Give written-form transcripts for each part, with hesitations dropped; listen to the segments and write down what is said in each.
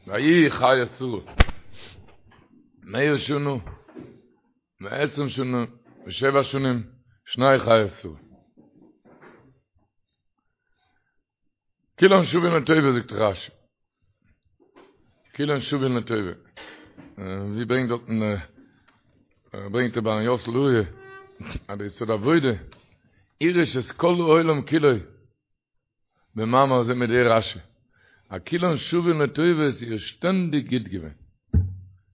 ויהי חיי שרה מאה שנה ועשרים שנה ושבע שנים שני חיי שרה. כולן שוין לטובה זאגט רשי. כולן שוין לטובה. ווי ברענגט דארטן ברענגט ר' אהרן יוסל לוריא אז דער יסוד העבודה הרעיש את כל העולם כולו במאמר זה מיט די רשי. אז כולן שוין לטובה איז איר שטענדיג גוט געווען.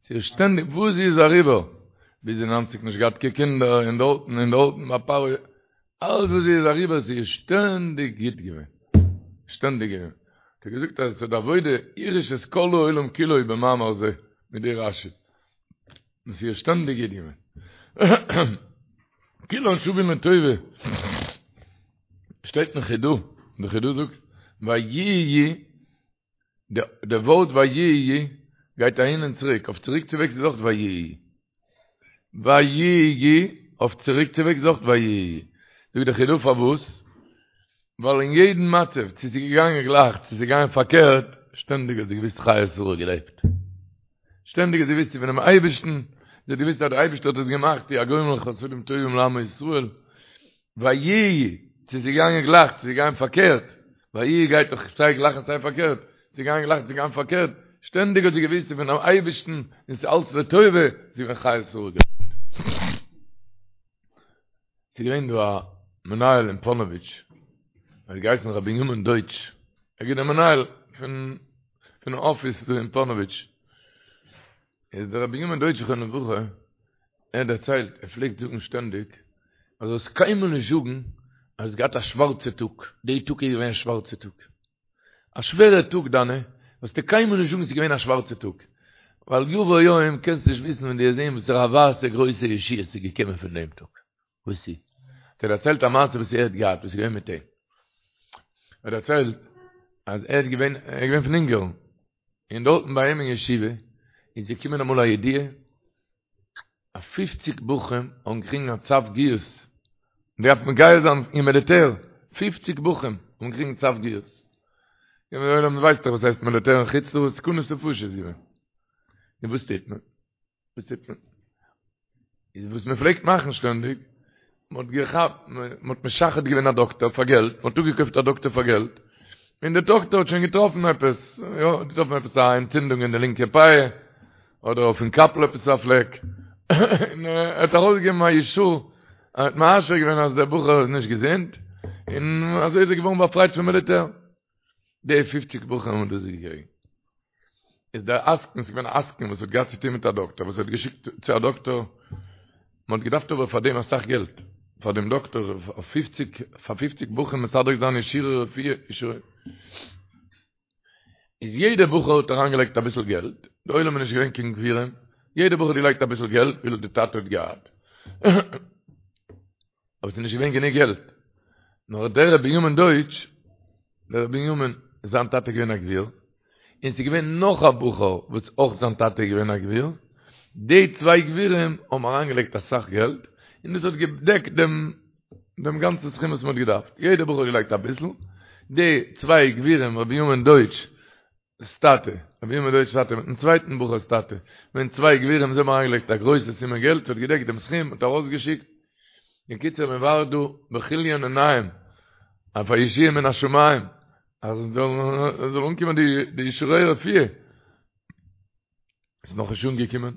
ס'איז שטענדיג וואס זי איז אריבער ביז די ניינציג נישט געהאט קיין קינדער און דארטן און דארטן ביי פרעה אלץ וואס זי איז אריבער ס'איז שטענדיג גוט געווען. שטענדיג געווען. האט ער געזאגט אז יסוד העבודה הרעיש את כל העולם כולו במאמר זה מיט די רשי. און ס'איז שטענדיג גוט געווען. כולן שווין לטובה. שטייט אין חידא, די חידא זאגט, ויהיו, די ווארט ויהיו גייט אהין און צוריק, אויף צוריק צו וועגס איז אויך ויהיו. ויהיו, אויף צוריק צו וועגס איז אויך ויהיו. זאגט די חידא פארוואס? ווייל אין יעדן מצב, צו ס'איז געגאנגען גלייך, צו ס'איז געגאנגען פארקערט, שטענדיג האט זי געוואוסט חיי שרה געלעבט. שטענדיג האט זי געוואוסט ס'איז פונעם אייבערשטן, זי האט געוואוסט אז דער אייבערשטער האט עס געמאכט, הוא הגומל חסדים טובים לעמו ישראל. ויהיו, צו ס'איז געגאנגען גלייך, צו ס'איז געגאנגען פארקערט, ויהיו גייט דאך סיי גלייך און סיי פארקערט, צו ס'איז געגאנגען גלייך צו ס'איז געגאנגען פארקערט, שטענדיג האט זי געוואוסט ס'איז פונעם אייבערשטן און ס'איז אלץ לטובה, זי איז געווען חיי שרה געלעבט. ס'איז געווען דא א מנהל אין פאנאוויטש, ער האט געהייסן ר' בנימין דויטש, ער איז געווען דער מנהל פון פונעם אפיס דא אין פאנאוויטש, איז דער ר' בנימין דויטש זכרונו לברכה, ער האט דערציילט, ער פלעגט זאגן שטענדיג, אז זאלסט קיינמאל נישט זאגן אז האסט געהאט א שווארצע טאג, די טאג איז געווען א שווארצע טאג. א שווערע טאג דיינע, זאלסטו קיינמאל נישט זאגן ס'איז געווען א שווארצע טאג, ווייל יבוא יום קענסט נישט וויסן ווען דו וועסט זען וואסערע א ווייסע גרויסע ישועה ס'איז געקומען פון דעם טאג. וואס איז? האט ער דערציילט א מעשה וואס ער האט געהאט, וואס איז געווען מיט אים. ער האט דערציילט אז ער איז געווען, ער איז געווען פון אונגארן, און דארטן ביי אים אין ישיבה איז געקומען אמאל א ידיעה אז פופציג בחורים האבן געקריגן א צו גיוס, מען דארף מגייס זיין אין מיליטער, פופציג בחורים האבן געקריגן צו גיוס. און דער עולם ווייסט דאך וואס הייסט מיליטער אין חוץ לארץ, סכנת נפשות איז געווען. און וואס טוט מען? וואס טוט מען? איז וואס מען פלעגט מאכן שטענדיג, מען האט געכאפט, מען האט משחד געווען א דאקטער פאר געלט, מען האט אפגעקויפט א דאקטער פאר געלט, און דער דאקטער האט שוין געטראפן עפעס, יא, געטראפן עפעס א ענטצינדונג אין די לינקע פאה, אדער אויפן קאפל עפעס א פלעק, און ער האט ארויסגעגעבן א אישור, ער האט מאשר געווען אז דער בחור איז נישט געזונט, און אזוי איז ער געווארן באפרייט פון מיליטער. די פופציג בחורים האבן דאס געקריגן. איז דער עסקן, ס'איז געווען א עסקן וואס האט געהאט צו טון מיט א דאקטער, וואס האט געשיקט צו א דאקטער, מען האט געדארפט אבער פאר דעם אסאך געלט, פאר דעם דאקטער, אויף פופציג, פאר פופציג בחורים מסדר זיין אישורי רפואה, אישורי. איז יעדער בחור האט אריינגעלייגט אביסל געלט, די עולם איז נישט געווען קיין גבירים, יעדער בחור האט געלייגט אביסל געלט וויפיל די טאטע האט געהאט. אבער ס'איז נישט געווען גענוג געלט. נאר דער ר' בנימין דויטש, דער ר' בנימין, זיין טאטע איז געווען א גביר, און ס'איז געווען נאך א בחור וואס אויך זיין טאטע איז געווען א גביר, די צוויי גבירים האבן אריינגעלייגט אסאך געלט, און דאס האט געדעקט דעם דעם גאנצן סכום וואס מ'האט געדארפט. יעדער בחור האט געלייגט אביסל, די צוויי גבירים ר' בנימין דויטש ס טאטע, ר' בנימין דויטש'ס טאטע מיטן צווייטן בחור'ס טאטע, געווען צוויי גבירים זיי האבן אריינגעלייגט א גרויסע סומע געלט, ס'האט געדעקט דעם סכום, מ'האט ארויסגעשיקט, בקיצור מען ווארט דא בכליון עיניים אויף א ישועה מן השמים, אז עס זאל אנקומען די אישורי רפואה, איז נאכנישט אנגעקומען,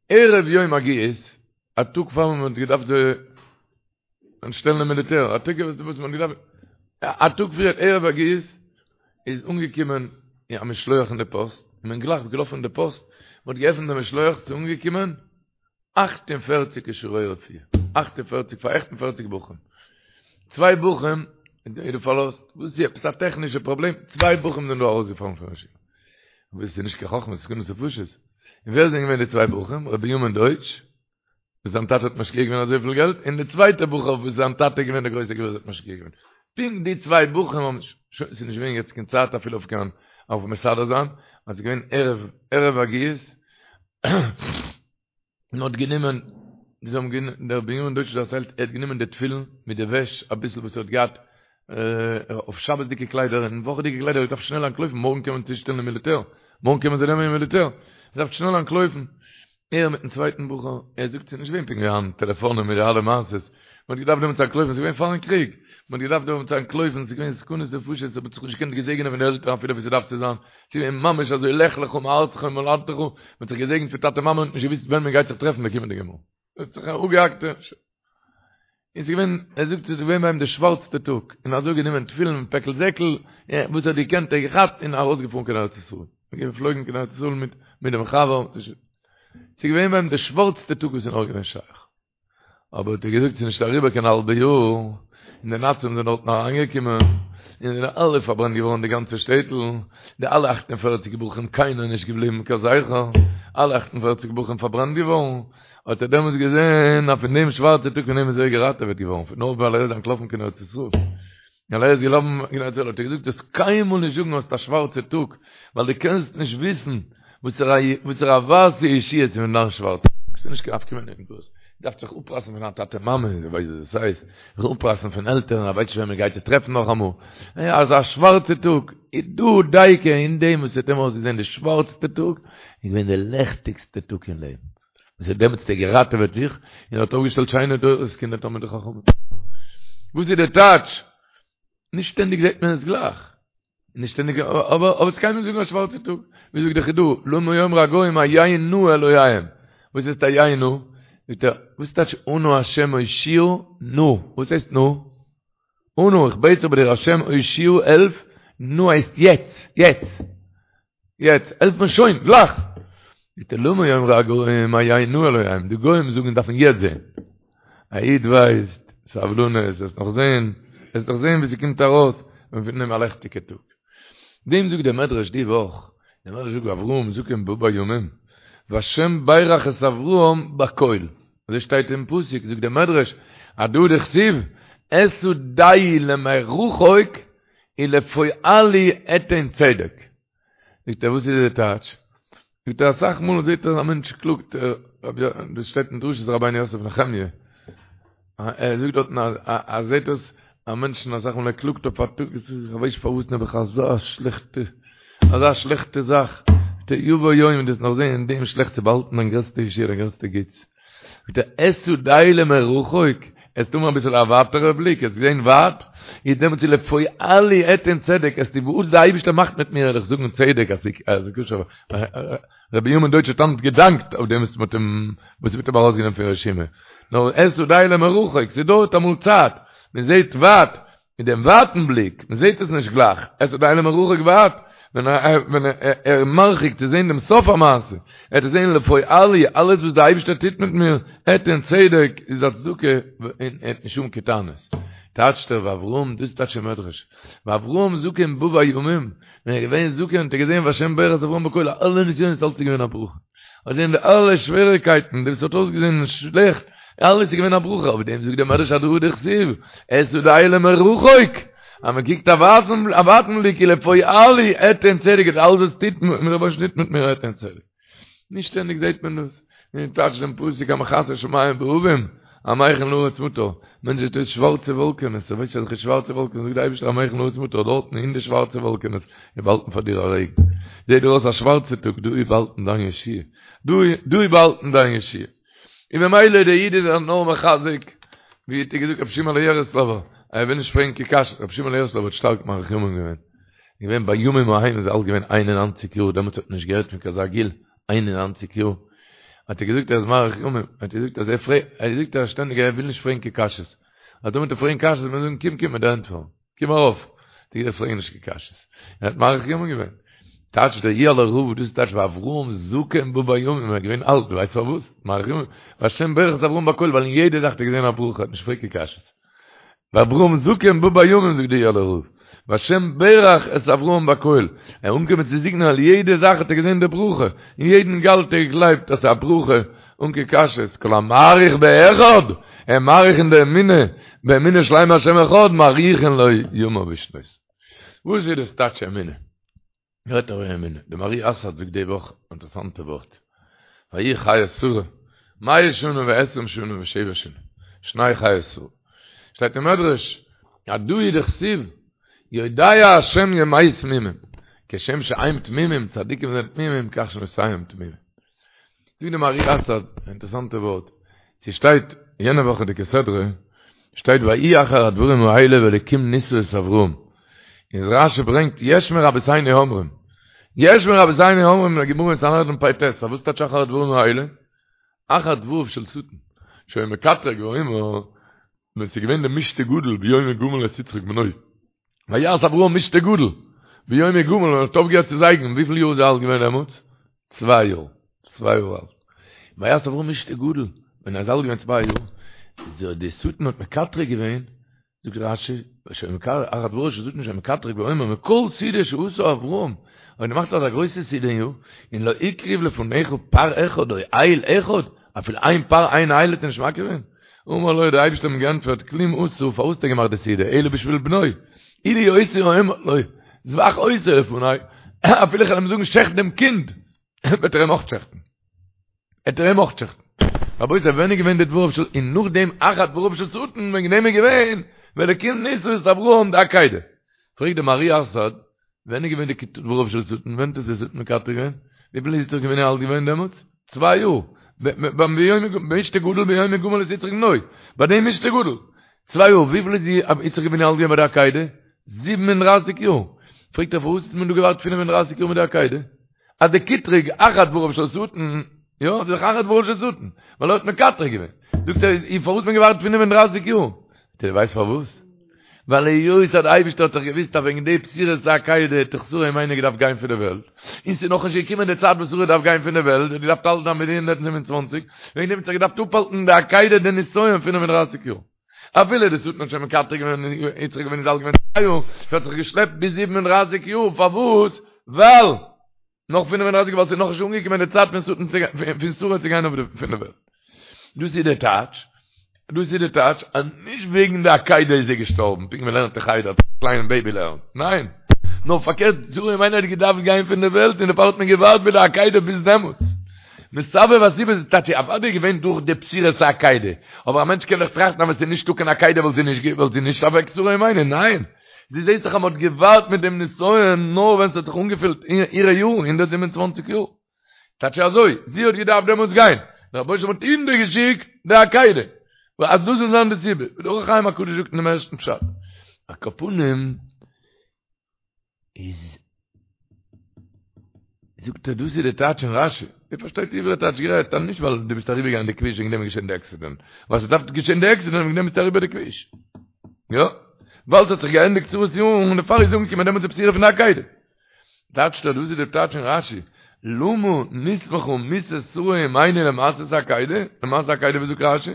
ערב יום הגיוס, א טאג פאר מען האט געדארפט אנשטעלן אין מיליטער, א טאג וואס מען האט געדארפט, א טאג פריער ערב הגיוס, איז אנגעקומען א משלוח אין די פאסט, און מען גלייך געלאפן אין די פאסט, מען האט געעפנט די משלוח, ס'איז אנגעקומען 48 אישורי רפואה, 48 פאר 48 בחורים, צוויי בחורים איז דא פארלאזט, וואס איז עפעס א טעכנישע פראבלעם, צוויי בחורים זענען דא ארויסגעפאלן פון ישיבה, וואס איז נישט קיין חכמה, ס'איז סכנת נפשות, און ווער זענען געווען די צוויי בחורים? ר' בנימין דויטש, וואס זיין טאטע האט משקיע געווען אזויפיל געלט, און די צווייטע בחור וואס זיין טאטע איז געווען דער גרויסער גביר וואס האט משקיע געווען. פונקט די צוויי בחורים האבן, שוין ס'איז נישט געווען יעצט קיין צייט אפילו אויף קיין אויף מסדר זיין, אז ס'איז געווען ערב ערב הגיוס, מען האט גענומען, זיי האבן גענומען, דער בנימין דויטש דערציילט, ער האט גענומען די תפילין מיט די וועש, אביסל וואס ער האט געהאט אויף שבת'דיגע קליידער און וואכעדיגע קליידער, ער דארף שנעל אנטלויפן, מארגן קען מען צושטעלן אין מיליטער. מארגן קומען זיי נעמען אין מיליטער, מ'דארף שנעל אנטלויפן. ער מיטן צווייטן בחור, ער זאגט ס'איז נישט געווען פונקט ווי היינט, טעלעפאנען מיט די אלע מעשות, מ'האט געדארפט דעמאלטס אנטלויפן, ס'איז געווען פארן קריג, מ'האט געדארפט דעמאלטס אנטלויפן, ס'איז געווען סכנות נפשות, מ'האט זיך נישט געקענט געזעגענען פון די עלטערן אפילו ווי ס'דארף צו זיין, ס'איז געווען ממש אזוי לך לך מארצך וממולדתך, מ'האט זיך געזעגנט פון טאטע מאמע און נישט געוואוסט ווען מ'גייט זיך טרעפן די קומענדיגע מאל. האט זיך אפגעהאקט און ס'איז געווען, ער זאגט ס'איז געווען ביי אים די שווארצטע טאג, און אזוי גענומען תפילין פעקל זעקל, וואס ער האט געקענט ער געכאפט און ארויסגעפארן קיין ארץ ישראל, געפלויגן קיין ארץ ישראל מיט מיט דעם חבר, ס'איז געווען ביי אים די שווארצטע טאג וואס איז נאר געווען שייך. אבער האט ער געזאגט ס'איז נישט אריבער קיין האלבע יאר, און די נאצים זענען דארטן אריינגעקומען, און זענען אלע פארברענט געווארן די גאנצע שטעטל, די אלע 48 בחורים קיינער נישט געבליבן קיין זכר, אלע 48 בחורים פארברענט געווארן, האט ער דעמאלטס געזען אז פון דעם שווארצע טאג פון דעם איז ער געראטעוועט געווארן, פון נאר ווייל ער איז אנטלאפן קיין ארץ ישראל. ווייל ער איז געלאפן קיין ארץ ישראל האט ער געזאגט זאלסט קיינמאל נישט זאגן האסט א שווארצע טאג, ווייל דו קענסט נישט וויסן וואסערע וואסערע ווייסע ישועה איז פון דיין שווארצע טאג, ס'איז נישט קיין נפקא מינה אין דאס, דארפסט זיך אפרייסן פון דיין טאטע מאמע, זיי ווייסן וואס דאס הייסט, זיך אפרייסן פון עלטערן, ער ווייסט נישט ווען מען גייט זיך טרעפן נאכאמאל, אזא שווארצע טאג, איז דא דייקא אין דעם וואס האט אים אויסגעזען די שווארצטע טאג, איז געווען די לעכטיגסטע טאג אין לעבן. וואס האט דעמאלטס געראטעוועט זיך, און האט אויפגעשטעלט שיינע דורות קינדער תלמידי חכמים. וואס איז די טייטש? נישט שטענדיג זעט מען עס גלייך. נישט שטענדיג, אבער אבער זאלסט קיינמאל נישט זאגן א שווארצע טאג. ווי זאגט דער חידא, למה יאמרו הגוים היה נא אלהיהם. וואס הייסט היה נא? זאגט ער, וואס טייטש אנא השם הושיעה נא? וואס הייסט נא? אנא, איך בעט זיך ביי דיר השם הושיעה העלף, נא הייסט יעצט, יעצט. יעצט, העלף מיר שוין, גלייך! זאגט ער, למה יאמרו הגוים היה נא אלהיהם, די גוים זאגן דארפן יעצט זען. א איד ווייסט, סבלנות, וועסט נאך זען, וועסט נאך זען ווי ס'קומט ארויס, און פון דעם א לעכטיגע טאג. דעם זאגט דער מדרש די וואך, דער מדרש זאגט ואברהם זקן בא בימים, והשם ברך את אברהם בכל, אזוי שטייט אין פסוק, זאגט דער מדרש, הדא הוא דכתיב, אשא דעי למרחוק ולפועלי אתן צדק. זאגט ער וואס איז די טייטש? זאגט ער אסאך מאל זעט ער א מענטש קלאגט, דאס שטייט אין דרשות רבינו יוסף נחמיה, ער זאגט דארטן אז ער זעט דאס א מענטשן אסאך מאל ער קלאגט אויף א טאג, איך ווייס נישט פארוואס נעבעך אזא שלעכטע, אזא שלעכטע זאך, זאגט ער יבוא יום דו וועסט נאך זען אין דעם שלעכטס איז באהאלטן דיין גרעסטע ישועה דיין גרעסטע גוטס. זאגט ער אשא דעי למרחוק, עסט האבן אביסל א ווייטערע בליק, עסט זען ווייט, איז דעמאלטס איז לפועלי אתן צדק, עסטו וואס די אייבישטער מאכט מיט מיר וועל איך זאגן צדק אז ס'איז כשר, ר' בנימין דויטש האט היינט געדאנקט אויף דעם וואס מ'האט אים וואס מ'האט אים ארויסגענומען פון רשימה, נאר אשא דעי למרחוק, ס'דויערט אמאל צייט, מ'זעט ווייט, מיט דעם ווייטן בליק, מען זעט עס נישט גלייך, אשא דעי למרחוק ווייט, ווען ער איז מרחיק צו זען דעם סוף המעשה, ער וועט זען לפועלי, אלעס וואס דער אייבערשטער טוט מיט מיר, אתן צדק, איז א צדקה, און ער האט נישט האבן קיין טענות. טייטשט ער ואברהם, דאס טייטשט דער מדרש, ואברהם זקן בא בימים, ווען ער איז געווען זקן האט ער געזען והשם ברך את אברהם בכל, אלע נסיונות אלץ איז געווען א ברכה. האט געזען די אלע שוועריקייטן, וואס האט אויסגעזען שלעכט, אלעס איז געווען א ברכה, אויף דעם זאגט דער מדרש הדא הוא דכתיב, אשא דעי למרחוק, אז מען קוקט א ווייטן א ווייטן בליק ולפועלי אתן צדק, אז אלעס וואס טוט מיר דער רבונו של עולם טוט מיט מיר אתן צדק. נישט שטענדיג זעט מען דאס, ווי טייטשט דעם פסוק המכסה שמים בעבים, המכין לארץ מטר, מענטש זעט אויס שווארצע וואלקענעס, ער ווייסט אזעלכע שווארצע וואלקענעס, זאגט דער אייבערשטער המכין לארץ מטר, דארטן אין די שווארצע וואלקענעס איז באהאלטן פאר דיר א רעגן, זעט דיר אויס א שווארצע טאג, דא איז באהאלטן דיין ישועה, דא איז באהאלטן דיין ישועה. און ממילא דער איד איז זיך נאר מחזק, ווי האט ער געזאגט רבי שמעון יערעסלאווער, ער וויל נישט פרעגן קיין קשיות, רבי שמעון יערעסלאווער האט שטארק מאריך ימים געווען, געווען בימים ההם איז ער אלט געווען 91 יאר, דעמאלטס האט מען נישט געהערט פון קיין אזא גיל, 91 יאר, האט ער געזאגט ער איז מאריך ימים, האט ער געזאגט אז ער פרעגט, ער זאגט אז שטענדיג ער וויל נישט פרעגן קיין קשיות, אז טאמער וועט ער פרעגן קשיות וועט מען זאגן קום קום מיט די ענטפער. קום ארויף, די אידן פרעגן נישט קיין קשיות. ער האט מאריך ימים געווען. טייטש דער איהעלער רב, דאס טייטש ואברהם זקן בא בימים, ער איז געווען אלט, דו ווייסט פארוואס? מאריך ימים, והשם ברך את אברהם בכל, ווייל אין יעדע זאך האט ער געזען א ברכה, ער האט נישט געפרעגט קיין קשיות. ואברהם זקן בא בימים זאגט דער איהעלער רב, והשם ברך את אברהם בכל, ער איז אנגעקומען צו זקנה ווייל יעדע זאך האט ער געזען די ברכה, אין יעדן גאל האט ער געגלייבט אז ס'איז א ברכה, אן קיין קשיות, כל המאריך באחד, ער מאריך אין די אמונה, באמונה שלימה השם אחד, מאריכין לו ימיו ושנותיו. וואס איז דאס טייטש אמונה? רעדט ער אין אמונה. די מהר"י אסאד זאגט די וואך אינטערעסאנטע ווארט. ויהי חיי שרה, מאה שנה ועשרים שנה ושבע שנים, שני חיי שרה. שטייט אין מדרש, הדא הוא דכתיב, יודע השם ימי תמימים. כשם שהם תמימים, צדיקים זענען תמימים, כך שנותיהם תמימים. זאגט די מהר"י אסאד, א אינטערעסאנטע ווארט, ס'שטייט יענע וואכעדיגע סדרה, שטייט ויהי אחר הדברים האלה והאלקים נסה את אברהם, און רשי ברענגט יש מרבותינו אומרים, יש מרבותינו אומרים אין די גמרא אין סנהדרין פ"ט, אז וואס טייטש אחר הדברים האלה? אחר דבריו של שטן, שהיה מקטרג ואומר, ווען ס'איז געווען די משתה גדול ביום הגמל את יצחק בנו, ויעש אברהם משתה גדול, ביום הגמל ווען ער האט אויפגעהערט צו זייגן, וויפיל יאר איז ער אלט געווען דעמאלטס? צוויי יאר, צוויי יאר אלט. ויעש אברהם משתה גדול, ווען ער איז אלט געווען צוויי יאר, איז די שטן האט מקטרג געווען, זאגט רשי, אחר דבריו של שטן שהיה מקטרג ואומר, מכל סעודה שעשה אברהם, ער האט געמאכט אזא גרויסע סעודה און לא הקריב לפניך פר אחד או איל אחד, אפילו איין פר איין איל האט ער נישט מקריב געווען? אמר לו, דער אייבערשטער האט אים געענטפערט, כלום עשה, פארוואס האט ער געמאכט די סעודה, אלא בשביל בנו, אילו הייתי אומר לו, זבח אותו לפני, אפילו איך וועל אים זאגן שעכט דעם קינד, וועט ער אים אויך שעכטן. וועט ער אים אויך שעכטן. רבותי, ווען איז געווען די דבריו של, און נאכדעם אחר דבריו של שטן, וועגן דעם איז געווען, והאלקים נסה את אברהם די עקידה. פרעגט דער מהר"י אסאד, ווען איז געווען די דבריו של שטן? ווען האט עס די שטן מקטרג געווען? וויפיל איז יצחק אבינו אלט געווען דעמאלטס? צוויי יאר. ביים משתה גדול ביום הגמל את יצחק בנו. ביי דעם משתה גדול. צוויי יאר. וויפיל איז יצחק אבינו אלט געווען ביי די עקידה? זיבן און דרייסיג יאר. פרעגט ער פארוואס האט מען דא געווארט פינף און דרייסיג יאר מיט די עקידה? אז די קטרוג אחר דבריו של שטן, יא, ס'איז דאך אחר דבריו של שטן, ווייל ער האט מקטרג געווען. זאגט ער, און פארוואס האט מען געווארט פינף און דרייסיג יאר? זאגט ער, ווייסט פארוואס? ווייל היות אז די אייבערשטער האט דאך געוואוסט אז וועגן די בשורת העקידה האט דאך שרה אמנו געדארפט גיין פון די וועלט, און ס'איז נאכנישט געקומען די צייט וואס שרה דארף גיין פון די וועלט, זי האט געדארפט אלט זיין ביז 127, וועגן דעם האט זיך געדארפט אפהאלטן די עקידה די נסיון פינף און דרייסיג יאר. אפילו די שטן האט שוין מקטרג געווען יצחק אבינו איז אלט געווען צוויי יאר, ס'האט זיך געשלעפט ביז 37 יאר, פארוואס? ווייל נאך 35 ווייל ס'איז נאכנישט אנגעקומען די צייט פון שטן צו פון שרה צו גיין אויף די פון די וועלט. דאס איז די טייטש, דאס איז די טייטש אז נישט וועגן די עקידה איז זי געשטארבן, פונקט ווי מ'לערנט אין חדר, א קליינע בעיבי לערנט, ניין, נאר פארקערט, שרה אמנו האט געדארפט גיין פון די וועלט און דערפאר האט מען געווארט מיט די עקידה ביז דעמאלטס. מסבב הסיבות איז טייטש אוודאי געווען דורך די בשורת העקידה, אבער א מענטש קען דאך טראכטן אז ווען ס'איז נישטא קיין עקידה וואלט זי נישט וואלט זי נישט אוועק שרה אמנו, ניין, דו זעסט דאך אז מ'האט געווארט מיט דעם נסיון נאר ווען ס'האט זיך אנגעפילט אירע יארן, 127 יאר. טייטש אזוי, זי האט געדארפט דעמאלטס גיין, דער רבוש ע האט אונטערגעשיקט די עקידה, אז דאס זאל זיין די סיבה, ווי דער אור החיים הקדוש זאגט אין דעם ערשטן פשט. על כל פנים איז זאגט ער דאס איז די טייטש אין רשי, איר פארשטייט עברי טייטש גערעדט, אז נישט ווייל דו ביסט אריבערגעגאנגען די כביש וועגן דעם איז געשען די עקסידענט, ווייל ס'דארף געשען די עקסידענט וועגן דעם ביסטו אריבער די כביש. יא, ווייל ס'האט זיך געענדיגט שרה'ס יארן און דערפאר איז אנגעקומען דעמאלטס די בשורה פון די עקידה. טייטשט ער דאס איז די טייטש אין רשי, למה נסמכה מיתת שרה אמנו למעשה העקידה, למעשה העקידה ווי זאגט רשי?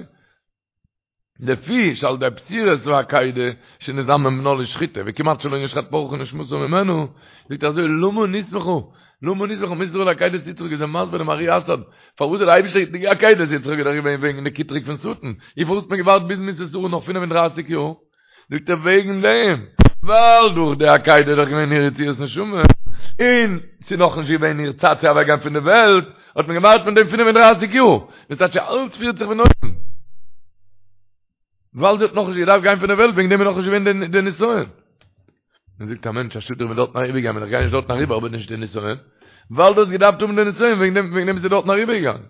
לפי שעל ידי בשורת העקידה שנזדמן בנה לשחיטה וכמעט שלא נשחט פרחה נשמתה ממנו, זאגט ער אזוי למה נסמכה, למה נסמכה מיתת שרה לעקידת יצחק איז ער מסביר דעם מהר"י אסאד פארוואס האט די אייבישטער די עקידת יצחק איז דאך געווען וועגן די קטרוג פון שטן, און פארוואס האט מען געווארט ביז מיתת שרה נאך 35 יאר? זאגט ער וועגן דעם, ווייל דורך די עקידה איז דאך געווען איר יציאת נשמה, און ס'איז נאכנישט געווען איר צייט צו אוועקגיין פון די וועלט, האט מען געווארט מיט דעם 35 יאר, דאס טייטש אלץ פירט זיך פון אויבן. ווייל זי האט נאכנישט געדארפט גיין פון די וועלט, וועגן דעם איז נאכנישט געווען די נסיון. מען זאגט א מענטש א שאד איך בין דארטן אריבערגעגאנגען, ווען איך גיי נישט דארטן אריבער האב איך נישט די נסיון, ווייל דו האסט געדארפט האבן די נסיון, וועגן דעם וועגן דעם ביסטו דארטן אריבערגעגאנגען.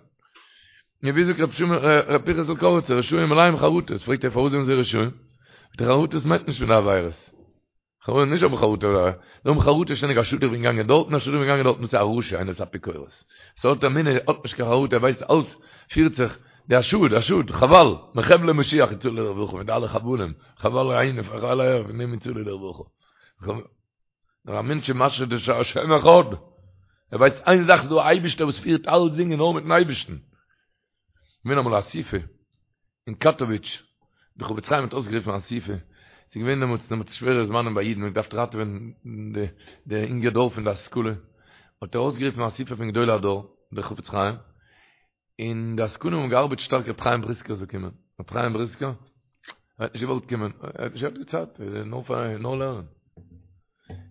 נו ווי זאגט רב שמעון רב פנחס'ל קאריצער רשעים מלאים חרטות, פרעגט ער פארוואס זענען זיי רשעים? זאגט ער חרטות מיינט נישט פון די עבירות, חרטה נישט האבן חרטה זיי האבן חרטה שטענדיג א שאד איך בין געגאנגען דארטן א שאד איך בין געגאנגען דארטן דאס איז א רשע איינער איז אפיקורס ס'האט אמונה האט נישט קיין חרטה ער ווייסט אלץ פירט זיך די א שאד א שאד חבל מחבלי משיח יצאו לרווחה מיט אלע חבלים חבל אהין חבל אהער פון דעם יצאו לרווחה נאר א מענטש איז משהו די השם אחד ער ווייסט איין זאך ס'דא א אייבישטער וואס פירט אלצדינג און נאר מיטן אייבישטן געווען אמאל א אסיפה אין קאטאוויטש, די חפץ חיים האט אויסגערופן א אסיפה, ס'איז געווען דעמאלטס דעמאלטס שווערע זמנים ביי אידן, מ'האט געדארפט ראטעווען די די אינגע דור פון די השכלה, האט ער אויסגערופן א אסיפה פון גדולי הדור, דער חפץ חיים, און די עסקנים האבן געארבעט שטארק רבי חיים בריסקער זאל קומען, רבי חיים בריסקער האט נישט געוואלט קומען, ער האט נישט געהאט די צייט, נאר פאר נאר לערנען.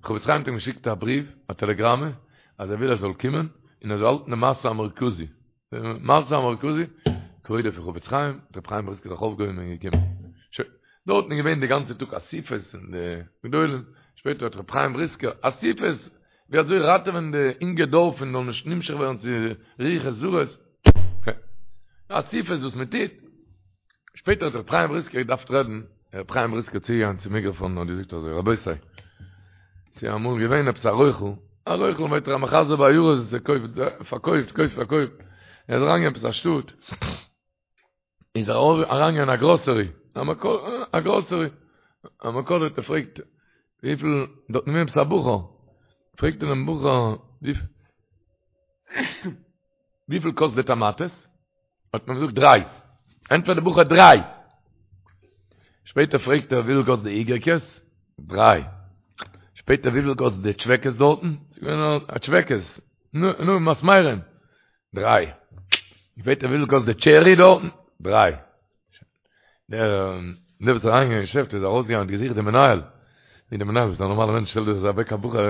חפץ חיים האט אים געשיקט א בריוו, א טעלעגראמע, אז ער וויל ער זאל קומען, און ער זאל האלטן די משא המרכזי. די משא המרכזי, כבודו פון חפץ חיים, רבי חיים בריסקער זיך אויפגעהויבן און געקומען. שוין, דארטן איז געווען די גאנצע טאג אסיפות און די גדולים, שפעטער האט רבי חיים בריסקער, אסיפות! ווי אזוי ראטעווען די אינגע דור פון זאל נישט נמשך ווערן צו רוחות זרות, אסיפות וואס מען טוט, שפעטער האט ר' חיים בריסקער געדארפט רעדן, ר' חיים בריסקער צוגעגאנגען צום מיקראפאן און האט געזאגט אזוי, רבותי, ס'איז אמאל געווען עפעס א רוכל, א רוכל מיינט ער א מחזר בעיירות וואס ער קויפט, פארקויפט, קויפט פארקויפט, ער איז אריינגעגאנגען עפעס א שטאט, איז ער אריינגעגאנגען אין א גראסערי, א גראסערי, א מכולת, ער פרעגט וויפיל, דארט איז געווען עפעס א בחור, פרעגט ער דעם בחור, וויפיל קאסט די טאמאטעס? האט מען געזאגט דריי. ענטפערט די בחור דריי. שפעטער פרעגט ער וויפיל קאסט די איגערקעס? דריי. שפעטער וויפיל קאסט די טשוועקעס דארטן? ס'איז געווען א טשוועקעס. נו, נו, מסמרים. דריי. שפעטער וויפיל קאסט די טשערי דארטן? דריי. דער דער וואס איז אריינגעגאנגען אין געשעפט איז ארויסגעגאנגען האט געזוכט דעם מנהל. ווי דער מנהל איז א נארמאלער מענטש שטעלט זיך אוועק א בחור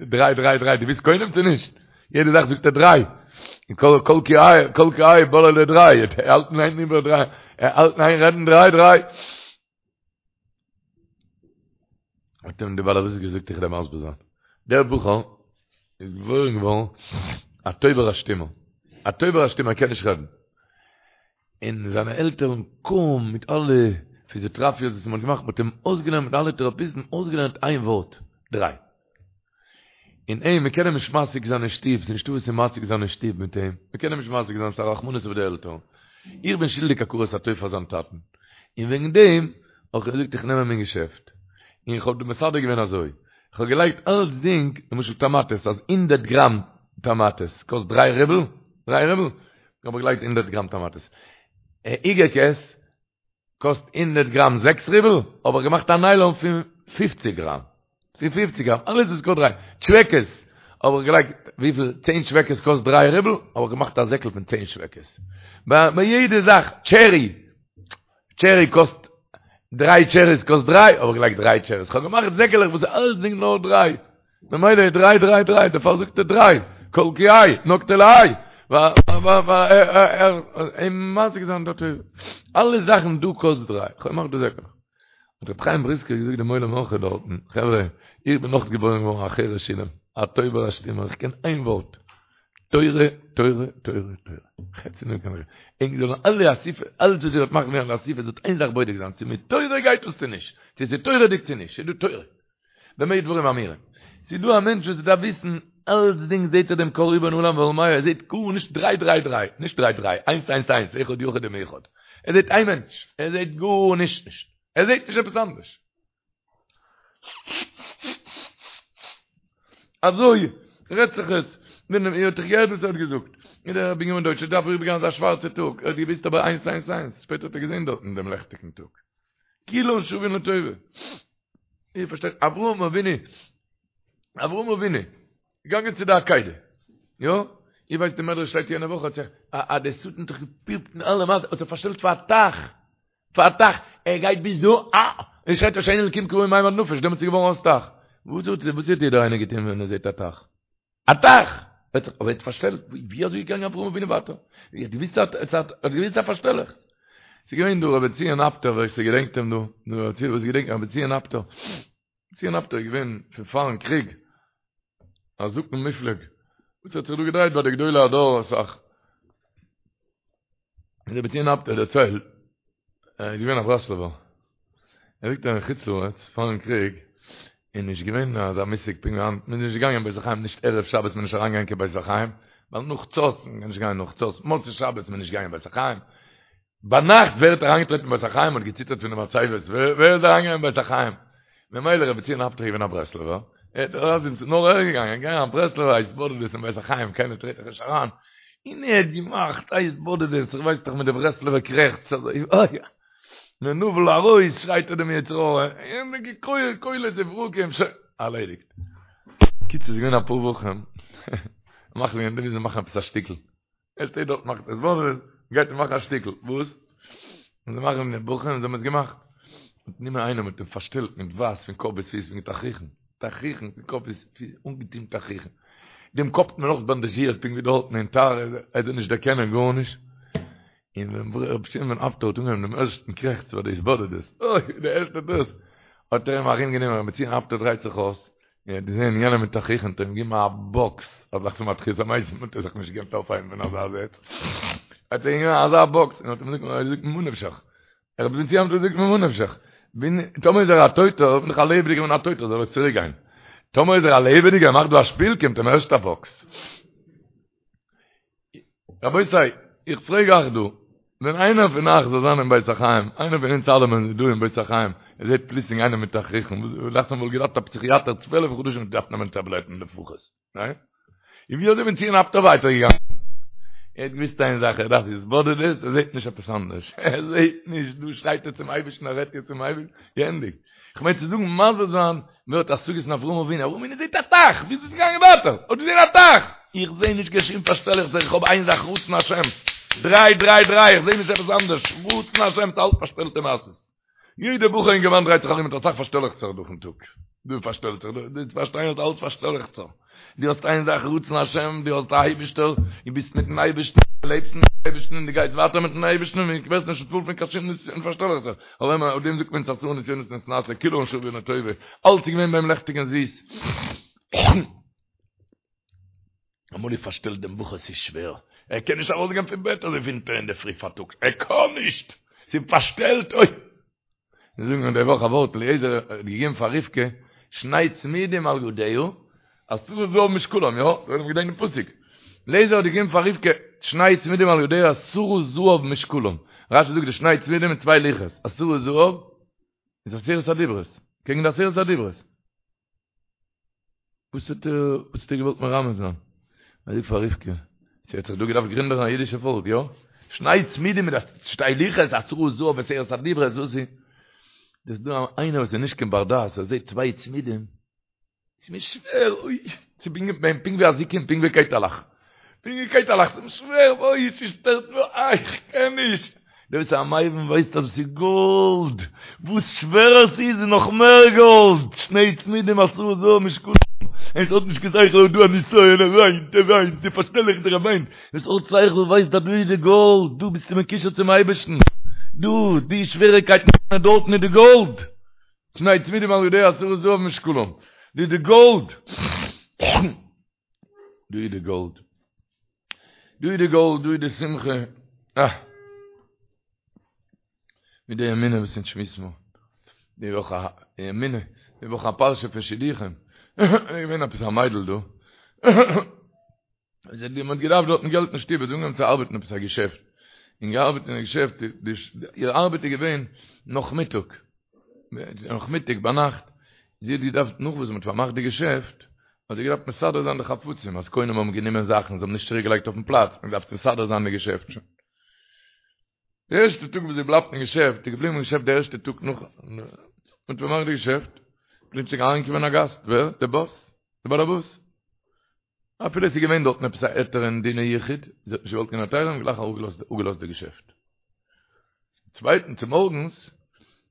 דריי דריי דריי דו ווילסט קוינעם צו נישט? יעדע זאך זאגט ער דריי. כל כל כי איי כל כי איי בולע לדריי. ער האלט אין איין איבער דריי. ער האלט אין איין רעדן דריי דריי. האט אים דער בעל הבית געזאגט איך וועל דיר מסביר זיין. דער בחור איז געבוירן געווארן א טויבער א שטומער. א טויבער א שטומער קען נישט רעדן. און זיינע עלטערן קוים מיט אלע פיזיאטראפיעס וואס מען האט געמאכט, מען האט אים אויסגעלערנט מיט אלע טעראפיסטן אויסגעלערנט איין ווארט, דריי. און אים, מען קען אים נישט משיג זיין אין שטוב, ס'איז נישטא וואס צו משיג זיין אין שטוב מיט אים, מען קען אים נישט משיג זיין, ס'איז א רחמנות אויף די עלטערן. איך בין שולדיג הכרת הטוב פאר זיין טאטן, און וועגן דעם האב איך געזאגט איך נעם אים אין געשעפט, און איך האב מסדר געווען אזוי, איך האב געלייגט אלצדינג, למשל טאמאטעס, אז הונדערט גראם טאמאטעס קאסט דריי רובל, דריי רובל, האב איך געלייגט הונדערט גראם טאמאטעס. איגערקעס קאסט הונדערט גראם זעקס רובל, האב איך געמאכט א ניילאן פון פופציג גראם. פון פופציג גראם, אלעס וואס קאסט דריי. טשוועקעס האב איך געלייגט וויפיל צען טשוועקעס קאסט דריי רובל, האב איך געמאכט א זעקל פון צען טשוועקעס. ביי יעדע זאך, טשערי, טשערי קאסט דריי טשעריס קאסט דריי, האב איך געלייגט דריי טשעריס. כ'האב געמאכט זעקעלעך וואס איז אלסדינג נאר דריי. ממילא איז דריי דריי דריי, דערפאר זאגט ער דריי, כל כי האי, נקטה להאי, אים משיג זיין דארט אלע זאכן דא קאסט דריי, כ'האב געמאכט די זעקלעך. האט רבי חיים בריסקער געזאגט דעם עולם אויך דארטן, חברה, איך בין אויך געבוירן געווארן א חירש אילם, א טויבער א שטומער, איך קען איין ווארט, תורה, תורה, תורה, תורה. חוץ פון דעם קען איך ענק זאלן אלע אסיפה, אלעס וואס איר וועט מאכן ווערן די אסיפה, זאלט איין זאך בודק זיין, צו מיט תורה גייט עס צו נישט, צו ס'איז תורה'דיג צו נישט, ס'איז דא תורה. במה דברים אמורים. ס'איז דא א מענטש וואס דארף וויסן אלצדינג זעהט ער דעם קה ריבון עולם ועלמיא ער זעהט גארנישט דריי דריי דריי, נישט דריי דריי, איינס איינס איינס, אחד יחיד ומיוחד. ער זעהט איין מענטש, ער זעהט גארנישט נישט, ער זעהט נישט עפעס אנדערש. אזוי רעדט זיך עס, ווען איר האט דאך געהערט וואס ער האט געזאגט, און דער רבי בנימין דויטש דארף אריבערגיין אזא שווארצע טאג, ער האט געוואוסט אבער איינס איינס איינס, שפעטער האט ער געזעהן דארטן דעם לעכטיגן טאג. כולן שווין לטובה. איר פארשטייט, אברהם אבינו, אברהם אבינו, געגאנגען צו די עקידה, יא? איר ווייסט די מדרש שטייט יענע וואך, האט זיך, א די שטן האט זיך געפירט אין אלע מעשה, האט זיך פארשטעלט פאר א טייך, פאר א טייך, ער גייט ביז דא, אה! און שרייט הושיעני אלקים כי באו מים עד נפש, דעמאלטס איז געווארן אויס טייך. וואס האט, וואס האט יעדער איינער געטון ווען ער זעט א טייך? א טייך! האט זיך אבער פארשטעלט, ווי אזוי איז געגאנגען אברהם אבינו ווייטער? ער האט געוויסט אז ער האט געוויסט א פארשטעלעכץ. ס'איז געווען דא רבי בנציון אפטער ווער ס'געדענקט אים דא, דא רבי וואס געדענקט רבי בנציון אפטער. בנציון אפטער איז געווען פון פארן קריג, א זקן מופלג, וואס האט זיך דא געדרייט ביי די גדולי הדור אסאך. רבי בנציון אפטער דערציילט, ער איז געווען א ברסלב'ער, ער זאגט אז אין חוץ לארץ פארן קריג איז נישט געווען אזא מושג פונקט ווי היינט, מען איז נישט געגאנגען אין בית החיים נישט ערב שבת מען איז נישט אריינגעגאנגען קיין בית החיים, ווייל נאך חצות, מען קען נישט גיין נאך חצות, מוצאי שבת מען איז נישט געגאנגען אין בית החיים, ביינאכט ווער האט אריינגעטרעטן אין בית החיים האט געציטערט פון די מצבות, ווער איז אריינגעגאנגען אין בית החיים? ממילא רבי בנציון אפטער איז געווען א ברסלב'ער, ער האט ארויס איז נאר ער געגאנגען, געגאנגען א ברסלב'ער א התבודדות אין בית החיים, קיינער טרעט דאך נישט אריין, און ער האט געמאכט א התבודדות, איך ווייס דאך מיט די ברסלב'ער קרעכץ אזוי, אוי, מנוול ארויס שרייט ער דעם יצר הרע, און קולות וברקים, שוין, ארלעדיגט. קיצור ס'איז געווען אפאר וואכן, מאכן מיר מוזן מאכן עפעס א שטיקל, ער שטייט דארט מאכט התבודדות, גייט ער מאכן א שטיקל, וואס? און זיי מאכן די בחורים, זיי האבן עס געמאכט. מ'האט גענומען איינעם מ'האט אים פארשטעלט מיט ווייס פון קאפ ביז פיס מיט תכריכן, תכריכן פון קאפ ביז פיס, אנגעטון תכריכן. דעם קאפ האט מען אויך באנדאזשירט פונקט ווי דארטן אין טהרה, ער זאל נישט דערקענען גארנישט. און ווען ר' בנציון אפטער האט אנגעהויבן דעם ערשטן קרעכץ פאר די התבודדות, אוי, די ערשטע דאס, האט ער אים ארומגענומען, ר' בנציון אפטער דרייט זיך אויס, ער האט געזען יענעם מיט תכריכים האט ער אים געגעבן א באקס, אז נאך צום תחיית המתים האט ער זיך נישט געקענט אויפהייבן פון אזא זעץ, האט ער אים געגעבן אזא באקס און האט אים געזאגט ממה נפשך, רבי בן ציון האט געזאגט ממה נפשך, טאמער איז ער א טויטער, בין איך א לעבעדיגער און א טויטער זאל ער צוריק גיין, טאמער איז ער א לעבעדיגער מאכט דא א שפיל קומט אים ערשט א באקס. רבותי, איך פרעג אייך דא, ווען איינער פון אייך זאל זיין אין בית החיים, איינער פון אונז אלעמען איז דא אין בית החיים, ער זעט פלוצלינג איינעם מיט תכריכים, וואס דאכט זיך מ'וואלט געדארפט א פסיכיאטער צוועלף חדשים געדארפט נעמען טאבלעטן לפחות, ניין? און ווי אזוי בן ציון אפטער ווייטער געגאנגען? ער האט געוויסט איין זאך, ער דארף התבודדות, ער זעט נישט עפעס אנדערש, ער זעט נישט, דא שרייט ער צום אייבערשטן, ער רעדט יעצט צום אייבערשטן, געענדיגט. איך מיין צו זאגן, מסביר זיין, ווער האט השגות אין אברהם אבינו, אברהם אבינו זעט א טייך, ווי איז עס געגאנגען ווייטער? האט געזען א טייך! איך זע נישט קיין שום פארשטעלעכצער, איך האב איין זאך רצון השם, דריי דריי דריי, איך זע נישט עפעס אנדערש, רצון השם, ס'אלץ פארשטעלטע מעשות. יעדע בחור אינגערמאן דרייט זיך ארום מיט אסאך פארשטעלעכצער דורכן טאג. דא פארשטעלט זיך, דא דו פארשטיין אז אלץ פארשטעלעכצער. דו האסט איין זאך רצון השם, דו האסט א אייבישטער, דו ביסט מיטן אייבישטן, דו לעבסט מיטן אייבישטן און דו גייסט ווייטער מיטן אייבישטן און דו ווערסט נישט נתפעל פון קיין שום נסיון פארשטעלעכצער. אבער אויף דעם זאגט מען עשרה נסיונות נתנסה, כולן שוין לטובה, אלץ איז געווען ביי אים לעכטיג און זיס. אמאל איז פארשטעלט דעם בחור ס'איז שווער, ער קען נישט ארויסגיין פון בעט אזוי ווינטער אינדערפרי פארטאגס, ער קען נישט! ס'איז פארשטעלט אוי! מיר זאגן די וואך א ווארט אליעזר האט געגעבן פאר רבקה שני צמידים על ידיה עשרה זהב משקלם, יא? זאל מען געדענקען דעם פסוק. אליעזר האט געגעבן פאר רבקה שני צמידים על ידיה עשרה זהב משקלם. רשי זאגט די שני צמידים מיט צוויי לוחות, עשרה זהב איז עשרת הדיברות, קעגן די עשרת הדיברות. וואס האט ער, וואס האט ער געוואלט מרמז זיין? ער זאגט פאר רבקה, ס'האט זיך דא געדארפט גרינדערן א אידישע פאלק, יא? שני צמידים מיט שתי לוחות, עשרה זהב עשרת הדיברות, וואס איז? דאס איז דא איינער וואס איז נישט קיין בר דעת, ער זעט צוויי צמידים, ס'איז מיר שווער, אוי, ס'איז פונקט ווי אזיקים, פונקט ווי קייטעלעך. פונקט ווי קייטעלעך, ס'איז מיר שווער, אוי, ס'שטערט מיר, איי, איך קען נישט. דער וואס איז א מבין ווייסט אז עס איז גאלד, וואס שווערער ס'איז איז נאך מער גאלד, שני צמידים עשרה זהב משקלם, עס האט נישט קיין שכל אויב דא א נסיון, ער וויינט, ער וויינט, די פארשטעלעכט ער וויינט, עס האט שכל ווייסט אז דא איז די גאלד, דא ביסטו מקושר צום אייבערשטן, דא, די שוועריקייטן דארטן איז די גאלד, שני צמידים על ידיה עשרה זהב משקלם, דא איז די גאלד. דא איז די גאלד. דא איז די גאלד, דא איז די שמחה. אה! מיט די אמונה וואס אונז שמועסן מיר. די וואך א אמונה, די וואך א פרשה פון שידוכים. איז געווען עפעס א מיידל דא. זי האט געדארפט דארטן געלט אין שטוב, זי האט אנגעהויבן צו ארבעטן עפעס א געשעפט. און געארבעט אין א געשעפט, איר ארבעט איז געווען נאכמיטאג. נאכמיטאג ביינאכט, זי האט געדארפט נאך וואס מען האט פארמאכט די געשעפט, האט זי געדארפט מסדר זיין די חפצים, אז קונים האבן גענומען זאכן, זיי האבן נישט צוריק געלייגט אויפן פלאץ, מען האט געדארפט מסדר זיין די געשעפט שוין. די ערשטע טאג וואס זי בלייבט אין געשעפט, איז געבליבן אין געשעפט די ערשטע טאג נאך מען האט פארמאכט די געשעפט, פלוצלינג אריינגעקומען א גאסט, ווער? די באס, די באלעבאס. אפילו עס איז געווען דארטן עפעס א היתר אין דיני יחוד, זי האט נישט געוואלט קיין היתרים, גלייך אפגעלאזט די געשעפט. צווייטן צומארגנס,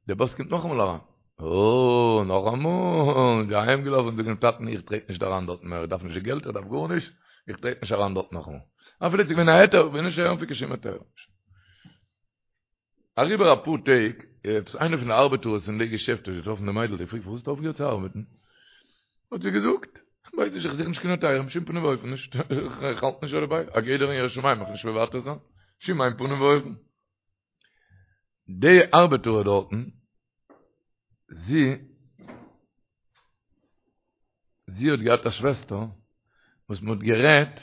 דער באס קומט נאכאמאל אריין. אה, נאכאמאל, זי אהיים געלאפן זאגן דעם טאטן איך טרעט נישט אריין דארטן מער, איך דארף נישט די געלט, איך דארף גארנישט, איך טרעט נישט אריין דארט נאכאמאל. אפילו עס איז געווען א היתר, איך וויל נישט הערן פון קיין שום היתר. אריבער אפאר טעג, עפעס איינער פון די ארבעטארס אין די געשעפט האט געטראפן די מיידל, געפרעגט פארוואס האסטו אויפגעהערט צו ארבעטן? האט זי געזאגט, איך ווייס נישט, איך זוך נישט קיין היתרים, בשום פנים ואופן נישט, איך האלט נישט דערביי, א גדר אין יראת שמים מיך נישט מוותר זיין, בשום איין פנים ואופן. די ארבעטארע דארטן, זי, זי האט געהאט א שוועסטער וואס מען האט גערעדט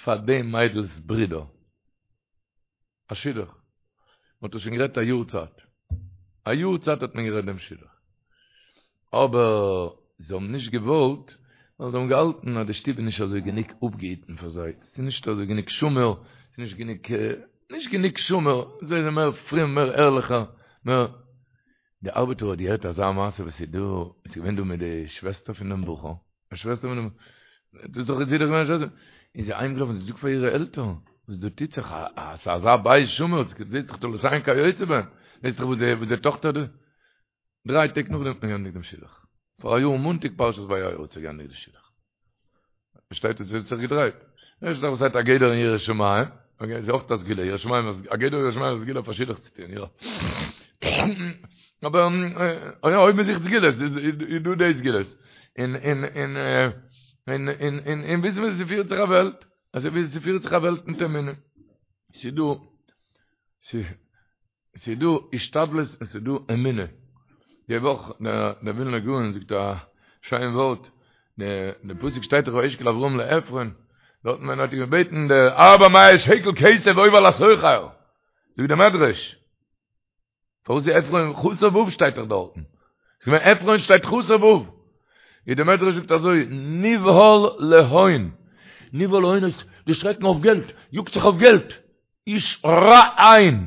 פאר די מיידל'ס ברודער, א שידוך. מען האט עס שוין גערעדט א יאר צייט. א יאר צייט האט מען גערעדט דעם שידוך. אבער זיי האבן נישט געוואלט, ווייל זיי האבן געהאלטן אז די שטוב איז נישט אזוי גענוג אפגעהיטן פאר זיי. ס'איז נישט אזוי גענוג שמור, ס'איז נישט גענוג, נישט גענוג שמור. זיי זענען מער פרום, מער ערליכער, מער. די ארבעטער האט געהערט אזא מעשה וואס איז דא, איז געווען דא מיט די שוועסטער פון דעם בחור, א שוועסטער פון דעם, דאס איז דאך זי דאך געווען א שוועסטער, איז זי אהיימגעלאפן זי זאגט פאר אירע עלטערן, וואס דא טוט זיך, א ס'איז אזא בית שמור, זעהט זיך תולדותיהן כיוצא בהם, זעהט זיך וואס די וואס די טאכטער דא, דריי טעג נאכדעם האט מען געענדיגט דעם שידוך, פאראיאר מאנטאג פרשת וירא האט זיך געענדיגט די שידוך. פארשטייט עס האט זיך געדרייט. ערשט דאך וואס הייסט א גדר אין יראת שמים, אקעי איז אויך א סגולה, יראת שמים איז א גדר אין יראת שמים איז א סגולה פאר שידוך צו טון, יא. אבער אויב מען זוכט סגולות איז דא די סגולות. און און און און און און און וויסן ווי ס'פירט זיך א וועלט, אזוי ווי ס'פירט זיך א וועלט מיט אמונה. ס'דא ס'איז דא השתדלות און ס'איז דא אמונה. די וואך דער ווילנער גאון זאגט א שיין ווארט, די פסוק שטייט דאך וישקל אברהם לעפרון, דארטן ווען ער האט אים געבעטן די ארבע מאות שקל כסף עובר לסוחר, זאגט דער מדרש, פארוואס איז עפרון חסר ו' שטייט דאך דארטן? כ'מיין עפרון שטייט חסר ו'. איז דער מדרש זאגט אזוי, נבהל להון, נבהל להון איז דערשרעקן אויף געלט, יאגט זיך אויף געלט, איש רע עין,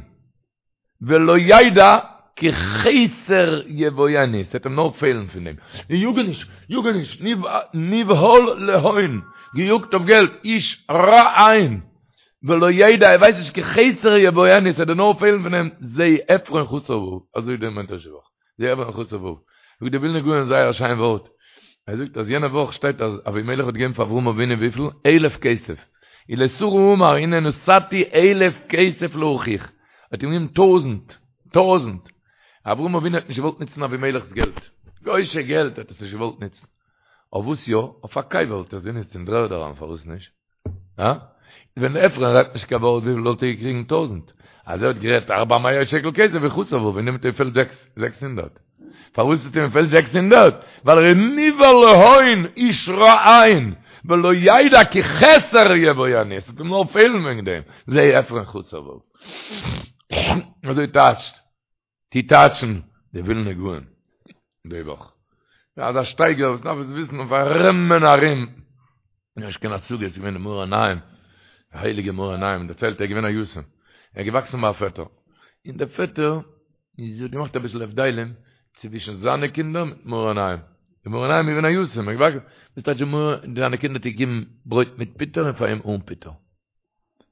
ולא ידע כי חסר יבואנו, ס'וועט אים נאר פעלן פון דעם, יאגעניש, יאגעניש, נבהל להון, געיאגט אויף געלט, איש רע עין, ולא ידע, ער ווייסט נישט כי חסר יבואנו, ס'וועט דיר נאר פעלן פון דעם, זה עפרון חסר ו', אזוי דער מדרש די וואך. זה עפרון חסר ו'. זאגט דער ווילנער גאון זייער א שיין ווארט. ער זאגט אז יענע וואך שטייט אז אבימלך האט געגעבן פאר אברהם אבינו וויפיל? אלף כסף. ולשרה אמר הנה נתתי אלף כסף לאחיך. ער האט אים געגעבן טויזענט. טויזענט. אברהם אבינו האט נישט געוואלט נוצן אבימלך'ס געלט. גוי'שע געלט האט עס נישט געוואלט נוצן. אויף וואס יא? אויף א קבר וואלט ער עס גענוצט אין דר'ערד אריין פארוואס נישט? הא? ווען עפרון רעדט נישט קיין ווארט וויפיל וואלט ער געקריגן טויזענט? אז ער האט גערעדט ארבע מאות שקל כסף איז חסר ו' און דעמאלט פעלט זעקס הונדערט. פארוואס האט אים געפעלט 600? ווייל ער איז נבהל להון איש רע עין ולא ידע כי חסר יבואנו, עס וועט אים נאר פעלן וועגן דעם, זה עפרון חסר ו'. אזוי טייטשט, טוט טייטשן די ווילנע גאון די וואך. אזא שטייגער וואס דארף עס וויסן אויף ארום און ארום. נישט קיין השגה, עס איז געווען די מאור עיניים, די הייליגע מאור עיניים, דערציילט ער איז געווען א יתום, ער איז געוואקסן ביי א פעטער, און דער פעטער איז האט געמאכט אביסל הבדלים צווישן זיינע קינדער מיט מאור עיניים, די מאור עיניים איז געווען א יתום, ער איז געוואקסן, וואס טייטש זיינע קינדער האט ער געגעבן ברויט מיט פוטער און פאר אים אן פוטער.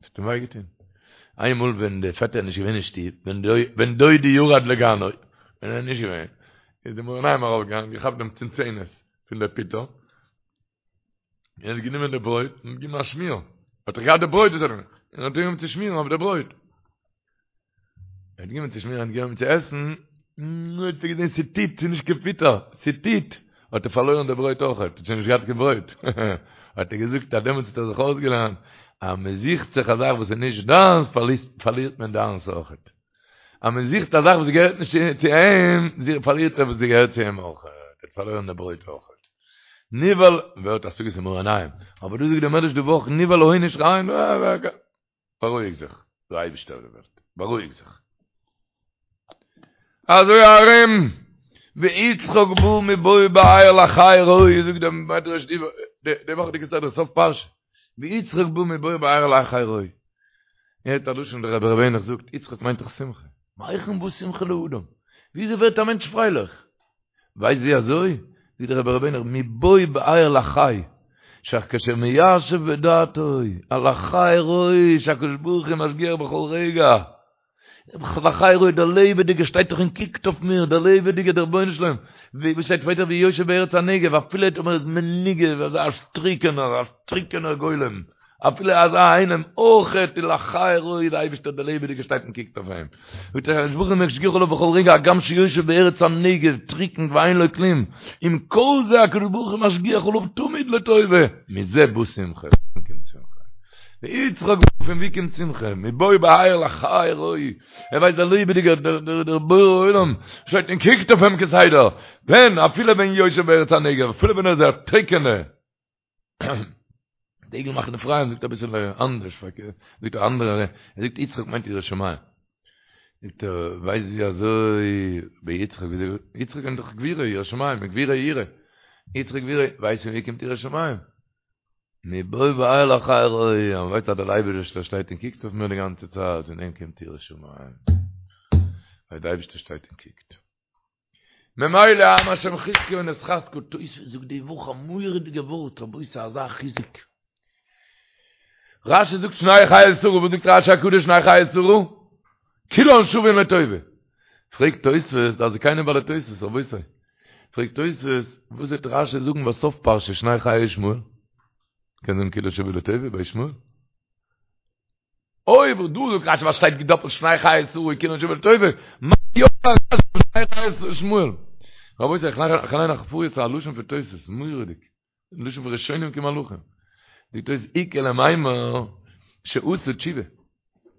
עס האט אים וויי געטון. איינמאל ווען דער פעטער איז נישט געווען אין שטוב, ווען דודי ירד לגנו, ווען ער איז נישט געווען, איז די מאור עיניים ארויפגעגאנגען, געכאפט דעם צנצנת פון דער פוטער, און האט גענומען די ברויט און געגעבן א שמיר. האט ער געהאט די ברויט, און האט גענומען צו שמירן אויף די ברויט. ער האט גענומען צו שמירן, האט גענומען צו עסן, נו, האט ער געזען ס'טיט, ס'איז נישט קיין פוטער, ס'טיט, האט ער פארלוירן די ברויט אויך, האט שוין נישט געהאט קיין ברויט. האט ער געזאגט אז דעמאלטס האט ער זיך אויסגעלערנט, אז מען זוכט זיך א זאך וואס איז נישט דיינס, פארלירט מען דיינס אויך. אז מען זוכט א זאך וואס געהערט נישט צו אים, פארלירט ער וואס געהערט צו אים אויך. ער האט פארלוירן די ברויט אויך. נבהל, ווער האט השגות אין מאור עיניים? אבער דא זאגט דער מדרש די וואך, נבהל להון איש רע עין, בארואיג זיך, דער אייבישטער אויף די וועלט, בארואיג זיך. אזוי ארום, ויצחק בא מבוא באר לחי ראי, זאגט דער מדרש די וואכעדיגע סדרה, סוף פרשה, ויצחק בא מבוא באר לחי ראי. הערט א לשון דער רבי ר' העניך זאגט, יצחק מיינט דאך שמחה. מהיכן בא שמחה לאדם? וויאזוי ווערט א מענטש פרייליך? ווייסט ווי אזוי? זאגט דער רבי ר' העניך, מבוא באר לחי, שכשמיישב בדעתו, הלחי ראי, שהקדוש ברוך הוא משגיח בכל רגע, לחי ראי, דער לעבעדיגער שטייט דאך און קוקט אויף מיר, דער לעבעדיגער, דער רבונו של עולם, ווי שטייט ווייטער והוא יושב בארץ הנגב, אפילו טאמער איז מנוגב, אזא טריקענער, א טריקענער גולם, אפילו אזא איינעם אויכעט איז לחי ראי די אייבישטער דער לעבעדיגער שטייט און קוקט אויף אים. הקדוש ברוך הוא משגיח עליו בכל רגע הגם שיושב בארץ הנגב טריקן ואין לו כלום, עם כל זה הקדוש ברוך הוא משגיח עליו תמיד לטובה, מזה בא שמחה, פון קומט שמחה? ויצחק פון ווי קומט שמחה? מבוא באר לחי ראי, ער ווייסט דער לעבעדיגער דער דער בורא עולם שטייט און קוקט אויף אים כסדר, ווען אפילו ווען יושב בארץ הנגב אפילו ווען ער איז א טריקענע דגל מחנה אפרים זאגט אביסל אנדערש פארקערט, זאגט א אנדערע, ער זאגט יצחק מיינט ירא שמים. זאגט ער, ווייסט ווי אזוי ביי יצחק, ווי יצחק מיינט דאך גבורה, ירא שמים, גבורה יראה. יצחק גבורה, ווייסט פון ווי קומט יראת שמים? מבוא באר לחי ראי, אז מ'ווייסט אז דער אייבערשטער שטייט און קוקט אויף מיר די גאנצע צייט, פון דעם קומט יראת שמים. ווייל דער אייבערשטער שטייט און קוקט. ממילא עם השם חזקו ונתחזקה, תוספות זאגט די וואך א מורא'דיגע ווארט, רבותי אזא חיזוק. רשי זאגט שני חיי שרה, וואס זאגט רשי הקדוש שני חיי שרה? כולן שווין לטובה. פרעגט תוספות, דעת זקנים בעלי תוספות, רבותי. פרעגט תוספות, וואס וועט רשי זאגן בסוף פרשה שני חיי ישמעאל? קען זאגן כולן שווין לטובה ביי ישמעאל? אויב דא זאגט רשי וואס שטייט געדאפלט שני חיי שרה כולן שווין לטובה, מה יאמר רשי שני חיי ישמעאל? רבותי, איך ליין אייך פאר יעצט א לשון פון תוס', מורא'דיג. לשון פון ראשונים כמלאכים. זאגט תוס' איכא למימר שעשה תשובה. ער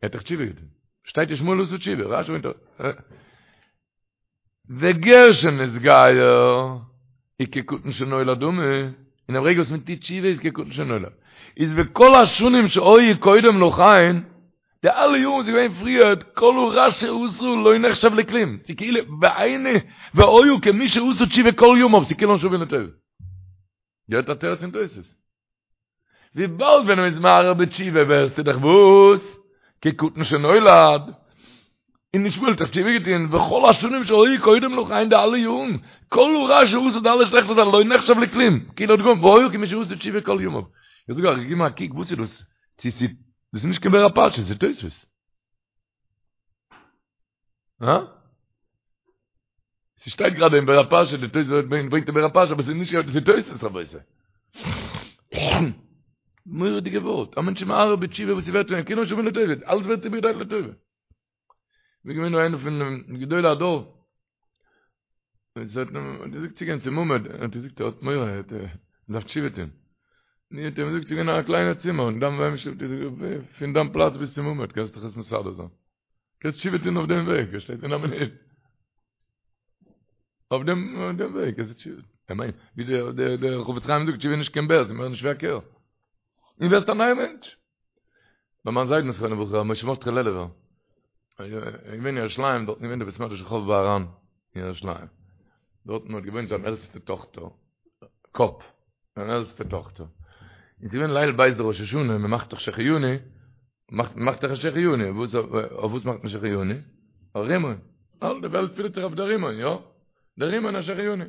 האט דאך תשובה געטון. שטייט ישמעאל עשה תשובה. רש"י ברענגט וגר שנתגייר איז כקטן שנולד דמי, אין דעם רגע וואס מען טוט תשובה איז כקטן שנולד. איז וכל השנים שהיו קודם לכן, די אלע יארן וואס איז געווען פריער, כל הרע שעשה לא נחשב לכלום, ס'איז כאילו, והיינו, והיה כמי שעשה תשובה כל ימיו, ס'איז כולן שווין לטובה. געהערט א תירוץ אין תוס'. וויבאלד ווען מ'איז מהרהר בתשובה ווערסטו דאך וואס? כקטן שנולד. און ישמעאל האט דאך תשובה געטון, וכל השנים שהיו קודם לכן די אלע יארן, כל הרע שעשה די אלע שלעכטע זאכן לא נחשב לכלום, כאילו האט געוואלט והיה כמי שעשה תשובה כל ימיו. איך זאג אייך, גיב מיר א קוק וואס איז דאס? צו ס'איז דאס איז נישט קיין באר הפרשה, ס'איז תוספות. הא? ס'שטייט גראדע אין באר הפרשה, די תוספות ברענגט אין באר הפרשה, אבער ס'איז נישט גראדע, ס'איז תוספות רבותי. מורא'דיגע ווארט, א מענטש איז מהרהר בתשובה וואס ס'ווערט פון אים, כולן שווין לטובה, אלעס ווערט איבערגעדרייט לטובה. ווי געווען דא איינער פון גדולי הדור, עס האט אים געזאגט צו גיין צום עמוד, האט ער געזאגט ער האט מורא, ער דארף תשובה טון. נו האט ער אים געזאגט צו גיין אין א קליינע צימער, און דאן ווען פון דיין פלאץ ביז צום עמוד קענסטו דיך עס מסדר זיין. קענסט תשובה טון אויף דעם וועג, ער שטייט אין א מינוט. אויף דעם אויף דעם וועג קענסטו תשובה. איך מיין, ווי דער דער דער חפץ חיים זאגט, תשובה איז נישט קיין בער, ס'איז מער נישט ווי א קער. און ווערסט א נייער מענטש. ביי מיין זיידן זכרונו לברכה, משה מרדכי לעלובער, איז געווען אין ירושלים, דארטן געווען די בית מדרש רחוב בהר"ן אין ירושלים. דארטן האט געוואוינט זיין עלטסטע טאכטער, קאפ, זיין עלטסטע טאכטער. און ס'איז געווען ליל ב' דראש השנה, מ'מאכט דאך שהחיינו, מאכט מאכט דאך א שהחיינו, וואס אויף וואס מאכט מען שהחיינו? אויף רימון. אלע די וועלט פילט זיך אויף דער רימון, יא? דער רימון א שהחיינו.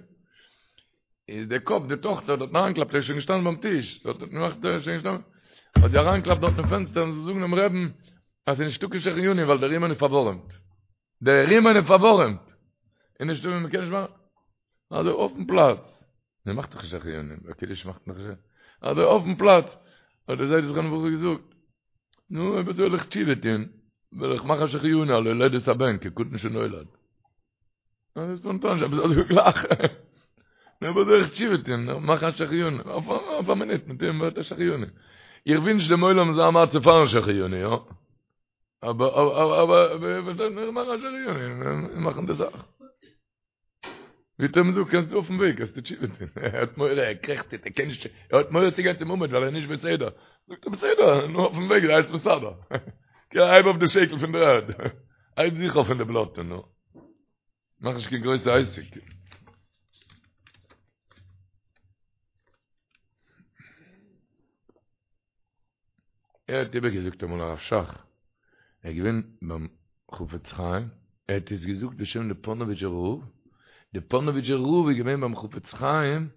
איז דער קאפ, די טאכטער האט דארט אריינגעקלאפט, ער איז שוין געשטאנען ביים טיש, דארט האט געמאכט ער איז שוין געשטאנען, האט זי אריינגעקלאפט דארט אין פענסטער און זי זאגן דעם רעבן אז ס'איז נישטא קיין שהחיינו ווייל דער רימון איז פארווארעמט. דער רימון איז פארווארעמט. און נישטא ווי מ'קען נישט מאכן. אזוי אויפן פלאץ. מען מאכט דאך שהחיינו, ביי קידוש מאכט מען דאך אזוי אויפן פלאץ. האט דער זיידע זכרונו לברכה געזאגט, נו, אויב אזוי וועל איך תשובה טון, וועל איך מאכן שהחיינו על הולדת הבן כקטן שנולד. אזוי ספאנטאן, איך האב אזוי געלאכט. נו, אויב אזוי וועל איך תשובה טון, מאכן א שהחיינו, אויף א מינוט, מיט דעם ווערט א שהחיינו. איך ווינטש דעם עולם אזא מצב פארן שהחיינו, יא. אבער, אבער, אבער, אבער, מיר מאכן א שהחיינו, מיר מאכן די זאך. ווי האט ער אים געזאגט, קענסט אויפן וועג, קענסטו תשובה טון. ער האט מורא, ער קרעכצט, ער קען נישט, ער האט מורא צו גיין צום עמוד ווייל ער איז נישט בסדר. זאגט ער, בסדר, נו אויפן וועג זיי עס מסדר. הייב אויף די שקל פון דער ערד. הייב זיך אויף פון די בלאטע, נו. מאך נישט קיין גרויסע עסק. ער האט איבערגעזאגט אמאל הרב שך, ער איז געווען ביים חפץ חיים, ער האט עס געזאגט בשם די פאנאוויטשער רב, די פאנאוויטשער רב איז געווען ביים חפץ חיים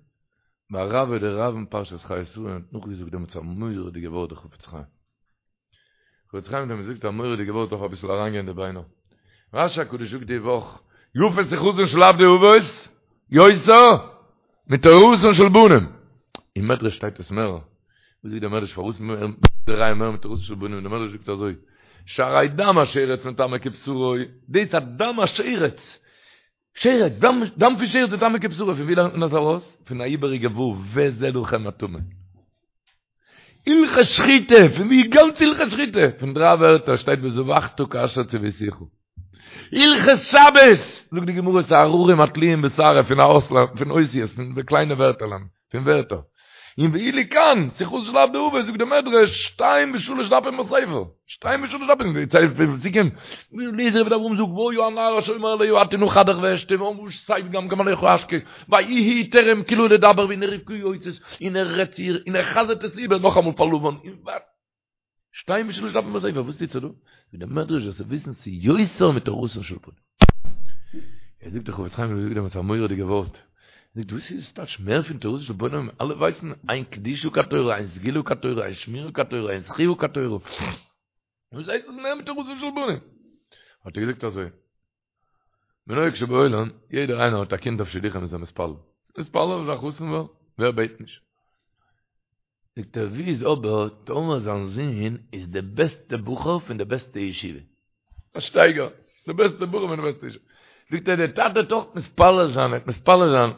ביי רבה דרב אין פרשת חיי שרה און האט נאכגעזאגט דעמאלטס א מורא'דיגע ווארט די חפץ חיים. חפץ חיים האט אים געזאגט א מורא'דיגע ווארט דארף אביסל אריינגיין אין די ביינער. רשי הקדוש זאגט די וואך, יפה שיחתן של עבדי אבות, יותר מתורתן של בנים. אין מדרש שטייט עס מער. וואס זאגט דער מדרש פארוואס די ראיה מער מתורתן של בנים? דער מדרש זאגט אזוי, שהרי דם השרץ מטמא כבשרו, דאס אז דם השרץ, שרץ, דם, דם פון שרץ מטמא כבשרו, פון ווי לערנט מען דאס ארויס? פון א איבעריגע ו', וזה לכם הטמא. הלכות שחיטה, פון ווי גאנץ הלכות שחיטה? פון דריי ווערטער שטייט וזבחת כאשר צויתיך. הלכות שבת, זאגט די גמרא ס'איז הררים התלויים בשערה פון א אות, פון אותיות, פון די קליינע ווערטערלען, פון ווערטער. און ואילו כאן, שיחתן של עבדי אבות, זאגט די מדרש, שתיים ושלש דפים בספר, שתיים ושלש דפים, די צייט פון פסוקים, אליעזר עבד אברהם זאגט, והיה הנערה אשר אומר אליה הטי נא כדך ואשתה ואמרה שתה וגם גמליך אשקה, ויהי טרם כלה לדבר והנה רבקה יוצאת, און ער רעדט צו איר, און ער חזר'ט עס איבער נאכאמאל פאר לבן, און ווייטער. שתיים ושלש דפים בספר, וואס טוט זיך דא? זאגט דער מדרש זאלסטו וויסן ס'איז יותר מתורתן של בנים. ער זאגט דער חפץ חיים האט געזאגט דעמאלטס א מורא'דיגע ווארט, ער זאגט וואס איז טייטש מער פון תורתן של בנים, אלע ווייסן אין קדושה כתורה, אין סגולה כתורה, אין שמירה כתורה, אין זכיה כתורה, וואס הייסט עס מער מתורתן של בנים? האט ער געזאגט אזוי, בנוהג שבעולם, יעדער איינער האט א קינד אויף שידוכים איז ער מתפלל, מתפלל אז א חתן ווערן, ווער בעט נישט? זאגט ער ווי איז אבער טאמער זיין זון איז די בעסטע בחור פון די בעסטע ישיבה? א שטייגער, די בעסטע בחור פון די בעסטע ישיבה. זאגט ער דער טאטע וועט אויך מתפלל זיין, ער וועט מתפלל זיין,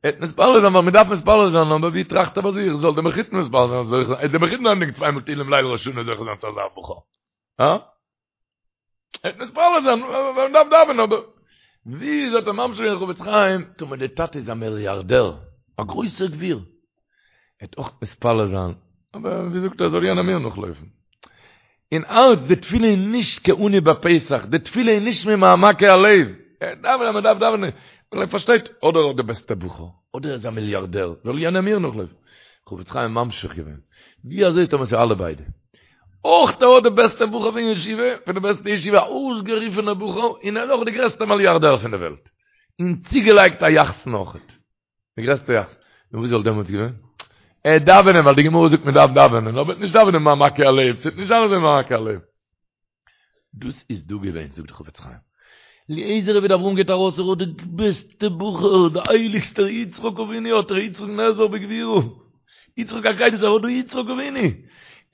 ער וועט מתפלל זיין ווייל מען דארף מתפלל זיין, אבער ווי טראכט ער ביי זיך, זאל דער מחותן מתפלל זיין, זוכה זיין, דער מחותן ענדיגט צוויי מאל תהילים ליל ראש השנה זוכה זיין צו אזא בחור. הא? ער וועט מתפלל זיין, ווייל מען דארף דאווענען, אבער ווי איז האט ער ממשיך געווען חפץ חיים, טאמער דער טאטע איז א מיליארדער, א גרויסער גביר, ער וועט אויך מתפלל זיין, אבער ווי זאגט ער, זאל יענער מיר נאכלויפן. אין הארץ, די תפילה איז נישט כעני בפתח, די תפילה איז נישט ממעמקי הלב, ער דאווענט אז מען דארף דאווענען, ווייל ער פארשטייט, אדער האט די בעסטע בחור, אדער ער איז א מיליארדער, זאל יענער מיר נאכלויפן. חפץ חיים ממשיך געווען, ווי אזוי טאמער ס'איז אלע ביידע? אויך ער האט די בעסטע בחור פון ישיבה, פון די בעסטע ישיבה, א אויסגערופענער בחור, און ער איז אויך די גרעסטע מיליארדער פון די וועלט. און צוגעלייגט א יחסן אויכעט. די גרעסטע יחסן. נו וואס וואלט דעמאלטס געווען? ער וועט דאווענען ווייל די גמרא זאגט מען דארף דאווענען, אבער נישט דאווענען ממעמקי הלב, ס'וועט נישט זיין אזוי ממעמקי הלב. דאס איז דא געווען, זאגט די חפץ חיים. אליעזר עבד אברהם גייט ארויס, ער האט די בעסטע בחור, די הייליגסטער יצחק אבינו האט ער, יצחק נאזר בגבורה. יצחק עקידה, ער האט דא יצחק אבינו.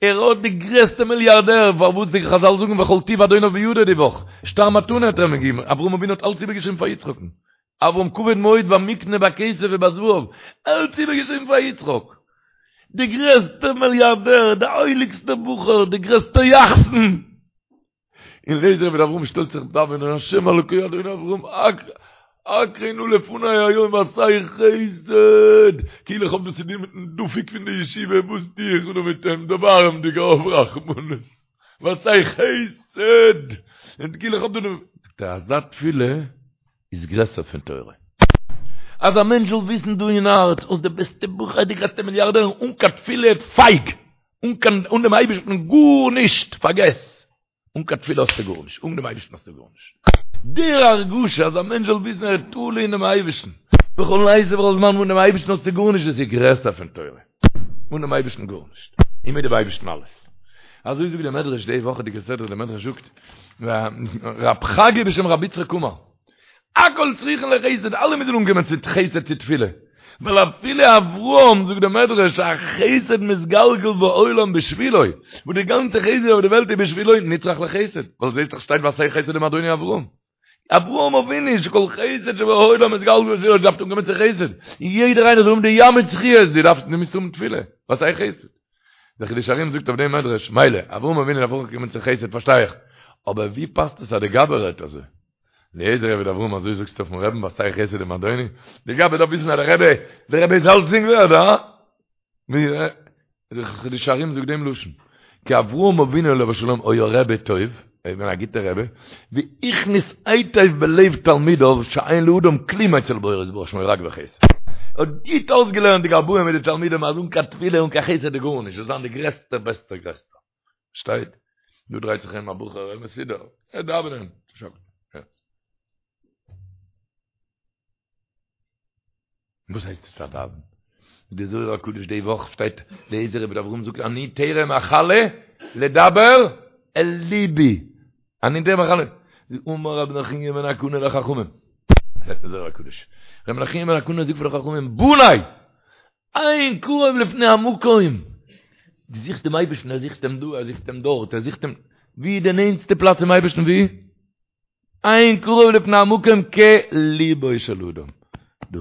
ער האט די גרעסטע מיליארדער, פארוואס די חזל זאגן וכל טוב אדוניו בידו די וואך, שטר מתנה האט ער אים געגעבן, אברהם אבינו האט אלץ איבערגעשריבן פאר יצחק'ן. אברהם כבד מאוד במקנה בכסף ובזהב, אלץ איבערגעשריבן פאר יצחק. די גרעסטע מיליארדער, די הייליגסטע בחור, די גרעסטע יחסן. און אליעזר עבד אברהם שטעלט זיך דאווענען, השם אלוקי אדוני אברהם, הכרה נא לפני היום ועשה חסד, כאילו איך האב דא צו טון מיטן דפוק פון די ישיבה, וואס טו איך דא מיט אים, דערבארעם דיך האב רחמנות, ועשה חסד, און כאילו איך האב דא, זאגט ער, אזא תפילה איז גרעסער פון תורה. אז א מענטש זאל וויסן דא אין הארץ, האסט די בעסטע בחור, די גרעסטע מיליארדער, אן קיין תפילה, פייג! אן קיין, אן דעם אייבערשטן גארנישט, פארגעס! אן קיין תפילה האסטו גארנישט, אן דעם אייבערשטן האסטו גארנישט. די הרגשה אז א מענטש זאל וויסן ער איז תלוי אינעם אייבערשטן, בכל עת ובכל זמן, אן דעם אייבערשטן האסטו גארנישט, דאס איז גרעסער פון תורה. אן דעם אייבערשטן גארנישט, און מיט דעם אייבערשטן אלעס. אזוי זאגט דער מדרש די וואכעדיגע סדרה, דער מדרש זאגט, רב חגי בשם רבי יצחק אמר, הכל צריכין לחסד, אלע מוזן אנקומען צו חסד צו תפילה, ווייל אפילו אברהם, זאגט דער מדרש, החסד מתגלגל בעולם בשבילו, וואס די גאנצע חסד אויף די וועלט איז בשבילו, נצרך לחסד, ווייל זעהסט דאך שטייט ועשה חסד עם אדוני אברהם. אברהם אבינו שכל חסד שבעולם מתגלגל בשבילו, דארף אנקומען צו חסד, יעדער איינער זאל האבן די ים מיט זכיות, דו דארפסט דו מוזט האבן תפילה, ועשה חסד. דער חידושי הרי"ם זאגט אויף דעם מדרש, מילא, אברהם אבינו דארף אויך קומען צו חסד פארשטיי איך, אבער ווי פאסט עס אז די גבאי רעדט אזוי? אליעזר עבד אברהם אזוי זאגסטו אויפן רעבן ועשה חסד עם אדוני? די גבאי דארף וויסן אז דער רבי, דער רבי איז אלצדינג ווערד, הא? דער חידושי הרי"ם זאגט דעם לשון, כי אברהם אבינו עליו השלום היה רבי טוב, ער איז געווען א גוטער רבי, והכניס היטב בלב תלמידיו שאין לאדם כלום אצל בוראו יתברך שמו רק בחסד. ער האט גוט אויסגעלערנט די גבאים מיט די תלמידים אז אן קיין תפילה אן קיין חסד איז גארנישט, זיי זיין די גרעסטע בעסטע גרעסטע. שטייט, דא דרייט זיך ארום א בחור, ער מסודר, ער דאווענען. וואס הייסט עס א דאווען? די זוהר הקדוש די וואך שטייט אליעזר עבד אברהם זאגט אני טרם אכלה לדבר אל ליבי אני טרם אכלה אמר רבי נחוניא בן הקנה לחכמים זאגט די זוהר הקדוש רבי נחוניא בן הקנה זאגט פאר די חכמים בני אין קרוב לפני המקום דו זוכסט דעם אייבערשטן ער זוכט אים דא ער זוכט אים דארט ער זוכט אים ווי איז די נענטסטע פלאץ צום אייבערשטן ווי אין קרוב לפני המקום כליבו של אדם. דא.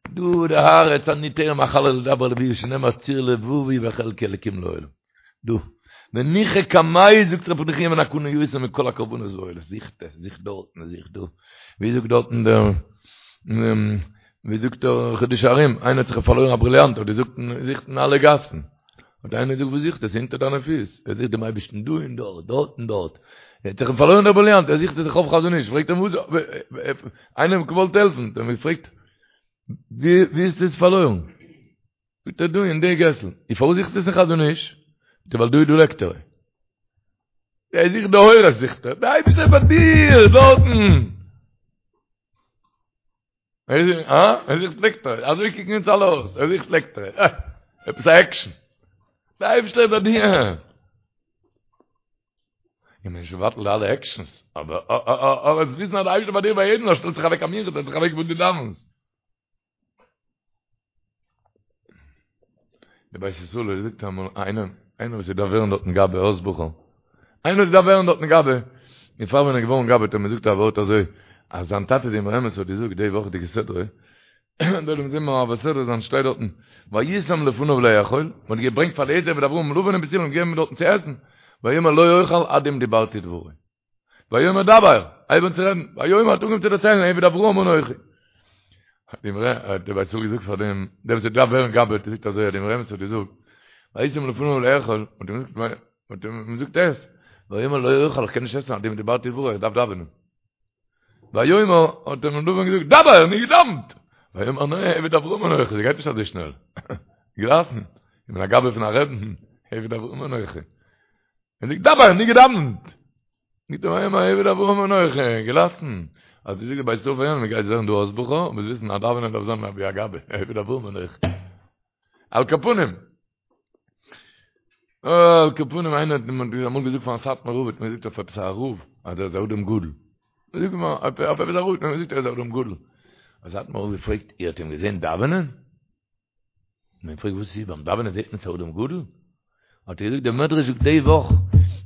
דא די הארץ אני טרם אכלה לדבר אל לבי שנאמר צור לבבי וחלקי אלקים לעולם. דא. וניחא קמיה זאגט רבי נחוניא בן הקנה יותר מכל הקרבנות והעולות. זוכט עס, זוכט דארטן, זוכט דא. ווי זאגט דארטן דער ווי זאגט דער חידושי הרי"ם, איינער האט זיך פארלוירן א בריליאנט, האט געזוכט זוכט אין אלע גאסן. האט איינער געזאגט וואס זוכסטו? עס איז אונטער דיינע פיס. ער זוכט דעם אייבערשטן דא און דארט, דארט און דארט. ער האט זיך פארלוירן דער בריליאנט, ער זוכט עס אויף חזון איש. פרעגט אים וואס, איינער האט אים געוואלט העלפן, האט אים געפרעגט, ווי ווי האסטו עס פארלוירן? זאגט ער דא אין די געסל. און פארוואס זוכסטו עס אין חזון איש? זאגט ער ווייל דא איז דא לעקטער. ער זוכט די אורות זוכט ער. דער אייבערשטער איז ביי דיר דארטן. אה? ער זוכט לעקטער. אזוי קוקן אונז אלע אויס. ער זוכט לעקטער. אה! עפעס א עקשן. דער אייבערשטער איז ביי דיר. איך בין נישט מבטל די אלע עקשנס, אבער אבער עס וויסן אז דער אייבערשטער ביי דיר ביי יעדן, ער שטעלט זיך אוועק א מנחה, שטעלט זיך אוועק וואו דו דאווענסט. די בית ישראל האט געזאגט אמאל איינער, איינער וואס דארף ווערן דארטן גבאי אויס בחור, איינער וואס דארף ווערן דארטן גבאי, און פאר ווען ער איז געווארן גבאי האט ער מיר געזאגט א ווארט אזוי. אז זיין טאטע די אמרי אמת האט געזאגט די וואכעדיגע סדרה, דארט ווען זיי מעביר סדרה זיין שטייט דארטן וישם לפניו לאכול, מען האט געברענגט פאר אליעזר עבד אברהם לבן און בתואל און געגעבן דארטן צו עסן, ויאמר לא אוכל עד אם דיברתי דברי. ויאמר דבר, הייב אן צו רעדן, ויאמר האט אנגעהויבן צו דערציילן עבד אברהם אנכי. האט די אמרי, האט דער בית ישראל געזאגט פאר דעם, דער וואס האט געדארפט ווערן גבאי האט געזאגט אזוי, האט די אמרי אמת האט געזאגט, וישם לפניו לאכול, האט אים געזאגט, האט אים געזאגט עס, ויאמר לא אוכל, איך קען נישט עסן עד אם דיברתי דברי, איך דארף דאווענען. ויאמר, האט אים לבן געזאגט, דבר, נו געדאוונט! ויאמר נע, עבד אברהם אנכי, ס'גייט נישט אזוי שנעל. געלאסן, איך בין א גבאי פון א רעבן, עבד אברהם אנכי. ער זאגט דבר, נו געדאוונט! זאגט ער ויאמר עבד אברהם אנכי, געלאסן. אז דו זאגסט בית ישראל פאר יענעם, מ'גייט זען דא אויס בחור, מוז וויסן אז דאווענען דארף זיין ווי א גבאי, עבד אברהם אנכי. על כל פנים, על כל פנים איינער האט אמאל געזאגט פארן סאטמאר רב האט מען געזאגט אויף עפעס א רב אז ער איז א אדם גדול. זאג מיר אויף עפעס א רב האט מען געזאגט ער איז א אדם גדול. האט סאטמאר רב געפרעגט איר האט אים געזען דאווענען? מען פרעגט וואס איז ביים דאווענען זעט מען ס'איז אדם גדול? האט ער געזאגט דער מדרש זאגט די וואך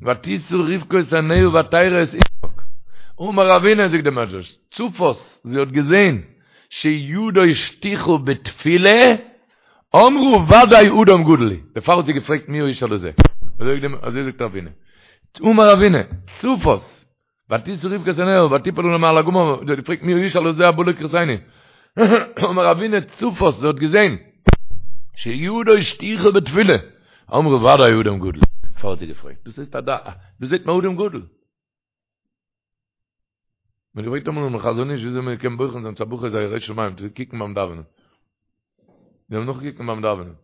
ותשא רבקה את עיניה ותרא את יצחק אמר רבינא זאגט דער מדרש צפת זי האט געזען שידו שטוחה בתפילה אמרה ודאי אדם גדול הוא דערפאר האט זי געפרעגט מי האיש הלזה אזוי זאגט רבינא אמר רבינא צפת ותשא רבקה את עיניה ותפול עליו מעל הגמל, זי האט געפרעגט מי האיש הלזה הבא לקראתנו, אמר רבינא צפת, זי האט געזען, שידו שטוחה בתפילה, אמרה ודאי אדם גדול, דערפאר האט זי געפרעגט, דאס הייסט א דעת, דאס זעט מען אדם גדול. מען האט געפרעגט אמאל דעם חזון איש וויאזוי מען קען בוחן זיין צו א בחור איז א ירא שמים, צו קוקן ביים דאווענען. זיי האבן נאכגעקוקט ביים דאווענען.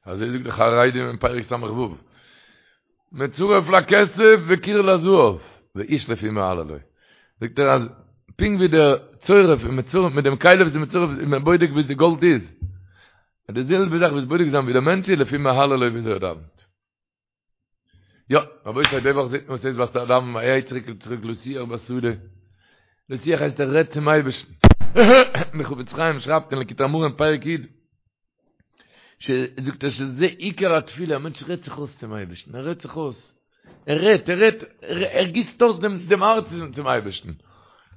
אזוי זאגט די חרדים אין פרק ס"ו, מצרף לכסף וקיר לזהב, ואיש לפי מהללו. זאגט ער אז פונקט ווי דער צורף איז מצרף מיט דעם כלי וואס איז מצרף איז מען בודק ווי די גאלד איז, די זעלבע זאך וואס בודק זיין ווי דער מענטש איז לפי מהללו וויאזוי ער דאווענט. יא, רבותי, די וואך זעט מען וואס הייסט וואס דאווענען ויצא יצחק לשוח בשדה. לשוח הייסט ער רעדט צום אייבערשטן. דער חפץ חיים שרייבט אין ליקוטי אמרים פרק י', זאגט ער שזה עיקר התפילה, א מענטש רעדט זיך אויס צום אייבערשטן, ער רעדט זיך אויס. ער רעדט, ער רעדט, ער גיסט אויס דעם דעם הארץ צום אייבערשטן.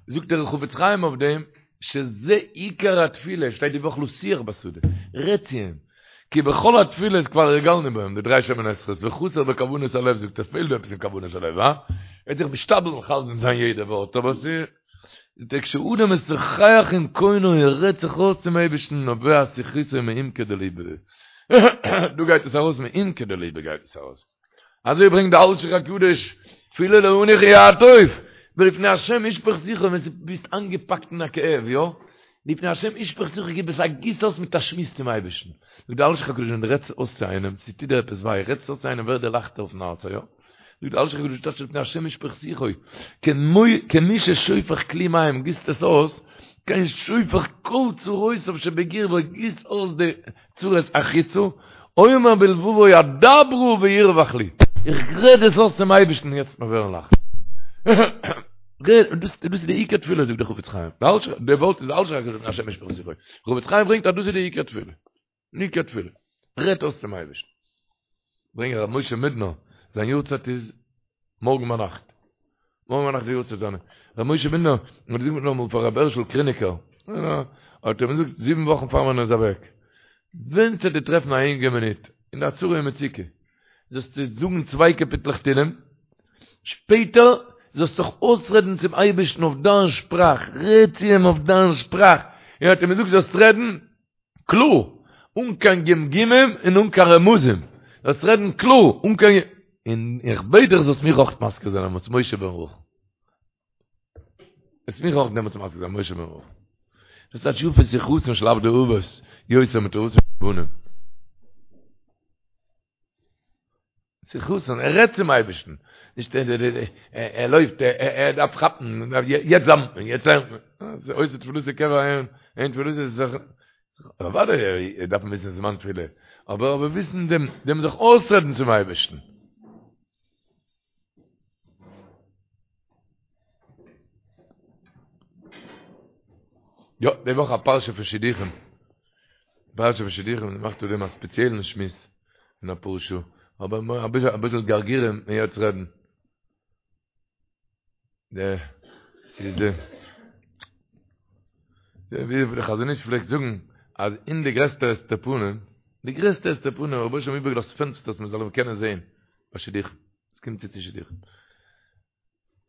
זאגט דער חפץ חיים אויף דעם, שזה עיקר התפילה, שטייט די וואך לשוח בשדה, רעד צו אים, כי בכל התפילות כבר הרגלנו בהם, די דריי שמונה עשרה'ס, וחסר בכוונת הלב, זאגט ער, פעלט דא עפעס אין כוונת הלב, הא? ער האט זיך משתדל מכוון זיין יעדע ווארט, אבער ס'איז, זאגט ער, כשאדם משוחח עם קונו, ער רעדט זיך אויס צום אייבערשטן, נובע שיחתו מעומקא דליבא. דא גייט עס ארויס מעומקא דליבא גייט עס ארויס. אזוי ברענגט די אלשיך הקדוש, תפילה לעני כיעטוף, ולפני השם ישפוך שיחו, ווען ביסט איינגעפאקט אין א כאב, יא? לפני השם ישפוך שיחו, גיב עס א גיס אויס מיט א שמועס צום אייבערשטן. זאגט די אלשיך הקדוש, ווען דו רעדסט אויס צו איינעם, ס'טוט דיר עפעס וויי, רעדסט אויס צו איינעם ווערט דיר לייכטער אויפן הארץ, יא? זאגט די אלשיך הקדוש, טייטש לפני השם ישפוך שיחו, כמי ששופך כלי מים, גיסט עס אויס, כן שופך כל צרותיו שבקרבו, גיסט אויס די צרות החוצה, אומר בלבבו אדברה וירווח לי, איך רעד עס אויס צום אייבערשטן יעצט מיר ווערן לייכט. דאס איז די עיקר תפילה זאגט דער חפץ חיים, די ווארט איז אלשיך הקדוש לפני השם ישפוך שיחו, חפץ חיים ברענגט אז דאס איז די עיקר תפילה, עיקר תפילה, רעדט אויס צום אייבערשטן. ברענגט ר' משה מידנער, זיין יארצייט איז מארגן ביינאכט. מארגן ביינאכט די יארצייט זיינע. ר' משה מידנער האט געזאגט נאכאמאל פאר ר' הערשל קריניקער, האט ער אים געזאגט זיבן וואכן פאר מען איז אוועק, ווען ס'וועט דיר טרעפן א ענגע מינוט, אין א צרה ומצוקה, זאלסטו זאגן צוויי קאפיטלעך תהילים, שפעטער זאלסט זיך אויסרעדן צום אייבערשטן אויף דיין שפראך, רעד צו אים אויף דיין שפראך, און האט אים געזאגט זאלסט רעדן קלאר, אן קיין גמגומים און אן קיין רמזים, זאלסט רעדן קלאר, אן קיין, און איך בעט דיך זאלסט מיך אויך מזכיר זיין דעמאלטס משה בן רחל. זאלסט מיך אויך דעמאלטס מזכיר זיין משה בן רחל. דאס טייטש יפה שיחתן של עבדי אבות, יותר מתורתן של בנים. שיחתן, ער רעדט צום אייבערשטן, נישט ער לויפט, ער דארף כאפן, יעצט דאווענט מען, יעצט לערנט מען, עושה תפילתו קבע אין תפילתו איז זיך, אוודאי דארף מען וויסן זמן תפילה, אבער אבער וויסן דעם דעם זיך אויסרעדן צום אייבערשטן. יא, די וואך א פרשה פון שידוכים. פרשה פון שידוכים, מ'מאכט אויף דעם א ספעציעלן שמועס אין אפאר שעה. אבער אביסל אביסל גרגירים מיר יעצט רעדן. די ס'איז די ווי דער חזון איש פלעגט זאגן אז אין די גרעסטע הסתר פנים, די גרעסטע הסתר פנים האט רבונו של עולם איבערגעלאזט פענסטערס מען זאל אים קענען זען ביי שידוכים, עס קומט צו צו שידוכים.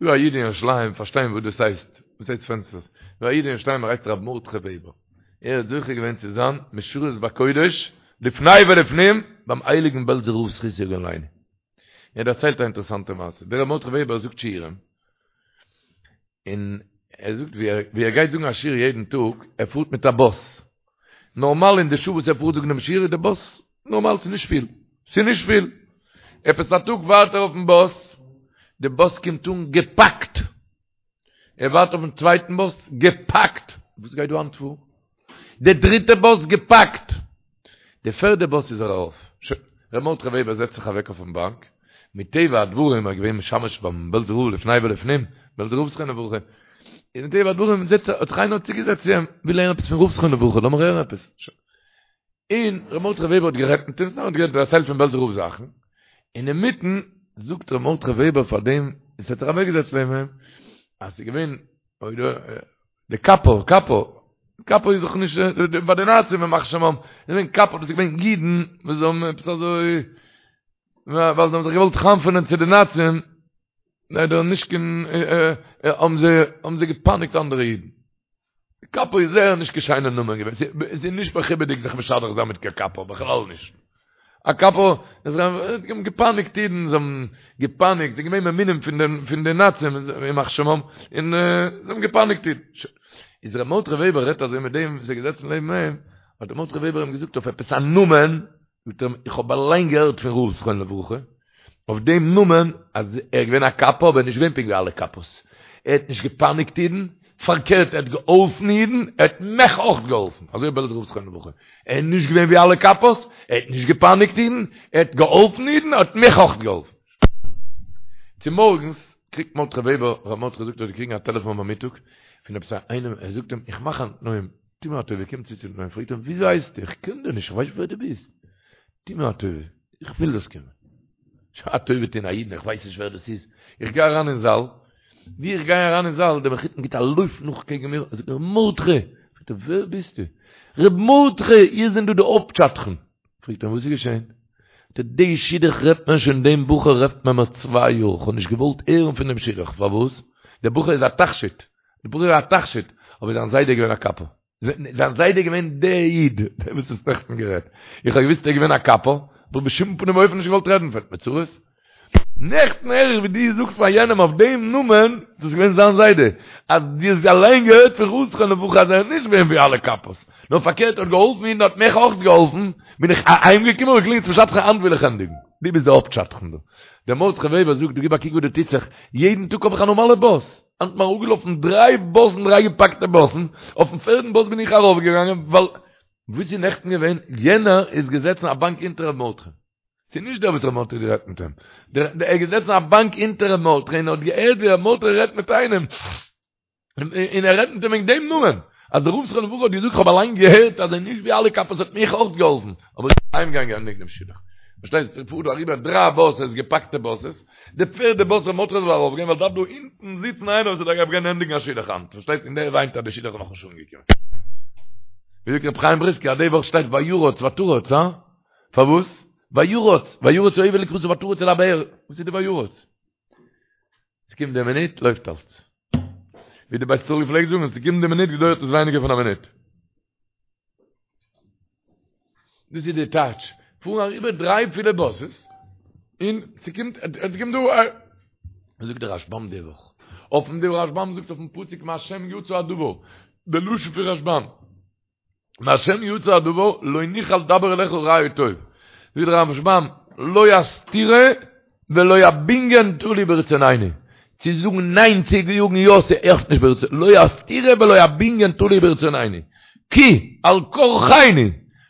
דא א איד אין ירושלים פארשטיין וואס דאס הייסט, וואס הייסט פענסטערס, דא א איד אין ירושלים ער הייסט ר' מרדכי וועבער, ער האט זוכה געווען צו זיין משרת בקודש לפני ולפנים ביים הייליגן בעלזער רב זכותו יגן עלינו. ער דערציילט א אינטערעסאנטע מעשה, דער ר' מרדכי וועבער זאגט שיעורים, און ער זאגט ווי ער גייט זאגן א שיעור יעדן טאג, ער פארט מיט א באס, נארמאל אין די שעה וואס ער פארט זאגן דעם שיעור איז די באס נארמאל ס'איז נישט פיל, ס'איז נישט פיל, עפעס א טאג ווארט ער אויפן באס, די באס קומט אן געפאקט, ער ווארט אויפן צווייטן באס, געפאקט! וואס גייט דא היינט פאר? די דריטע באס געפאקט! די פערדע באס איז ער ארויף. שוין, ר' מרדכי וועבער זעצט זיך אוועק אויפן באנק, מטבע הדברים ער איז געווען משמש ביים בעלזער רב לפני ולפנים, בעלזער רב זכרונו לברכה, איז מטבע הדברים זעצט האט זיך איינער צוגעזעצט צו אים, וויל הערן עפעס פון רב זכרונו לברכה, לאמיר הערן עפעס. שוין. און ר' מרדכי וועבער האט גערעדט מיט אים, סתם האט גערעדט דערציילט פון בעלזער רב זאכן, און אינמיטן זאגט ר' מרדכי וועבער פאר דעם וואס האט זיך אוועקגעזעצט לעבן אים, אז ס'איז געווען די קאפא, קאפא, קאפא איז דאך נישט ביי די נאצים ימח שמם, איז געווען קאפא, דאס איז געווען אידן וואס האבן עפעס אזוי, ווייל זיי האבן זיך געוואלט חנפ'ענען צו די נאצים, ליידער נישט קיין, האבן זיי, האבן זיי געפייניגט אנדערע אידן. קאפא איז זייער נישט קיין שיינע נאמען געווען, ס'איז נישט מכובד'יג זיך משדך זיין מיט קיין קאפא, בכלל נישט. א קאפא, זיי האבן געפייניגט אידן, זיי האבן געפייניגט, זיי זענען געווען ממונים פון די פון די נאצים, ימח שמם, און זיי האבן געפייניגט אידן. איז ר' מרדכי וועבער רעדט אזוי מיט דעם וואס איז געזעצן לעבן אים, האט ר' מרדכי וועבער אים געזאגט אויף עפעס א נאמען, זאגט ער אים, איך האב אליין געהערט פון רב זכרונו לברכה, אויף דעם נאמען, אז ער איז געווען א קאפא, אבער נישט געווען פונקט ווי אלע קאפאס. ער האט נישט געפייניגט אידן, פארקערט ער האט געהאלפן אידן, ער האט מיך אויך געהאלפן, אזוי בעלזער רב זכרונו לברכה. ער איז נישט געווען ווי אלע קאפאס, ער האט נישט געפייניגט אידן, ער האט געהאלפן אידן, ער האט מיך אויך געהאלפן. צומארגנס קריגט מרדכי וועבער, ר' מרדכי זאגט ער האט געקריגן א טעלעפאן ביי מיטאג, פון עפעס איינעם, ער זאגט אים, איך מאך א תנאים, טו מיר א טובה, קום צו צום תנאים, פרעגט אים, וויאזוי הייסטו? איך קען דיר נישט, איך ווייס נישט ווער דו ביסט. טו מיר א טובה, איך וויל זאלסט קומען. א טובה טון א אידן, איך ווייס נישט ווער דאס איז. איך גיי אריין אין זאל, ווי איך גיי אריין אין זאל, דער מחותן גיט א לויף נאך קעגן מיר, ער זאגט מיר, מרדכי! פרעגט ער, ווער ביסטו? ר' מרדכי, איר זענט דא די הויפט שדכן. פרעגט ער אים, וואס איז געשען? זאגט ער, די שידוך רעדט מען שוין, דעם בחור רעדט מען מיר צוויי יאר, איך האב נישט געוואלט הערן פון דעם שידוך, פארוואס? דער בחור איז א תכשיט, דער בחור איז א תכשיט, אבער זיין זיידע איז געווען א קאפא. זיין זיידע איז געווען דער איד, דער וואס האסט נעכטן גערעדט. איך האב געוואוסט ער איז געווען א קאפא, אבער בשום פנים ואופן נישט געוואלט רעדן פון אים, צרות. נעכטן הער איך ווי דו זאגסט פאר יענעם אויף דעם נאמען, דאס איז געווען זיין זיידע, אז דו האסט אליין געהערט פון רב זכרונו לברכה אז ער איז נישט געווען ווי אלע קאפאס, נאר פארקערט ער האט געהאלפן אידן האט מיך אויך געהאלפן, בין איך אהיימגעקומען און געקלינגט צום שדכן היינט וויל איך ענדיגן. דו ביסט דער הויפט שדכן דא. דער מרדכי וועבער זאגט, דו גיב א קוק וואס דא טוט זיך, יעדן טאג האב איך א נארמאלע באס. היינט מיר אראפגעלאפן דריי באסן דריי געפאקטע באסן, אויפן פערדן באס בין איך ארויפגעגאנגען ווייל וואס איז נעכטן געווען, יענער איז געזעצן א באנק אונטער ר' מרדכי, ס'איז נישט דער וואס ר' מרדכי האט גערעדט מיט אים, דער ער איז געזעצן א באנק אונטער ר' מרדכי און האט געהערט ווי ר' מרדכי רעדט מיט איינעם, און ער רעדט מיט אים וועגן דעם נאמען, אז דער רב זכרונו לברכה האט געזאגט כ'האב אליין געהערט אז ער איז נישט ווי אלע קאפאס האט מיך אויך געהאלפן, אבער איך בין אהיימגעגאנגען ענדיגן דעם שידוך. פארשטייסט, ס'פארט דא אריבער דריי באסעס, געפאקטע באסעס, די פערדע באס ר' מרדכי זאל ארויף גיין ווייל דארף דא אונטן זיצן איינער וואס דארף גיין ענדיגן א שידוך היינט, פארשטייסט, און דער וויינט אז די שידוך איז נאכנישט אנגעקומען. ווי זאגט ר' חיים בריסקער אז די וואך שטייט וירץ ותרץ, הא? פארוואס? וירץ, וירץ העבד לקראתה ותרץ אל הבאר, וואס איז די וירץ? ס'קומט די מינוט לויפט אלץ. ווי די בית ישראל געפלעגט זאגן, ס'קומט די מינוט געדויערט עס ווייניגער פון א מינוט. דאס איז די טייטש, פארן אריבער דריי פילע באסעס, און ס'קומט, עס קומט דא א, זאגט דער רשבם די וואך, אויפן די רשבם זאגט אויפן פסוק מהשם יצא הדבר, די לשון פון רשבם, מהשם יצא הדבר לא נוכל דבר אליך רע או טוב. זאגט דער רשבם, לא הסתירה ולא הבנין תלוי ברצונינו. צו זאגן ניין צו זאגן יא ס'איז נישט ברצון, לא הסתירה ולא הבנין תלוי ברצונינו. כי על כרחינו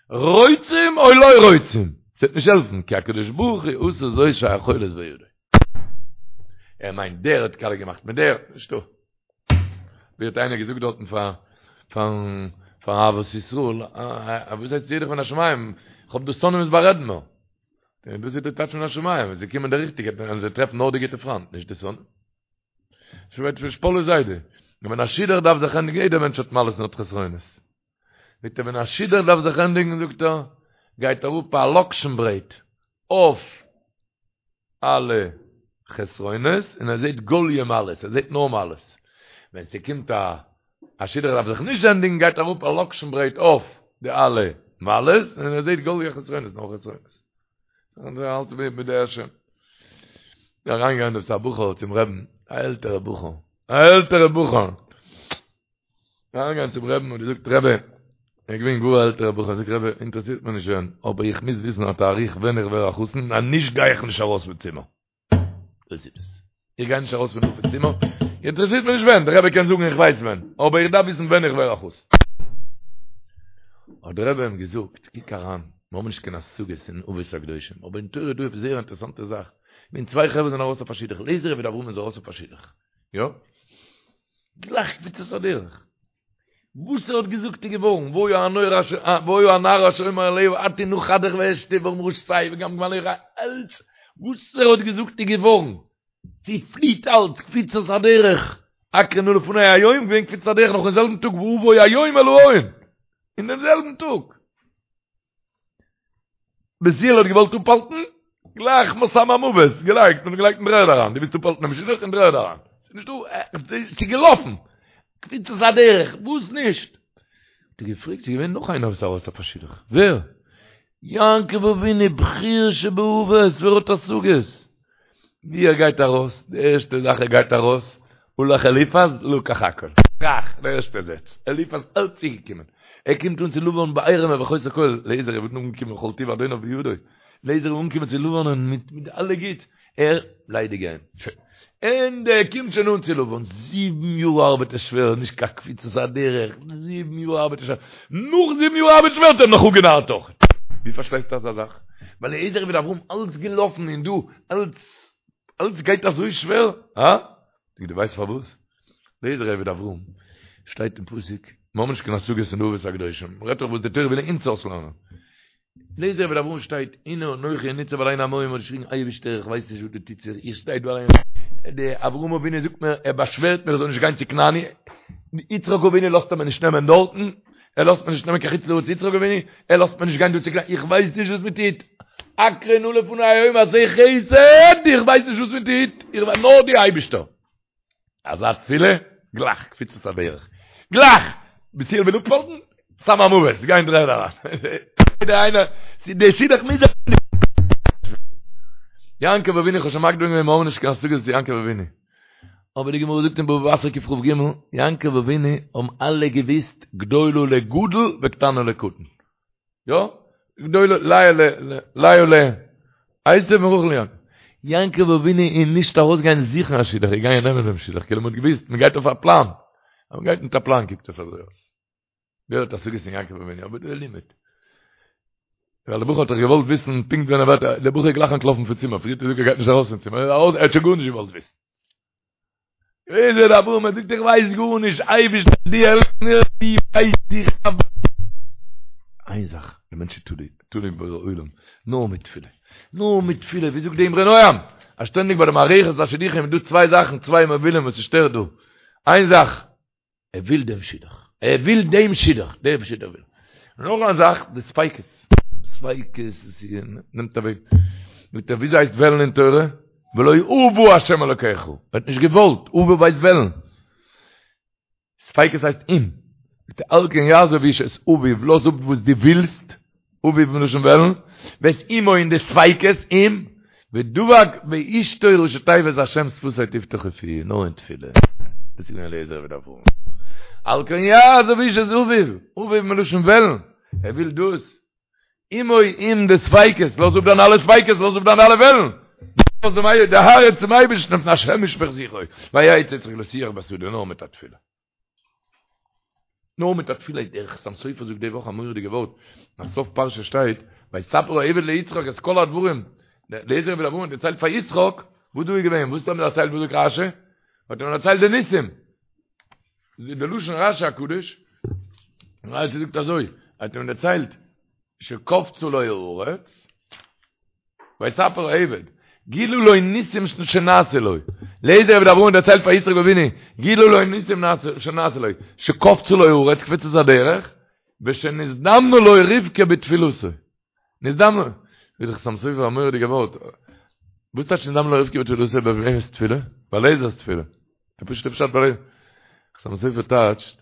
רוצים או לא רוצים. ס'וועט נישט העלפן, כי הקדוש ברוך הוא עשה זאת שהיכולת בידו. ער מיינט דער האט קאליע געמאכט מיט דער, נישטא. ווי האט איינער געזאגט דארטן פאר פארן פאר אהבת ישראל, וואס הייסט שידוך מן השמים, איך האב דא שונאים וואס בארעדן מיר. דאס איז די טייטש מן השמים, ווען זיי קומען די ריכטיגע, וועלן זיי טרעפן נאר די גוטע פריינט, נישט די שונאים. שוועט פון שפאלע זיידע. און ווען א שידוך דארף זיך ענדיגן, יעדער מענטש האט מעלות און האט חסרונות. זאגט ער ווען א שידוך דארף זיך ענדיגן זאגט ער, גייט אראפ א לאקשן ברעט אויף אלע חסרונות און ער זעט גאליע מעלות, ער זעט נאר מעלות. ווען ס'קומט א א שידוך דארף זיך נישט ענדיגן גייט אראפ א לאקשן ברעט אויף די אלע מעלות און ער זעט גאליע חסרונות, נאר חסרונות. און ער האלט ווי מיט די השם. אריינגעגאנגען דאס א בחור צום רעבן, א עלטערע בחור, א עלטערע בחור. אריינגעגאנגען צום רעבן און געזאגט רבי, ער איז געווען גאר א עלטערע בחור, זאגט רבי, אינטערעסירט מיר נישט ווען, אבער איך מוז וויסן א תאריך ווען איך ווער א חתן, אז נישט גיי איך נישט ארויס פון צימער. דאס איז עס. איך גיי נישט ארויס פון דא פון צימער, אינטערעסירט מיר נישט ווען, דער רבי קען זאגן איך ווייס ווען, אבער איך דארף וויסן ווען איך ווער א חתן. האט דער רבי אים געזאגט, קוק אריין, מיר האבן נישט קיין השגות אין אבות הקדושים, אבער אין תורה איז דא עפעס זייער אינטערעסאנטע זאך, ווען צוויי חברה זענען ארויס אויף א שידוך, אליעזר עבד אברהם איז ארויס אויף א שידוך, יא? גלייך קפיצת הדרך. וואס ער האט געזאגט איז געווארן, והיה הנער אשר והיה הנער אשר אומר אליה הטי נא כדך ואשתה ואמרה שתה וגם גמליך אלץ וואס ער האט געזאגט איז געווארן, ס'פליט אלץ, קפיצת הדרך, הקרה נא לפני היום, געווען קפיצת הדרך נאך אין זעלבן טאג ואבוא היום אל האהל, אין דעם זעלבן טאג. בתואל האט געוואלט אפהאלטן, גלייך סם המוות געלייגט און געלייגט אין דר'ערד אריין, דו ווילסט אפהאלטן דעם שידוך אין דר'ערד אריין, ס'איז נישטא, ס'איז געלאפן, קפיצת הדרך, וואס נישט? האט ער געפרעגט, ס'איז געווען נאך איינער וואס איז ארויס אויף א שידוך, ווער? יעקב אבינו, בחיר שבאבות, ווער האט השגות? ווי ער גייט ארויס, די ערשטע זאך ער גייט ארויס, הלך אליפז לקח הכל. טראך, די ערשטע זעץ, אליפז אלץ צוגעקומען. ער קומט אן צו לבן בעירום ובחוסר כל, אליעזר איז אנגעקומען כל טוב אדוניו בידו. אליעזר איז אנגעקומען צו לבנ'ן מיט מיט אלע גוטס, ער ליידיג גיין. שוין. און ער קומט שוין אן צו לבן, זיבן יאר ארבעט ער שווער, נישט קיין קפיצת הדרך, זיבן יאר ארבעט ער שווער, נאך זיבן יאר ארבעט שווער האט ער נאך אפגענארט אויך. ווי פארשטייסטו אזא זאך? ביי אליעזר עבד אברהם אלץ געלאפן און דא אלץ אלץ גייט אזוי שווער? הא? זאג דו ווייסט פארוואס? אליעזר עבד אברהם שטייט אין פסוק, מיר האבן נישט קיין השגות אין די אבות הקדושים, מ'רעדט דאך וואס די תורה וויל אונז אויסלערנען. אליעזר עבד אברהם שטייט, הנה אנכי ניצב על עין המים האט געשריגן אייבערשטער איך ווייס נישט וואס דא טוט זיך, איך שטיי דא אליין, די אברהם אבינו זאגט מיר, ער באשווערט מיר איך זאל נישט גיין צו כנעני, יצחק אבינו לאזט ער מיר נישט נעמען דארטן, ער לאזט מיר נישט נעמען קיין חוץ לארץ יצחק אבינו, ער לאזט מיר נישט גיין דא צו כנעני, איך ווייס נישט וואס מען טוט, הקרה נא לפני היום עשה חסד, איך ווייס נישט וואס מען טוט, איך ווייס נאר דו אייבערשטער. אזא תפילה, גלייך קפיצת הדרך, גלייך! בתואל וויל אפהאלטן, סם המוות, גיי אין דר'ערד אריין. יעדער איינער, די שידוך מוז זיך יעקב אבינו, איך האב שוין מקדים געווען, מיר האבן נישט קיין השגות צו יעקב אבינו. אבער די גמרא זאגט אין בבא בתרא קכ"ג, יעקב אבינו האבן אלע געוויסט גדולה לגדול וקטנה לקטן. יא? גדולה לאה ל לאה ל עשו און רחל ליעקב. יעקב אבינו איז נישט ארויסגעגאנגען זוכן א שידוך, ער איז געגאנגען נעמען דעם שידוך, כאילו מ'האט געוויסט מ'גייט אויף א פלאן. אז מ'גייט מיט א פלאן קוקט עס אזוי אויס. ווער האט השגות אין יעקב אבינו? אבער דער לימוד. ווייל דער בחור האט דאך געוואלט וויסן פונקט ווען ער ווערט, דער בחור איז גלייך אנטלאפן פון צימער, פריער האט ער געזאגט ער גייט נישט ארויס פון צימער, ער איז ארויס, ער האט שוין גארנישט געוואלט וויסן. אליעזר עבד אברהם, ער זאגט איך ווייס גארנישט, אייבערשטער דו העלף מיר, דו ווייסט איך דארף. איין זאך, דער מענטש איז תלוי, תלוי אין בורא עולם, נאר מיט תפילה, נאר מיט תפילה, ווי זאגט די אמרי נועם, אז שטענדיג ביי די מערכת השידוכים איז דא צוויי זאכן, צוויי מובילים וואס ס'שטערט דא, איין זאך, ער וויל דעם שידוך, ער וויל דעם שידוך, דעם שידוך וויל ער. נאך א זאך, די ספיקות, ספיקות, עס נעמט אוועק, זאגט ער, וויאזוי הייסט וועלן אין תורה? ולא אבה השם אלוקיך, ער האט נישט געוואלט, אבה ווייסט וועלן. ספיקות הייסט אם. זאגט ער, על כן יעזוב איש את אביו, לאז אפ וואס דו ווילסט, אביו מלשון וועלן, ואת אמו און די ספיקות, אם, ודבק באשתו ראשי תיבות השם שפתי תפתח ופי, נאר אין תפילה. דאס איז געווען אליעזר עבד אברהם. על כן יעזוב איש את אביו, אביו מלשון וועלן, ער וויל דאס. אמו אם די ספיקות, לאז אפ דיינע אלע ספיקות, לאז אפ דיינע אלע וועלן. לאז דעם די הארץ צום אייבערשטן מפני השם ישפוך שיחו, ויצא יצחק לשוח בשדה נאר מיט א תפילה. נאר מיט א תפילה דער חתם סופר זאגט די וואך א מורא'דיגע ווארט, אז סוף פרשה שטייט, ויספר העבד ליצחק את כל הדברים, אליעזר עבד אברהם האט דערציילט פאר יצחק, וואס דא איז געווען, וואס האט ער דערציילט, וואס זאגט רשי? האט ער דערציילט די ניסים, די לשון רשי הקדוש, רשי זאגט אזוי, האט אים דערציילט, שקפצה לו הארץ, ויספר העבד. גילו לו ניסים שנעשו לו. אליעזר עבד אברהם דערציילט פאר יצחק אבינו, גילו לו ניסים שנעשו לו, שקפצה לו הארץ קפיצת הדרך, ושנזדמנה לו רבקה בתפילתו. נזדמנה, זאגט דער חתם סופר א מורא'דיגע ווארט, וואס טייטש נזדמנה לו רבקה בתפילתו ביי וועמענס תפילה? ביי אליעזר'ס תפילה. די פשוט'ע פשט ביי חתם סופר טייטשט,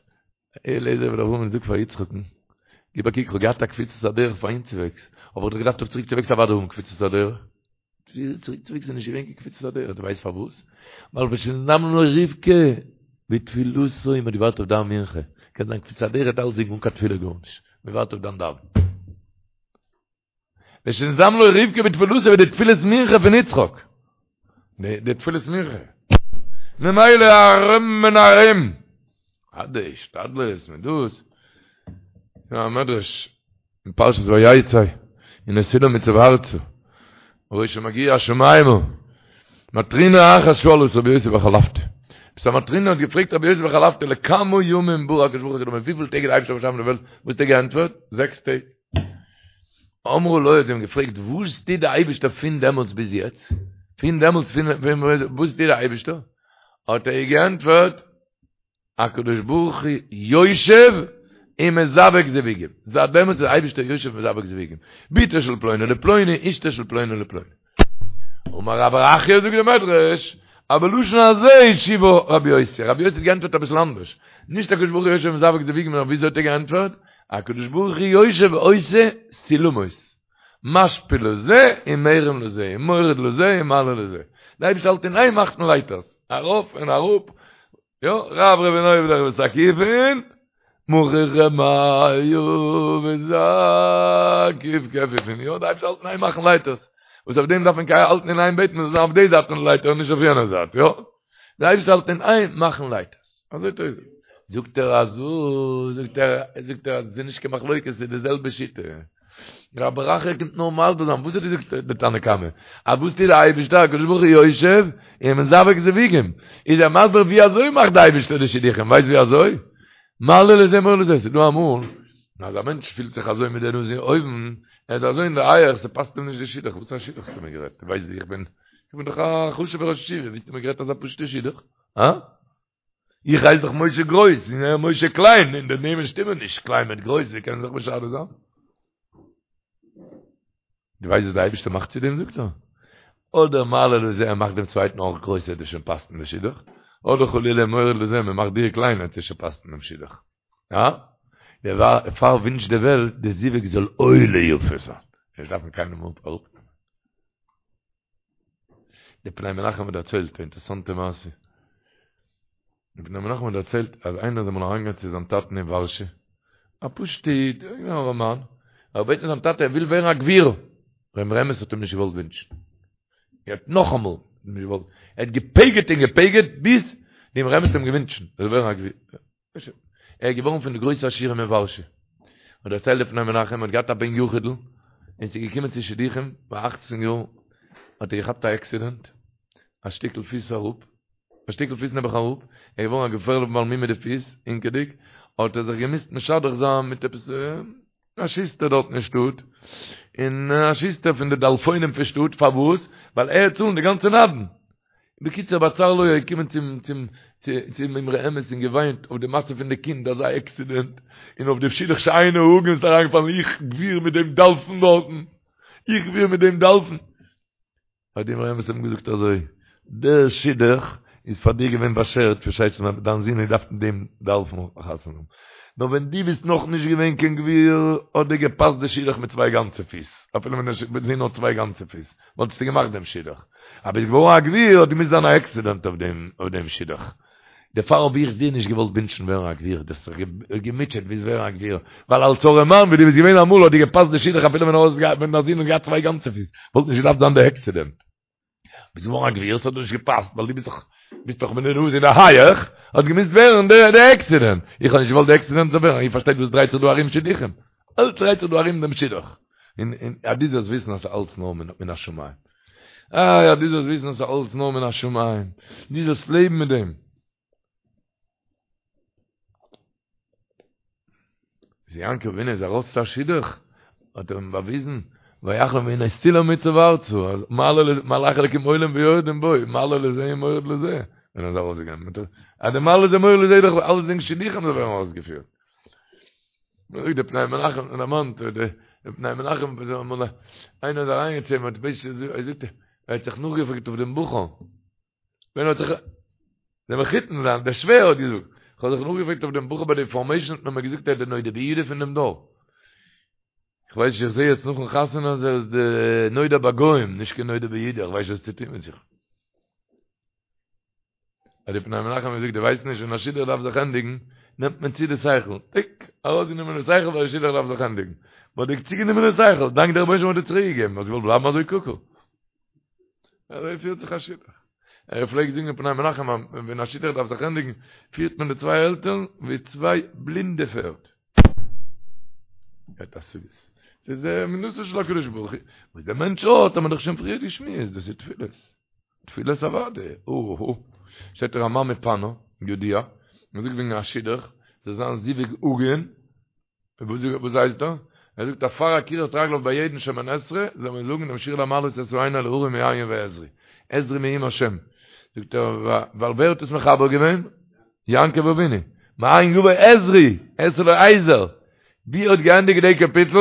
אליעזר עבד אברהם זאגט פאר יצחק'ן, גיב א קוק, כ'האב געהאט א קפיצת הדרך פאר אהינצווועגס, אבער כ'האב געדארפט אויף צוריקצווועגס אוודאי האבן קפיצת הדרך. צוריקצווועגס איז נישט געווען קיין קפיצת הדרך, דו ווייסט פארוואס? ווייל ושנזדמנה לו רבקה בתפילתו, מ'האט געווארט אויף דיין מנחה, קען זיין קפיצת הדרך האט אלצדינג אן קיין תפילה גארנישט, מ'ווארט אויף דיין דאווען. ושנזדמנה לו רבקה בתפילתו ווי די תפילת מנחה פון יצחק. די תפילת מנחה. ממילא ארום און ארום. אט די השתדלות מיט דאס. יא א מדרש אין פרשת ויצא הנה סולם מוצב ארצה. וראשו מגיע השמימה. מטרונה אחת שאלה את רבי יוסי בר חלפתא. עפעס א מטרונה האט געפרעגט רבי יוסי בר חלפתא לכמה ימים ברא הקדוש ברוך הוא את העולמים וויפיל טעג האט די אייבערשטער באשאפן די וועלט? וואס האט ער געענטפערט? זעקס טעג. אמרו לו האט זי אים געפרעגט וואס טוט די אייבערשטער פון דעמאלטס ביז יעצט? פון דעמאלטס פון וואס טוט די אייבערשטער? האט ער איר געענטפערט הקדוש ברוך הוא יושב ומזווג זיווגים, זייט דעמאלטס איז די אייבערשטער יושב ומזווג זיווגים, בתו של פלוני לפלוני אשתו של פלוני לפלוני. אמר רב ברכיה זאגט די מדרש, אז בלשון הזה השיבה רבי יוסי, רבי יוסי האט געענטפערט אביסל אנדערש, נישט הקדוש ברוך הוא יושב ומזווג זיווגים נאר וויאזוי האט ער געענטפערט, הקדוש ברוך הוא יושב ועושה סולמות, משפיל לזה ומרים לזה, ומוריד לזה ומעלה לזה, די אייבערשטער האלט אין איין מאכן לייטערס, ארויף און אראפ, יא, רברבין עובדך ותקיפין, מוכיחי מיא וזקיף כפיפין, יא, די אייבערשטער האלט אין איין מאכן לייטערס, וואס אויף דעם דארף מען האלטן אין איין בעטן מ'זאל זיין אויף די זייט פון די לייטער און נישט אויף יענע זייט, יא, די אייבערשטער האלט אין איין מאכן לייטערס, אזוי טוט ער. זאגט ער אזוי, זאגט ער, זאגט ער אז עס איז נישט קיין מחלוקת, עס איז די זעלבע שיטה. רב ברכיה קומט נאר מסביר זיין וואס האט געזאגט די תנא קמא אז וואס טוט די אייבישטער הקדוש ברוך הוא יושב ומזווג זיווגים איז ער מסביר ווי אזוי מאכט די אייבישטער די שידוכים ווייסט ווי אזוי מעלה לזה מוריד לזה ס'איז דא אמאל אז א מענטש פילט זיך אזוי מיט די נאז אין אויבן ער איז אזוי אין די הייעך ס'פאסט אים נישט די שידוך וואס א שידוך האסטו מיר גערעדט ווייסט ווי איך בין איך בין דאך א חשוב'ער ראש ישיבה ווי האסטו מיר גערעדט אזא פשוט'ע שידוך הא? איך הייס דאך משה גרויס, און ער משה קליין, און די נעמען שטימען נישט, קליין מיט גרויס, ווי קען זיך משדך זיין? דו ווייסט וואס די אייבערשטער מאכט צו דעם, זאגט ער? אדער מעלה לזה, ער מאכט דעם צווייטן אויך גרויס, ער וועט שוין פאסן די שידוך, אדער חלילה מוריד לזה, מען מאכט דיר קליין, ער וועט שוין פאסן דעם שידוך. יא? דערפאר ווינטשט די וועלט די זיווג זאל עולה יפה זיין. נישט דארפן קיינעם אראפנעמען. די פני מנחם האט דערציילט א אינטערעסאנטע מעשה. די פני מנחם האט דערציילט אז איינער איז אמאל אריינגעגאנגען צו זיין טאטן אין ווארשע, א פשוטע איד, אן ארעמאן, ער האט געבעטן זיין טאטע ער וויל ווערן א גביר, דער אמרי אמת האט אים נישט געוואלט ווינטשן. ער האט נאכאמאל נישט געוואלט, ער האט געפגר'ט און געפגר'ט ביז די אמרי אמת האט אים געווינטשן ער זאל ווערן א גביר. ער איז געווארן פון די גרויסע עשירים אין ווארשע. האט דערציילט דער פני מנחם, ער האט געהאט א בן יחיד'ל, און ס'איז געקומען צו שידוכים, ביי אכצן יאר האט ער געכאפט א עקסידענט, א שטיקל פיס אראפ, א שטיקל פיס נעבעך אראפ, ער איז געווארן א געפערליכע בעל מום מיט די פיס, הינקעדיג, האט ער זיך געמוזט משדך זיין מיט עפעס א שוסטער דארט אין שטאט, און א שוסטער פון די דלפונים פון שטאט, פארוואס? ווייל ער וועט צאלן די גאנצע נדן. בקיצור בצר לו איז געקומען צום צום צום אמרי אמת און געוויינט אויף די מצב פון די קינד אזא עקסידענט, און אויף די שידוך שאינו הגון איז אריינגעפאלן איך גביר מיט דעם דלפון דארטן, איך גביר מיט דעם דלפון. האט די אמרי אמת אים געזאגט אזוי, דער שידוך איז פאר דיר געווען באשערט פארשטייסט אז דיין זון האט געדארפט מיט דעם דלפון חתונה האבן, נאר ווען דו ביסט נאך נישט געווען קיין גביר האט דיר געפאסט די שידוך מיט צוויי גאנצע פיס, אפילו ווען דער זון האט צוויי גאנצע פיס וואלטסטו געמאכט דעם שידוך, אבער ביסט געווארן א גביר האט געמוזט זיין א עקסידענט אויף דעם שידוך. דערפאר האב איך דיר נישט געוואלט ווינטשן ווערן א גביר, דו האסט זיך געמוטשעט ווילסט ווערן א גביר, ווייל אלס ארעמאן ווי דו ביסט געווען אמאל האט דיר געפאסט די שידוך אפילו ווען ווען דיין זון האט געהאט צוויי גאנצע פיס, וואלט נישט געדארפט זיין די עקסידענט. ביסט געווארן א גביר, ס'האט דיר נישט געפאסט ווייל דו ביסט דאך ביסט דאך מיט די נאז אין די הייעך, האט געמוזט ווערן די די עקסידענט. איך האב נישט געוואלט די עקסידענט זאל ווערן, איר פארשטייט וואס דרייט זיך דא ארום שידוכים? אלץ דרייט זיך דא ארום דעם שידוך. און און אז דו זאלסט וויסן אז ס'איז אלץ נאר מן השמים. איי אז דו זאלסט וויסן אז ס'איז אלץ נאר מן השמים. דו זאלסט לעבן מיט דעם. אז יעקב אבינו איז ארויס צו א שידוך, האט ער אים באוויזן. ויחנו והנה סולם מוצב ארצה, אז מעלה לזה, מלאכי אלקים עולים ויורדים בו, מעלה לזה ומוריד לזה, ווען ער איז ארויסגעגאנגען, אז די מעלה לזה מוריד לזה איז דאך אלעס דינג שידוכים זאל ווערן אויסגעפירט. מען זאגט די פני מנחם און דערמאנט די פני מנחם וואס איז אמאל איינער איז אריינגעצויגן צו אים האט בייש ער זאגט ער האט זיך נאכגעפרעגט אויף דעם בחור ווען האט זיך דער מחותן זיין דער שווער האט געזאגט איך האב זיך נאכגעפרעגט אויף דעם בחור ביי די פארמעישן האט מען מיר געזאגט ער איז דער נודע ביהודה פון דעם דור איך ווייס נישט איך זעה יעצט נאכן חתונה אז ער איז די נודע בגוים נישט קיין נודע ביהודה איך ווייס נישט וואס צו טון מיט זיך האט די פני מנחם געזאגט דו ווייסט נישט ווען א שידוך דארף זיך ענדיגן נעמט מען צו די שכל טיק ארויסגענומען די שכל ווייל די שידוך דארף זיך ענדיגן מ'האט דיר צוגענומען די שכל דאנק דער רבונו של עולם האט דיר צוריק געגעבן האסט געוואלט בלייבן אזוי קוקו אזוי פירט זיך א שידוך ער פלעגט זאגן פני מנחם ווען א שידוך דארף זיך ענדיגן פירט מען די צוויי עלטערן ווי צוויי בלינדע פערד האט א סוגיות ס'איז די אמונתו של הקדוש ברוך הוא וואס דער מענטש האט האט מען דאך שוין פריער געשמועסט דאס איז תפילות תפילת אוואדע, אוהו, שטייט רמ"ע מפאנו, ידוע, מען זאגט וועגן א שידוך, זאל זיין זיווג הגון, וואס הייסט דא? ער זאגט אז פאר עקירת רגליו ביי יעדן שמונה עשרה, זאל מען זאגן דעם שיר למעלות אשא עיני אל ההרים מאין יבא עזרי, עזרי מעם השם, זאגט ער, ווייל ווער האט עס מחבר געווען? יעקב אבינו, מאין יבא עזרי, אעשה לו עזר, ווי ער האט געענדיגט די קאפיטל,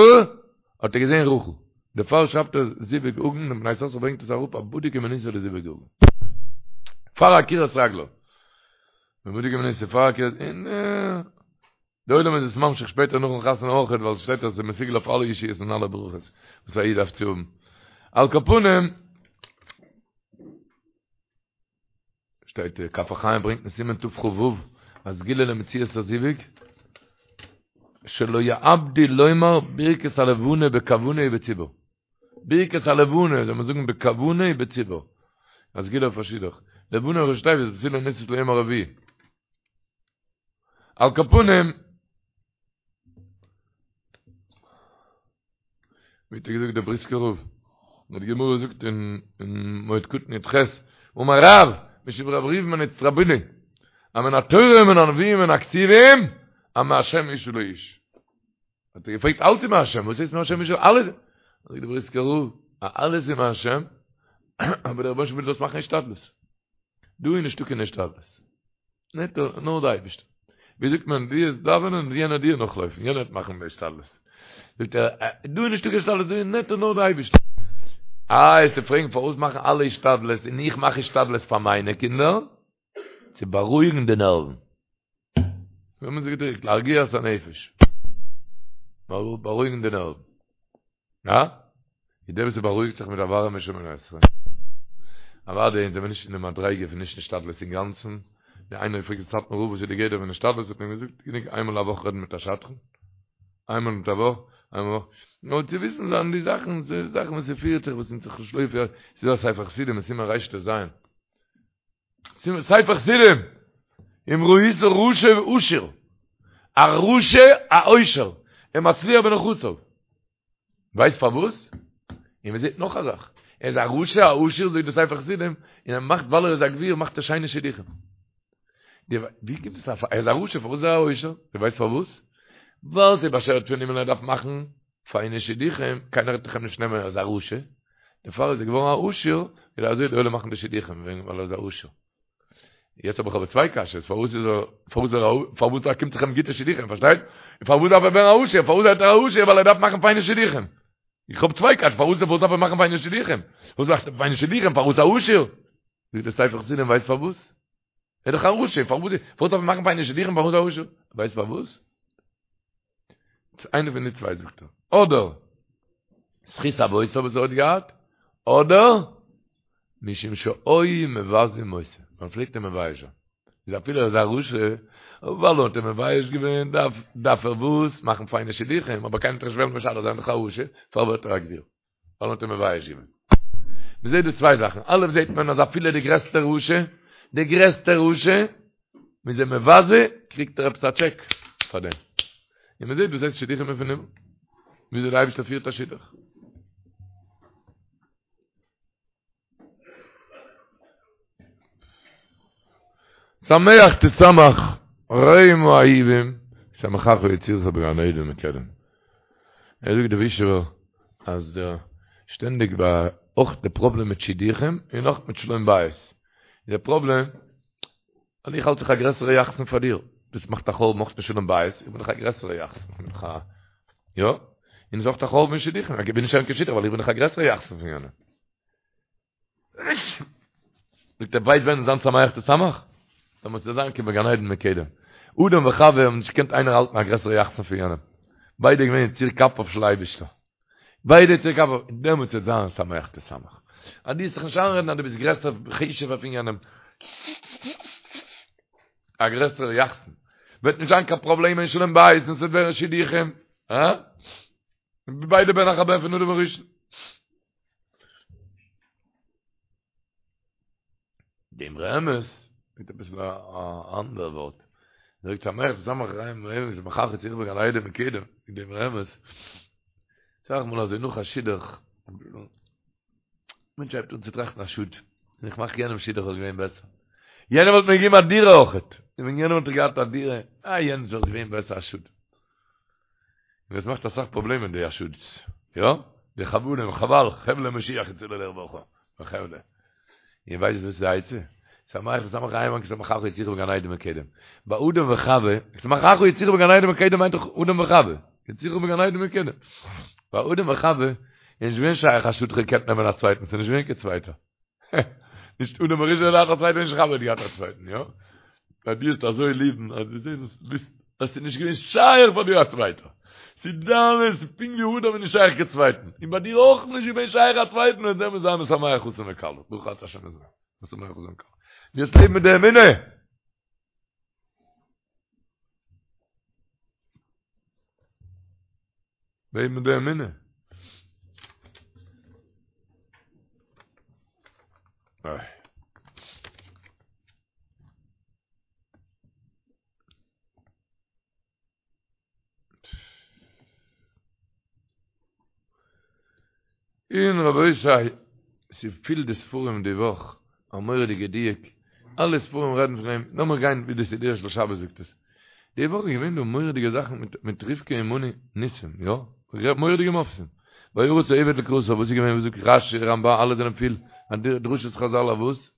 האט ער געזען רחל. דערפאר שרייבט ער זיווג הגון, און בני יששכר ברענגט עס אראפ א בדוק ומנוסה לזיווג הגון. פאר עקירת רגליו. בדוק ומנוסה פאר עקירת, און די עולם איז עס ממשיך שפעטער נאכן חתונה אויכעט, ווייל עס שטייט אז עס איז מסוגל אויף אלע ישועות און אלע ברכות וואס א איד דארף צו האבן. על כל פנים, שטייט כף החיים ברענגט אין סימן תכ"ו א סגולה למציאת הזיווג שלא יאבדו לומר ברכת הלבנה בכוונה ובציבור ברכת הלבנה זאל מען זאגן בכוונה ובציבור א סגולה אויף א שידוך לבנה ראשי תיבות בתולה נישאת ליום הרביעי על כל פנים ווי האט געזאגט דער בריסקער רב די גמרא זאגט אין מועד קטן י"ח אמר רב משום רבי ראובן בן אצטרובילי אז מן התורה ומן הנביאים ומן הכתובים אז מהשם אשה לאיש האט ער געפרעגט אלץ איז מהשם וואס הייסט מהשם אשה אלעס זאגט דער בריסקער רב אז אלעס איז מהשם אבער דער רבונו של עולם וויל זאלסט מאכן השתדלות דא איז נישטא קיין השתדלות נישט נאר די אייבערשטער. ווי זאגט מען, דו וועסט דאווענען און יענער דיר נאכלויפן, יענער וועט מאכן די השתדלות. זאגט ער, דא איז נישטא קיין השתדלות, דא איז נעטא נאר די אייבערשטער. איי, וועסטו פרעגן פארוואס מאכן אלע השתדלות און איך מאך השתדלות פאר מיינע קינדער? צו בארואיגן די נערוון. ווי האט מען זיך געדריקט? להרגיע את הנפש. בארואיגן די נערוון. הא? איז דער וואס בארואיגט זיך מיט א ווארעמע שמונה עשרה. אוודאי אונז זעמיר נישט אין די מדריגה פון נישט השתדלות אינגאנצן. ווי איינער האט געפרעגט די סאטמאר רב וואס איז די גדר פון השתדלות האט מען אים געזאגט גענוג איינמאל א וואך רעדן מיט א שדכן. איינמאל מיט א וואך, איינמאל א וואך. נאר צו וויסן זיין די זאכן, די זאכן וואס ס'פירט זיך וואס אונז זיך נישט לויפט ס'איז דא א ספר חסידים אין סימן רט"ז. ספר חסידים! אם ראית רשע עשיר. א רשע א עושר. ומצליח בנכסיו. ווייסט פארוואס? און מען זעט נאך א זאך, ער איז א רשע א עשיר זאגט די ספר חסידים, און ער מאכט ווייל ער איז א גביר מאכט ער שיינע שידוכים. די ווי קומט עס ער איז א רשע פארוואס איז ער א עושר? די ווייסט פארוואס? ווייל ס'איז באשערט פון הימל ער דארף מאכן פיינע שידוכים, קיינער וועט דאך אים נישט נעמען ער איז א רשע, דערפאר איז ער געווארן א עשיר, ווייל אזוי די עולם מאכן די שידוכים וועגן ווייל ער איז א עשיר. יעצט האב איך אבער צוויי קשיות, פארוואס איז ער, פארוואס איז ער, פארוואס קומט זיך אים גוטע שידוכים, פארשטייט? און פארוואס דארף ער ווערן א עשיר, פארוואס ווערט ער א עשיר, ווייל ער דארף מאכן פיינע שידוכים. איך האב צוויי קשיות, פארוואס פארוואס דארף ער מאכן פיינע שידוכים? פארוואס מאכט ער פיינע שידוכים, פארוואס א עשיר? זאגט דער ספר חסידים, ווייסט פארוואס? ער איז דאך א רשע, פארוואס פארוואס דארף ער מאכן פיינע שידוכים, פארוואס א עשיר? ווייסט פארוואס? איינע פון די צוויי זאגט ער, אדער זכות אבותיו וואס ער האט געהאט, אדער משום שהיו מבזים אותו, מען פלעגט אים מבייש זיין, איז אפילו ער איז א רשע, ווייל מען האט אים מבייש געווען, דארף דארף ער וואס? מאכן פיינע שידוכים, אבער קיינער וועט נישט וועלן משדך זיין דאך א רשע, פאר ווערט ער א גביר, ווייל מען האט אים מבייש געווען. מען זעט דא צוויי זאכן, א' זעט מען אז אפילו די גרעסטע רשע, די גרעסטע רשע, מען איז אים מבזה, קריגט ער עפעס א טשעק פאר דעם. און מען זעט וואס הייסט שידוכים פון הימל, וויאזוי דער אייבערשטער פירט א שידוך. שמח תשמח רעים האהובים ישמחך יצירך בגן עדן מקדם. ער זאגט די ווישעווער. אז דער שטענדיג ביי אויך די פראבלעם מיט שידוכים און אויך מיט שלום בית די פראבלעם אז איך האלט זיך א גרעסערע יחסן פאר דיר דאס מאכט א חורבן אויך אין שלום בית איך בין דאך א גרעסערע יחסן איך בין דאך א יא און עס איז אויך א חורבן אין שידוכים איך בין נישט קיין שידוך ווייל איך בין דאך א גרעסערע יחסן פון יענעם זאגט ער ווייסט ווען זיין שמח תשמח? דעמאלטס וועט זיין כבגן עדן מקדם. אדם וחווה האבן נישט געקענט איינער האלטן א גרעסערע יחסן פון יענעם. ביידע געווען יציר כפיו של אייבישטער. ביידע יציר כפיו, דעמאלטס וועט זיין שמח תשמח. אז דו וועסט זיך נישט איינרעדן אז דו ביסט גרעסער חשוב'ער פון יענעם, א גרעסערע יחסן, וועט נישט זיין קיין פראבלעם אין שלום בית און ס'וועט ווערן שידוכים. הא? ביידע בן אחר בן פון אדם הראשון. דער אמרי אמת מיט אביסל א אנדער ווארט זאגט שמח תשמח רעים רעים שמחך יצירך בגן עדן מקדם דער אמרי אמת אסאך מאל אזוי נאך א שידוך מענטש הייבט אן צו טראכטן א שאד ווען איך מאך יענעם שידוך וואלט געווען בעסער יענער וואלט מיר געגעבן א דירה אויכעט און ווען יענער וואלט געהאט א דירה אה יענץ וואלט געווען בעסער א שאד און עס מאכט אסאך פראבלעמען די א שאד'ס, יא? די חבלים, חבל, חבלי משיח יצאו לרווחה, וחבלי. איר ווייסט וואס איז די עצה? שמח תשמח רעים כשמחך יצירך בגן עדן מקדם. ביי אדם וחווה, כשמחך יצירך בגן עדן מקדם מיינט דאך אדם וחווה. יצירך בגן עדן מקדם. ביי אדם וחווה איז נישט געווען שייך א שאד כ'האב געקענט נעמען א צווייטן, ס'איז נישט געווען קיין צווייטער. נישט אדם הראשון האט געהאט א צווייטן נישט חווה האט געהאט א צווייטן יא ביי דיר איז אזוי ליבן אז דו זעסט ביסט אז ס'איז נישט געווען שייך פאר דיר א צווייטער ס'איז דיינס פונקט ווי אדם איז נישט שייך קיין צווייטן און ביי דיר אויך נישט געווען שייך א צווייטן און דעמאלטס זיי משמח חתן וכלה ברוך אתה השם משמח חתן וכלה דו וועסט לעבן מיט די אמונה לעבן מיט די אמונה. איי. און רבותי, ס'איז פיל די ספרים די וואך, א מורא'דיגע דיוק, אלע ספרים רעדן פון דעם, לאמיר גיין ווי די סידורו של שבת זאגט עס. די וואך איז געווען דא מורא'דיגע זאכן מיט מיט רבקה אמנו ניסים, יא? מורא'דיגע מופתים. וירץ העבד לקראתה, וואס איז געווען וואס זאגט רשי, רמב"ן, אלע זענען פיל, דרשות חזל אויף וואס?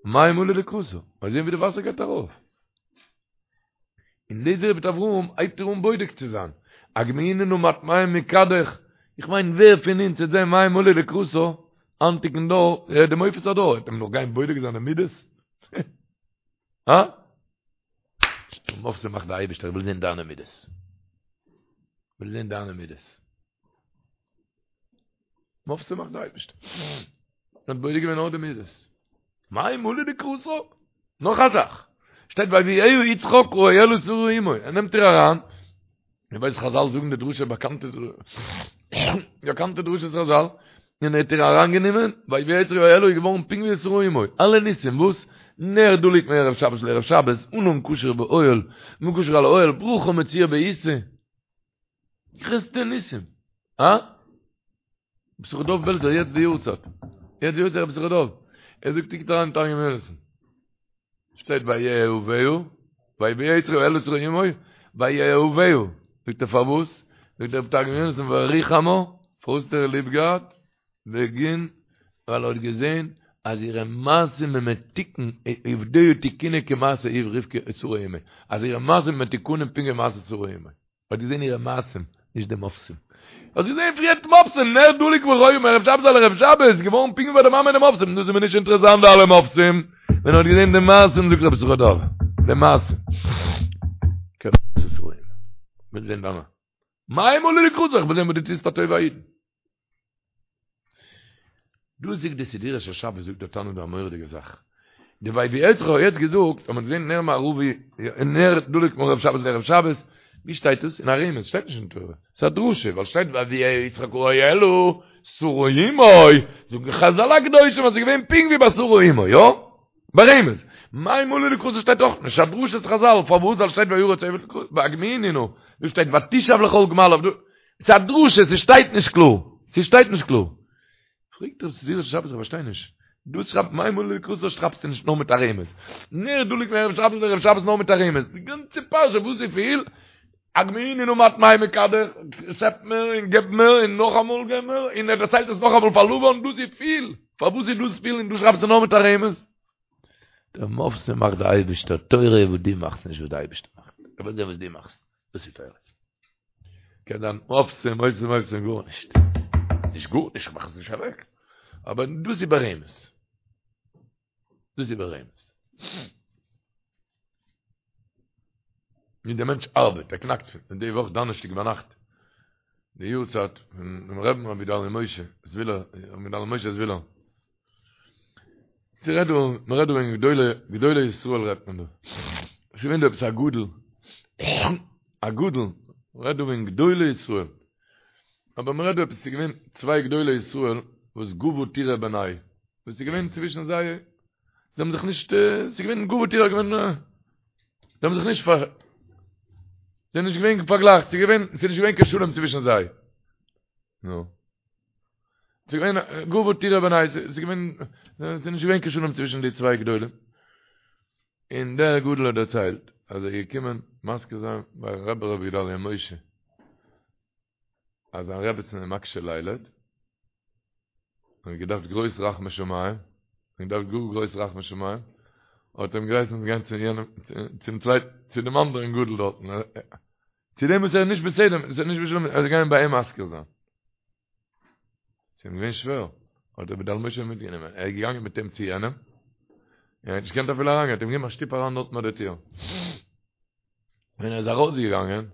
מים עלו לקראתה, מיר זעהן ווי די וואסער גייט ארויף. און אליעזר עבד אברהם הייבט איר אן בודק צו זיין, הגמיאיני נא מעט מים מכדך, איך מיין ווער פון אונז וועט זעהן מים עלו לקראתה, היינטיגן דור, ער איז די מופת הדור, וועט מען נאך גיין בודק זיין די מידות? הא? מופתים מאכט די אייבערשטער, איך וויל זעהן דיינע מידות. איך וויל זעהן דיינע מידות. מופתים מאכט די אייבערשטער. האט בודק געווען נאר די מידות. מים עלו לקראתה. נאך א זאך. שטייט ויביאה יצחק האהלה שרה אמו. ער נעמט איר אריין. איר ווייסט חזל זאגן די דרשה באקאנטע באקאנטע דרשת חזל. און ער האט איר אריינגענומען, ויביאה יצחק האהלה איז געווארן פונקט ווי שרה אמו. אלע ניסים וואס? נר דלוק מערב שבת לערב שבת, ענן קשור באוהל, קשור על האוהל, ברכה מצויה בעיסה. גרעסטע ניסים. הא? ר' יששכר דוב בעלזער יעצט די יארצייט. יעצט די יארצייט ר' יששכר דוב. ער זאגט קוקט אריין אין תרגום יונתן. שטייט ויאהבה, ויביאה יצחק האהלה שרה אמו, ויאהבה. זאגט ער פארוואס? זאגט דער תרגום יונתן וריחמה, פארוואס האט ער ליב געהאט? בגין ווייל ער האט געזען אז אירע מעשים הם מתוקן, עובדיה תיקונא כמעשה רבקה שרה אמו, אז אירע מעשים מתוקנים פונקט ווי מעשה שרה אמו. האט געזען אירע מעשים, נישט די מופתים. האסט געזען פריער מופתים, נר דלוק והיה מערב שבת על ערב שבת, איז געווארן פונקט ווי ביי די מאמע די מופתים, דאס איז מיר נישט אינטערעסאנט די אלע מופתים, ווען ער האט געזען די מעשים זאגט רבי יששכר דוב, די מעשים. וויל זען דיינע. מים עלו לקראתה, איך וויל זען וואס דו טוסט א טובה א אידן. דא זאגט די סידורו של שבת זאגט דער תנא דא א מורא'דיגע זאך. די ויביאה יצחק האט יעצט געזאגט אז מ'האט געזען נר מערבי נר דלוק מערב שבת לערב שבת, ווי שטייט דאס? אין א רמז, שטייט נישט אין תורה. ס'איז א דרשה, ווייל שטייט ויביאה יצחק האהלה שרה אמו, זאגן חזל הקדושים אז ס'איז געווען פונקט ווי ביי שרה אמו, יא? ברמז. מים עלו לקראתה שטייט אויך נישט, א דרשת חזל, פארוואס ווייל שטייט וירץ העבד לקראתה, הגמיאיני נא, דא שטייט ותשאב לכל גמליו, דא, ס'איז א דרשה, ס'שטייט נישט קלאר, ס'שטייט נישט קלאר. פרעגט דער סידורו של שבת איך פארשטיי נישט, דא שרייבט מים עלו לקראתה שרייבסטו נישט נאר מיט א רמז, נר דלוק מערב שבת לערב שבת נאר מיט א רמז, די גאנצע פרשה וואס איז פיל? הגמיאיני נא מעט מים מכדך, שעפ מיר און געב מיר און נאכאמאל געב מיר, און ער דערציילט עס נאכאמאל פאר לבן, דאס איז פיל, פארוואס איז דאס פיל און דא שרייבסטו נאר מיט א רמז? די מופתים מאכט די אייבערשטער, תורה איז וואס דו מאכסט נישט וואס די אייבערשטער מאכט, ער וויל זען וואס דו מאכסט, דאס איז תורה. קען זיין מופתים מופתים מופתים גארנישט, נישט גארנישט, איך מאך עס נישט אוועק, אבער דאס איז ברמז. דאס איז ברמז. ווי דער מענטש ארבעט, ער קנאקט פון די וואך דאנערשטאג ביינאכט, די יארצייט פון דעם רבי'ן רבי גדלי' משה זווילער, רבי גדלי' משה זווילער. ס'רעדט דא, מ'רעדט דא וועגן גדולי, גדולי ישראל רעדט מען דא. ס'איז געווען דא עפעס א גדול, א גדול, מ'רעדט דא וועגן גדולי ישראל. אבער מ'רעדט דא עפעס, ס'איז געווען צוויי גדולי ישראל וואס גבה טורא בינייהו. וואס איז געווען צווישן זיי, זיי האבן זיך נישט, ס'איז געווען גבה טורא געווען, זיי האבן זיך נישט פאר, זיי זענען נישט געווען פארגלייכט, ס'איז געווען, ס'איז נישט געווען קיין שלום צווישן זיי. נו. ס'איז געווען גבה טורא בינייהו, ס'איז געווען, ס'איז נישט געווען קיין שלום צווישן די צוויי גדולים. און דער גדול האט דערציילט, אז ער איז געקומען מזכיר זיין ביי רבי ר' גדליה משה, אז זיין רעבעצן איז מקשה לילד, און האט געדארפט גרויס רחמי שמים, און געדארפט גאר גרויס רחמי שמים, האט אים געהייסן גיין צו יענעם, צום צווייטן, צו דעם אנדערן גדול דארטן, צו דעם וואס ער איז נישט בסדר, עס איז נישט בשלום, ער זאל גיין ביי אים מזכיר זיין. ס'איז אים געווען שווער, האט רבי גדלי' משה מיטגענומען, ער איז געגאנגען מיט אים צו יענעם, און ער האט נישט געקענט אפילו אריינגיין, האט אים געגעבן א שטופ אריין דארטן ביי די טיר. ווען ער איז ארויסגעגאנגען,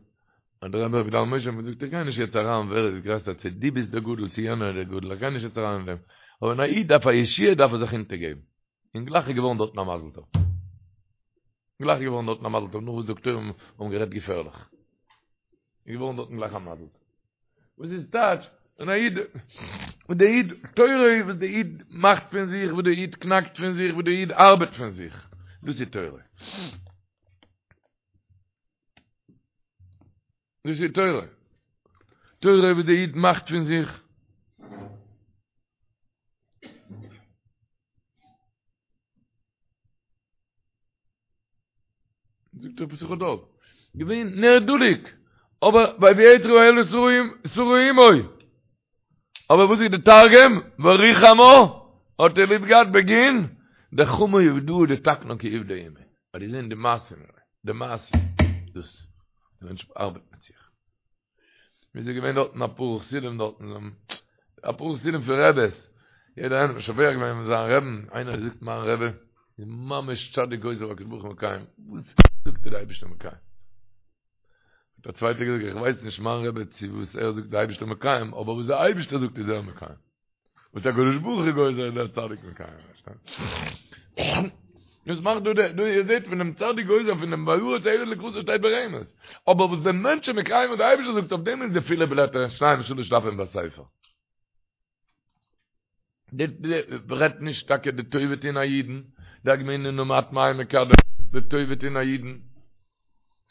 האט דער רבי רבי גדלי' משה אים געזאגט, איך גיי נישט יעצט אריין ווער איז גרעסער, צו דו ביסט דער גדול צו יענער איז דער גדול, איך גיי נישט יעצט אריין אין דעם, אבער ווען א איד דארף א ישועה דארף ער זיך אונטערגעבן. און גלייך איז געווארן דארטן א מזל טוב. גלייך איז געווארן דארטן א מזל טוב, נאך וואס דאקטוירים האבן גערעדט געפערליך. איז געווארן דארטן גלייך א מזל טוב. וואס איז טייטש? און א איד, און דער איד, תורה איז וואס דער איד מאכט פון זיך, וואס דער איד קנאקט פון זיך, וואס דער איד ארבעט פון זיך. דאס איז תורה. דאס איז תורה. תורה וואס דער איד מאכט פון זיך. זאגט ר' יששכר דוב, געווען נר דלוק, אבער ויביאה האל שרה אמו. אבער וואס איז די תרגום? וריחמה האט ער ליב געהאט בגין דחמא עובדאה דתקנה כי עובדא אימיה. האט געזען די מעשים, די מעשים, דאס, די מענטש ארבעט מיט זיך. מיר זענען געווען דארטן אפאר חסידים דארטן, אפאר חסידים פון רעבעס, יעדער איינער האט משבח געווען זיין רעבן, איינער האט געזאגט מיין רעבע איז ממש צדיק גוזר והקדוש ברוך הוא מקיים, וואס זאגט ער די אייבערשטער מקיים? האט א צווייטער געזאגט איך ווייס נישט מיין רבי צו וואס ער זאגט די אייבערשטער מקיים, אבער וואס די אייבערשטער זאגט איז ער מקיים. וואס הקדוש ברוך הוא גוזר איז דער צדיק מקיים. דאס מאכט דא דא איר זעט פון דעם צדיק גוזר פון דעם וירץ העבד לקראתו שטייט ברמז. אבער וואס דער מענטש איז מקיים וואס דער אייבערשטער זאגט אויף דעם איז די פילע בלעטער שניים שלש דפים בספר. די רעדט נישט טאקע די טובה טון א אידן, די הגמיאיני נא מעט מים מכדך, די טובה טון א אידן.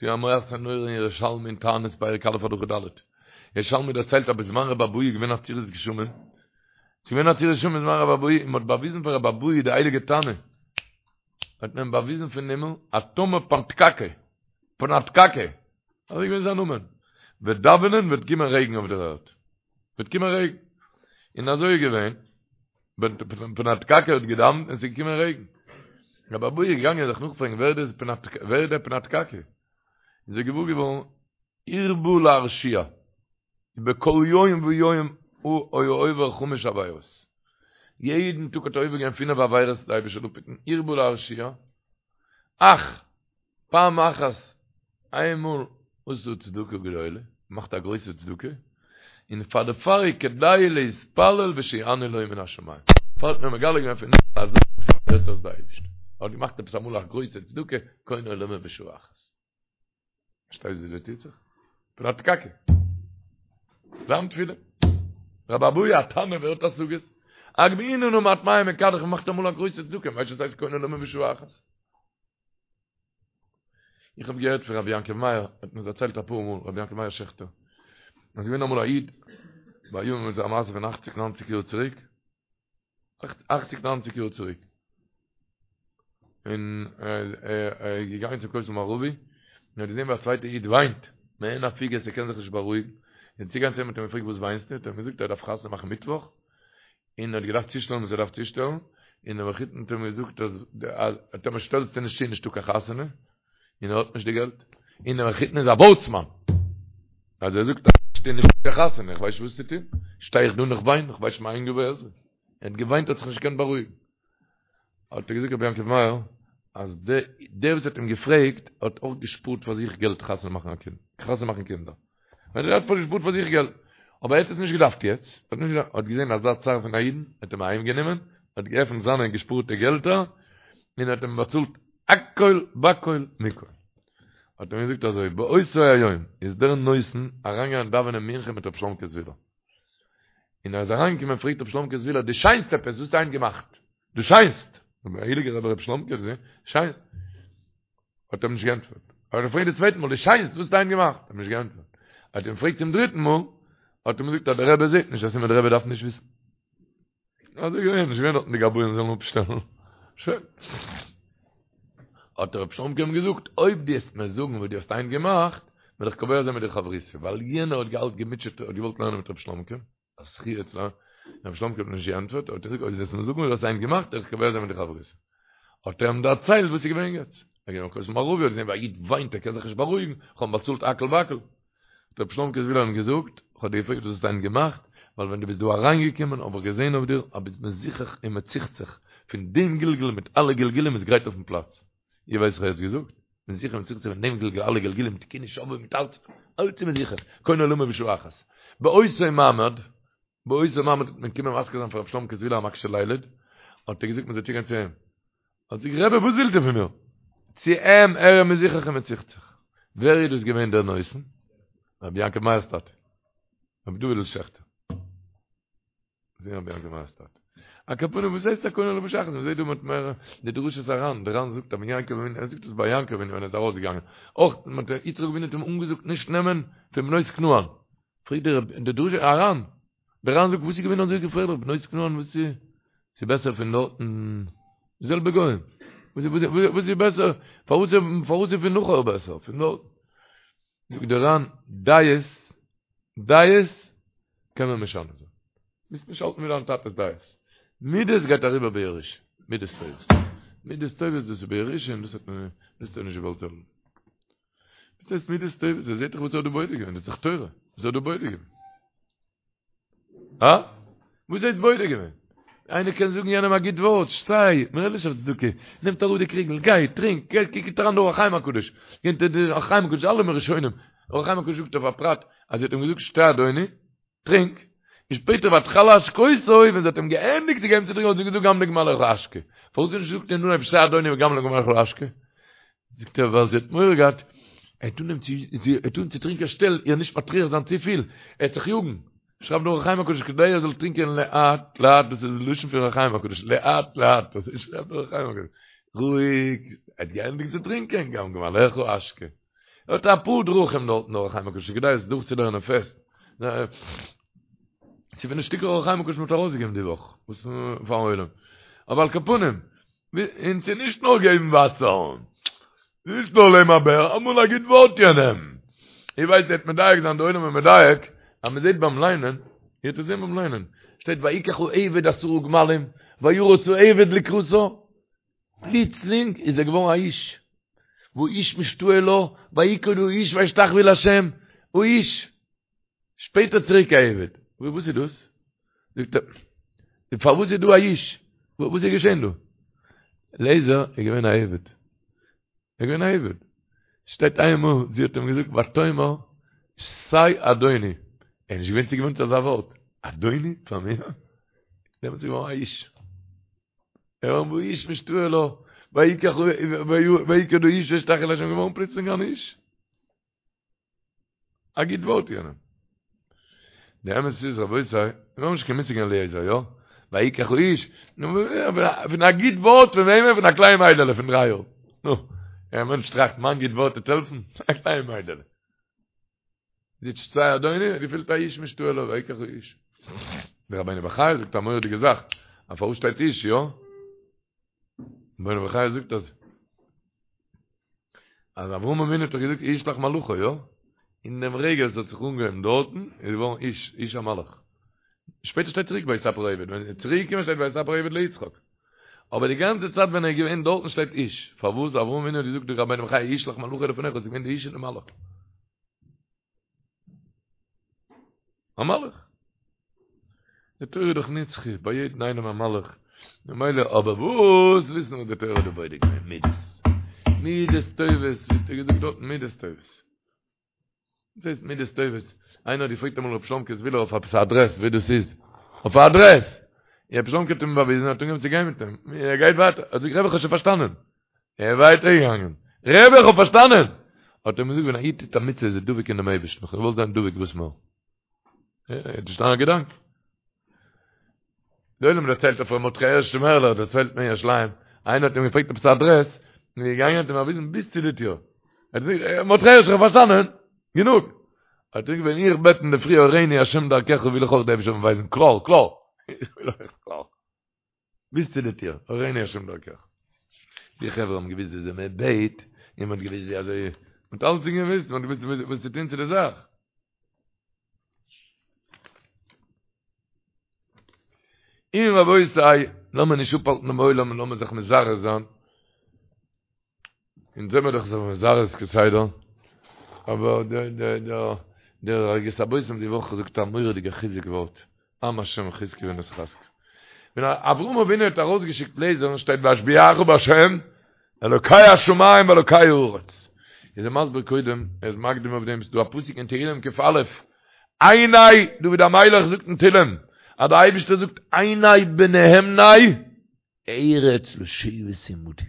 ס'איז א מעשה נורא אין ירושלמי אין תענית פרק א' הלכה ד'. ירושלמי דערציילט אז בזמן רבי אבהו איז געווען עצירת גשמים. ס'איז געווען עצירת גשמים בזמן רבי אבהו און מ'האט באוויזן פאר רבי אבהו די הייליגע תנא. האט מען אים באוויזן פון הימל אז טאמער פנתקקה, פנתקקה, אזוי איז געווען זיין נאמען, וועט דאווענען וועט קומען רעגן אויף דער ערד. וועט קומען רעגן. און אזוי איז געווען, פנתקקה האט געדאווענט און עס איז געקומען רעגן. רבי אבהו איז געגאנגען זיך נאכפרעגן ווער דאס ווער איז דער פנתקקה. איז ער געוואר געווארן הרבה להרשיע, בכל יום ויום הוא היה עובר חמש עבירות. יעדן טאג האט ער עובר געווען פינף עבירות, די אייבערשטער זאל אפהיטן, הרבה להרשיע, אך פעם אחת, איינמאל עשה צדקה גדולה, מאכט א גרויסע צדקה, און פאר דערפאר איז כדאי להתפלל ושיענה לו מן השמים. דערפאר האט מען מגלה געווען פון הימל אז הערט אויס די אייבערשטער. ער האט געמאכט עפעס אמאל א גרויסע צדקה, קונה עולמו בשעה אחת. פארשטייסט ווי דא טוט זיך? פנתקקה. זיין תפילה. רבי אבהו א תנא ווער האט השגות? הגמיאיני נא מעט מים מכדך מאכט אמאל א גרויסע צדקה, ווייסט וואס הייסט קונה עולמו בשעה אחת? איך האב געהערט פון רבי יעקב מאיר, האט מיר דערציילט אפאר מאל, רבי יעקב מאיר שעכטער, אז געווען אמאל א איד, ביי אים איז א מעשה פון אכציג ניינציג יאר צוריק, אכציג ניינציג יאר צוריק, און ער איז געגאנגען צום כותל מערבי, און ער האט געזען ווי א צווייטע איד וויינט. מעין הפוגות ער קען זיך נישט בארואיגן, און צוגעגאנגען צו אים האט אים געפרעגט וואס וויינסטו, האט ער אים געזאגט ער דארף חתונה מאכן מיטוואך, און ער האט געדארפט צושטעלן וואס ער דארף צושטעלן, און דער מחותן האט אים געזאגט אז טאמער שטעלסטו נישט צו איז נישטא קיין חתונה, און ער האט נישט די געלט, און דער מחותן איז א ווארטסמאן, אז ער זאגט אז נישט איז נישטא קיין חתונה, איך ווייס נישט וואס צו טון, שטיי איך דא און איך וויין, איך ווייס נישט מאין יבוא עזרי, ער האט געוויינט האט זיך נישט געקענט בארואיגן. האט ער געזאגט רבי יעקב מאיר אז דער וואס האט אים געפרעגט האט אויך געשפארט פאר זיך געלט חתונה מאכן א קינד, חתונה מאכן קינדער. ער האט געשפארט פאר זיך געלט, אבער ער האט עס נישט געדארפט יעצט, ער האט נישט געדארפט, האט געזען אזא צער פון א אידן, האט אים אהיים גענומען, האט געעפנט זיינע געשפארטע געלטער, און האט אים באצאלט הכל בכל מכל. האט ער אים געזאגט אזוי, באותו היום איז דער נותן אריינגעגאנגען דאווענען מנחה מיט רבי שלומקע זוויהלער. און ער איז אריינגעקומען פרעגט רבי שלומקע זוויהלער דו שיינסט עפעס וואס האסטו היינט געמאכט? דו שיינסט! דער הייליגער רבי רבי שלומקע שיינסט! האט ער אים נישט געענטפערט. האט ער געפרעגט די צווייטע מאל דו שיינסט וואס האסטו היינט געמאכט? האט אים נישט געענטפערט. האט אים געפרעגט צום דריטן מאל, האט אים געזאגט אז דער רבי זעט נישט, א סימן דער רבי דארף נישט וויסן. אזוי געווען, נישט געווען דארטן די גבאים זאלן אפשטעלן. שוין. האט רב שלומקע אים געזאגט, אויב דו וועסט מיר זאגן וואס דו האסט היינט געמאכט, וועל איך קובע זיין מיט דיר חברותא, ווייל יענער האט געהאלט געמוטשעט, האט געוואלט לערנען מיט רב שלומקע, א זכי' צו לערנען, רב שלומקע האט נישט געענטפערט, האט ער געזאגט, אויב דו וועסט מיר זאגן וואס דו האסט היינט געמאכט, וועל איך קובע זיין מיט דיר חברותא. האט ער אים דערציילט וואס איז געווען יעצט. ער איז געווען ביים כותל מערבי, האט געזען ווי א איד וויינט, ער קען זיך נישט בארואיגן, איך האב אים באצאלט הכל בכל. האט רבי שלומקע זוויהלער אים געזאגט, איך האב דיר געפרעגט וואס האסטו היינט געמאכט, ווייל ווען דו ביסט דא אריינגעקומען האב איך געזען אויף דיר אז ביסט מזוכך און מצוחצח פון דעם גלגול מיט אלע גלגולים איז גרייט אויפן פלאץ. איר ווייסט וואס ער האט געזאגט? מזוכך און מצוחצח פון דעם גלגול אלע גלגולים תיקוני שובבים מיט אלץ, אלץ איז מזוכך, קונה עולמו בשעה אחת. באותו מעמד, באותו מעמד האט מען געקומען מזכיר זיין פאר רבי שלומקע זוויהלער א מקשה לילד, האט ער געזאגט מען זאל צוגיין צו אים. האט זיך רבי וואס ווילט איר פון מיר? צו אים ער איז מזוכך און מצוחצח. ווער איז דאס געווען דער נותן? רבי יעקב מאיר'ס טאטע. רבי דוד'ל שעכטער. זעהן רבי יעקב מאיר'ס טאטע. על כל פנים וואס הייסט א קונה עולמו בשעה אחת? מ'זעהט דא מיט מער די דרשות הר"ן, דער ר"ן זאגט אז ווען יעקב אבינו, ער זאגט עס ביי יעקב אבינו ווען ער איז ארויסגעגאנגען, אויך מיט יצחק אבינו האט אים אנגעזאגט נישט נעמען פון בנות כנען. פרעגט דער די דרשה הר"ן, דער ר"ן זאגט וואס איז געווען אזוי געפערליך בנות כנען וואס איז ס'איז בעסער פון דארטן די זעלבע גוים וואס איז וואס איז בעסער פארוואס פארוואס איז פון נחור בעסער פון דארט זאגט דער ר"ן דעות דעות קען מען משנה זיין מוזט נישט האלטן ווי דיין טאטע'ס דעות מידות גייט אריבער בירושה מידות טובות מידות טובות דאס איז בירושה און דאס האט מען דאס האט ער נישט געוואלט האבן וואס הייסט מידות טובות? ער זעט דאך וואס ער האט דא בודק געווען, דאס איז דאך תורה, וואס ער האט דא בודק געווען. הא? וואס הייסט בודק געווען? איינער קען זאגן יענעם א גוט ווארט, שטיי, מ'רעדט נישט אויף צדקה, נעמט אראפ די קריגל, גיי, טרינק, גיי, קוקט אריין די אור החיים הקדוש, גייט די אור החיים הקדוש, אלע ראשונים, אור החיים הקדוש זאגט אויף א פרט, אז זי האט אים געזאגט שתה אדוני, טרינק, און שפעטער ותכל להשקותו, ווען זי האט אים געענדיגט צו געבן צו טרינקען האט זי געזאגט גם לגמליך אשקה. פארוואס האט זי נישט געזאגט אין אנהייב שתה אדוני וגם לגמליך אשקה? זאגט ער ווייל זי האט מורא געהאט, ער וועט אנהייבן צו, זי וועט אנהייבן צו טרינקען שטעל איר נישט מטריח זיין צופיל, ער וועט זיך יאגן. שרייבט דער אור החיים הקדוש כדי ער זאל טרינקען לאט לאט, דאס איז לשון פון אור החיים הקדוש, לאט לאט, אזוי שרייבט דער אור החיים הקדוש, רואיג, ער האט געענדיגט צו טרינקען, גם לגמליך אשקה. ער האט אפאר דרכים דארטן אור החיים הקדוש כדאי עס דורכצולערנען פעסט. ס'איז פון די שטיקער אור החיים הקדוש מ'האט ארויסגעגעבן די וואך, וואס פארן עולם. אבער על כל פנים, און ס'איז נישט נאר געבן וואסער, ס'איז נישט נאר לעם אבער אמאל א גוט ווארט יענעם. איך ווייס איר וועט מדייק זיין, די עולם איז מדייק, אז מ'זעט ביים ליינען, איר וועט עס זען ביים ליינען, שטייט ויקח העבד עשרה גמלים, וירץ העבד לקראתה, פלוצלינג איז ער געווארן א איש, והאיש משתאה לה, ויקוד האיש וישתחו לה', האיש, שפעטער צוריק א עבד, וואס איז דאס? זאגט ער, פארוואס איז דא א איש? וואס איז געשען דא? אליעזר איז געווען א עבד, ער איז געווען א עבד, שטייט איינמאל זי האט אים געזאגט ותאמר שתה אדוני, ער איז נישט געווען צוגעוואוינט צו אזא ווארט, אדוני פאר מיר? דעמאלטס איז ער געווארן א איש. ער והאיש משתאה לה, ויקח ויקוד האיש וישתחו לה' געווארן פלוצלינג אן איש. א גוט ווארט יענעם. די אמת איז רבותי, מיר האבן נישט קיין מושג אין אליעזר, יא? ויקח האיש, פון א גוט ווארט פון וועמען? פון א קליין מיידעלע פון דריי יאר. נו, א מענטש טראכט מיין גוט ווארט וועט העלפן? א קליין מיידעלע. זי שתה אדוני, געפילט האיש משתאה לה, ויקח האיש. דער רבינו בחיי זאגט א מורא'דיגע זאך, אז פארוואס שטייט איש, יא? רבינו בחיי זאגט אז אז אברהם אבינו האט דאך געזאגט ישלח מלאכו, יא? אין דעם רגע וואס האט זיך אנגעהויבן דארטן, איז געווארן איש, איש א מלאך. שפעטער שטייט צוריק ויספר העבד, ווען ער איז צוריק געקומען שטייט ויספר העבד ליצחק. אבער די גאנצע צייט ווען ער איז געווען דארטן שטייט איש. פארוואס? אברהם אבינו האט געזאגט די רבינו בחיי ישלח מלאכו לפניך, עס איז געווען די איש און די מלאך. א מלאך. די תורה איז דאך נצחי, ביי יעדן איינעם א מלאך. ממילא אבער וואס וויסן וואס די תורה האט דא בודק געווען? מידות. מידות טובות, ווי האט ער געזאגט דארטן? מידות טובות. וואס הייסט מידות טובות? איינער האט געפרעגט אמאל רבי שלומקע זוויהלער אויף עפעס א אדרעס ווי דאס איז. אויף א אדרעס! און רבי שלומקע האט אים באוויזן, ער האט אנגעהויבן צו גיין מיט אים. ער גייט ווייטער. ער זאגט, רבי איך האב שוין פארשטאנען. ער איז ווייטער געגאנגען. רבי איך האב פארשטאנען! האט ער אים געזאגט, ווען א איד טוט א מצוה איז ער דבוק אין דעם אייבערשטן. איך האב געוואלט זיין דבוק וואס מער. ער האט פארשטאנען א געדאנק. די עולם דערציילט אויף ר' מרדכי הערש שמערלער דערציילט מען אין ירושלים, איינער האט אים געפרעגט עפעס א אדרעס, און איז געגאנגען האט אים באוויזן ביז צו די טיר. ער האט געזאגט, מרדכי הערש איך האב פארשטאנען, גענוג. האט ער געזאגט, ווען איך בעט אינדערפרי הורני השם דרכך וויל איך אויך די אייבערשטער זאל מיר ווייזן קלאר, קלאר. איך וויל אויך קלאר. ביז צו די טיר, הורני השם דרכך. די חברה האבן געוויסט וויאזוי מען בעט, און מען האט געוויסט ווי אזוי, מען האט אלעס געוויסט, מען האט געוויסט וואס צו טון צו די זאך. און רבותי, לאמיר נישט אפהאלטן דעם עולם און לאמיר זיך מזרז זיין. אונז זעמיר דאך זיך מזרז כסדר, אבער דער דער דער דער ערוגת הבושם די וואך זאגט א מורא'דיגע חיזוק ווארט, עם השם חזקו ונתחזקה. ווען אברהם אבינו האט ארויסגעשיקט לעזער'ן שטייט ואשביעך בהשם אלוקי השמים ואלוקי הארץ. איז ער מסביר קודם, ער איז מקדים אויף דעם, ס'דא א פסוק אין תהילים ק"א, עיני, דוד המלך זאגט אין תהילים, אז דער אייבערשטער זאגט עיני בנאמני ארץ לשבת עמדי.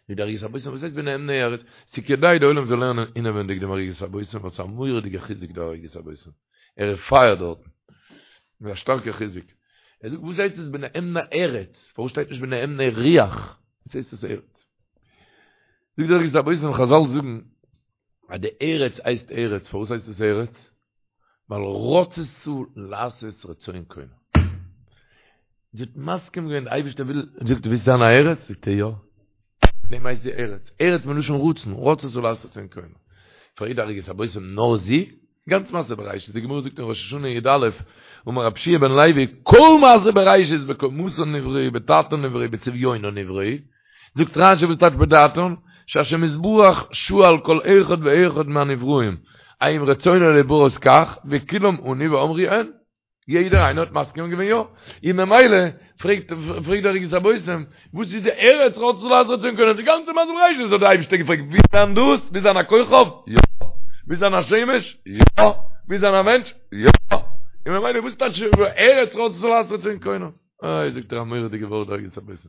זאגט דער ערוגת הבושם, וואס הייסט בנאמני ארץ? ס'איז כדאי די עולם זאל לערנען אינעווענדיג דעם ערוגת הבושם, ווייל ס'איז א מורא'דיגע חיזוק דער ערוגת הבושם. ער איז פייער דארטן. מיט א שטארקע חיזוק. ער זאגט וואס הייסט עס בנאמני ארץ? פארוואס שטייט נישט בנאמני רוח? וואס הייסט עס ארץ? זאגט דער ערוגת הבושם, חזל זאגן אז די ארץ הייסט ארץ, פארוואס הייסט עס ארץ? ווייל רצתה לעשות רצון קונה. זי האט מסכים געווען, די אייבערשטער וויל, זאגט ווילסט זיין א ארץ? זאגט ער יא. דעם הייסט זי ארץ. ארץ מלשון רצון, רצתה לעשות רצון קונה. פרעגט דער ערוגת הבושם נאר זי? גאנץ מעשה בראשית, די גמרא זאגט אין ראש השנה י"א, אמר רבי יהושע בן לוי, כל מעשה בראשית בקומתן נבראו, בדעתן נבראו, בצביונן נבראו, זאגט רשי וואס טייטש בדעתן? שהשם יתברך שאל כל אחד ואחד מהנבראים, האם רצונו להיבראות כך, וכולם ענו ואמרו הן. יעדער איינער האט מסכים געווען יא. און ממילא פרעגט פרעגט דער ערוגת הבושם, וואס איז די ארץ רצתה לעשות רצון קונה? די גאנצע מעשה בראשית האט דער אייבערשטער געפרעגט, ווילסט זיין דאס? ווילסט זיין א כוכב? יא. ווילסט זיין א שמש? יא. ווילסט זיין א מענטש? יא. און ממילא וואס טייטש ארץ רצתה לעשות רצון קונה? איי זאגט ער א מורא'דיגע ווארט דער ערוגת הבושם.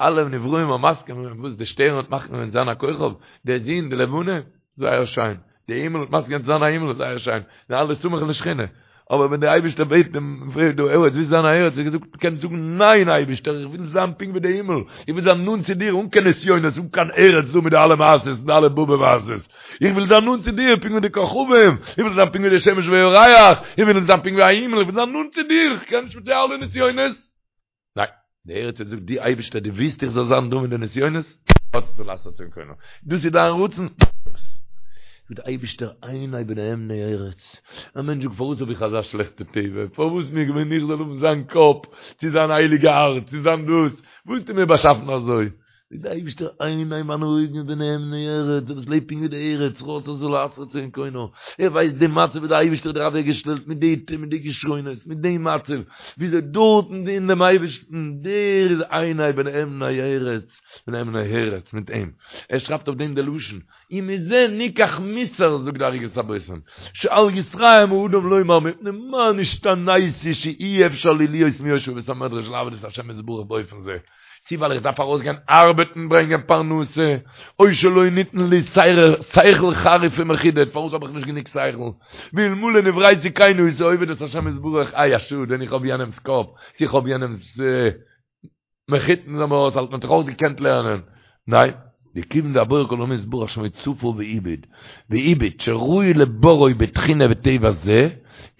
אלע נבראים האבן מסכים געווען וואס די שטערן האט מסכים געווען זיין א כוכב, די זון, די לבנה, זייער שיין, די הימל האט מסכים געווען צו זיין א הימל, זייער שיין, זענען אלע סמוך לשכינה, אבער ווען די אייבערשטער בעט דעם פרעגט דו ארץ ווילסט זיין א ארץ, האט געזאגט קענסט זאגן ניין אייבערשטער איך וויל זיין פונקט ווי די הימל, איך וויל זיין נאנט צו דיר אן קיין נסיונות אן קיין ארץ דא מיט די אלע מעשות און די אלע באבע מעשות, איך וויל זיין נאנט צו דיר פונקט ווי די כוכבים, איך וויל זיין פונקט ווי די שמש וירח, איך וויל זיין פונקט ווי א הימל, איך וויל זיין נאנט צו דיר, איך קען נישט מיט די אלע נסיונות. ניין, די ארץ האט געזאגט, דו אייבערשטער דו ווילסט איך זאל זיין דא מיט די נסיונות? רצתה לעשות רצון קונה. דאס איז דיין רצון? דאס. זאגט דער אייבערשטער עיני בנאמני ארץ. א מענטש זאגט פארוואס האב איך אזא שלעכטע טבע? פארוואס מיר געווען איך זאל האבן זיין קאפ, צו זיין הייליגע הארץ, צו זיין דאס? וואס האסטו מיר באשאפן אזוי? זאגט דער אייבערשטער עיני מיינע אויגן בנאמני ארץ, דער וואס לעבט פונקט ווי די ארץ, רצתה לעשות רצון קונה, ער ווייסט די מצב ווי דער אייבערשטער האט דיר אוועקגעשטעלט מיט די מיט די כשרונות, מיט די מצב, וויאזוי דארטן דינען דעם אייבערשטן, דער איז עיני בנאמני ארץ, בנאמני ארץ, מיט אים. ער שרייבט אויף דעם די לשון, ומזה ניקח מוסר, זאגט די ערוגת הבושם, שאל יתרעם האדם לומר מפני מה נשתניתי שאי אפשר לי להיות מיושבי בית המדרש לעבוד את השם יתברך באופן זה, צי ווייל איך דארף ארויסגיין ארבעטן ברענגען פרנסה, או שלא ניתן לי שכל חריף ומחודד, פארוואס האב איך נישט גענוג שכל? ואלמלא נבראתי כן הייתי עובד את השם יתברך, איי א שאד ווען איך האב יענעמס קאפ, צו איך האב יענעמס מחותן זאל מיר אויסהאלטן וואלט איך אויך געקענט לערנען, ניין, דכיון דהבורא כל עולמים יתברך שמו צפה והביט, והביט שראוי לבוראו בתכונה וטבע זה,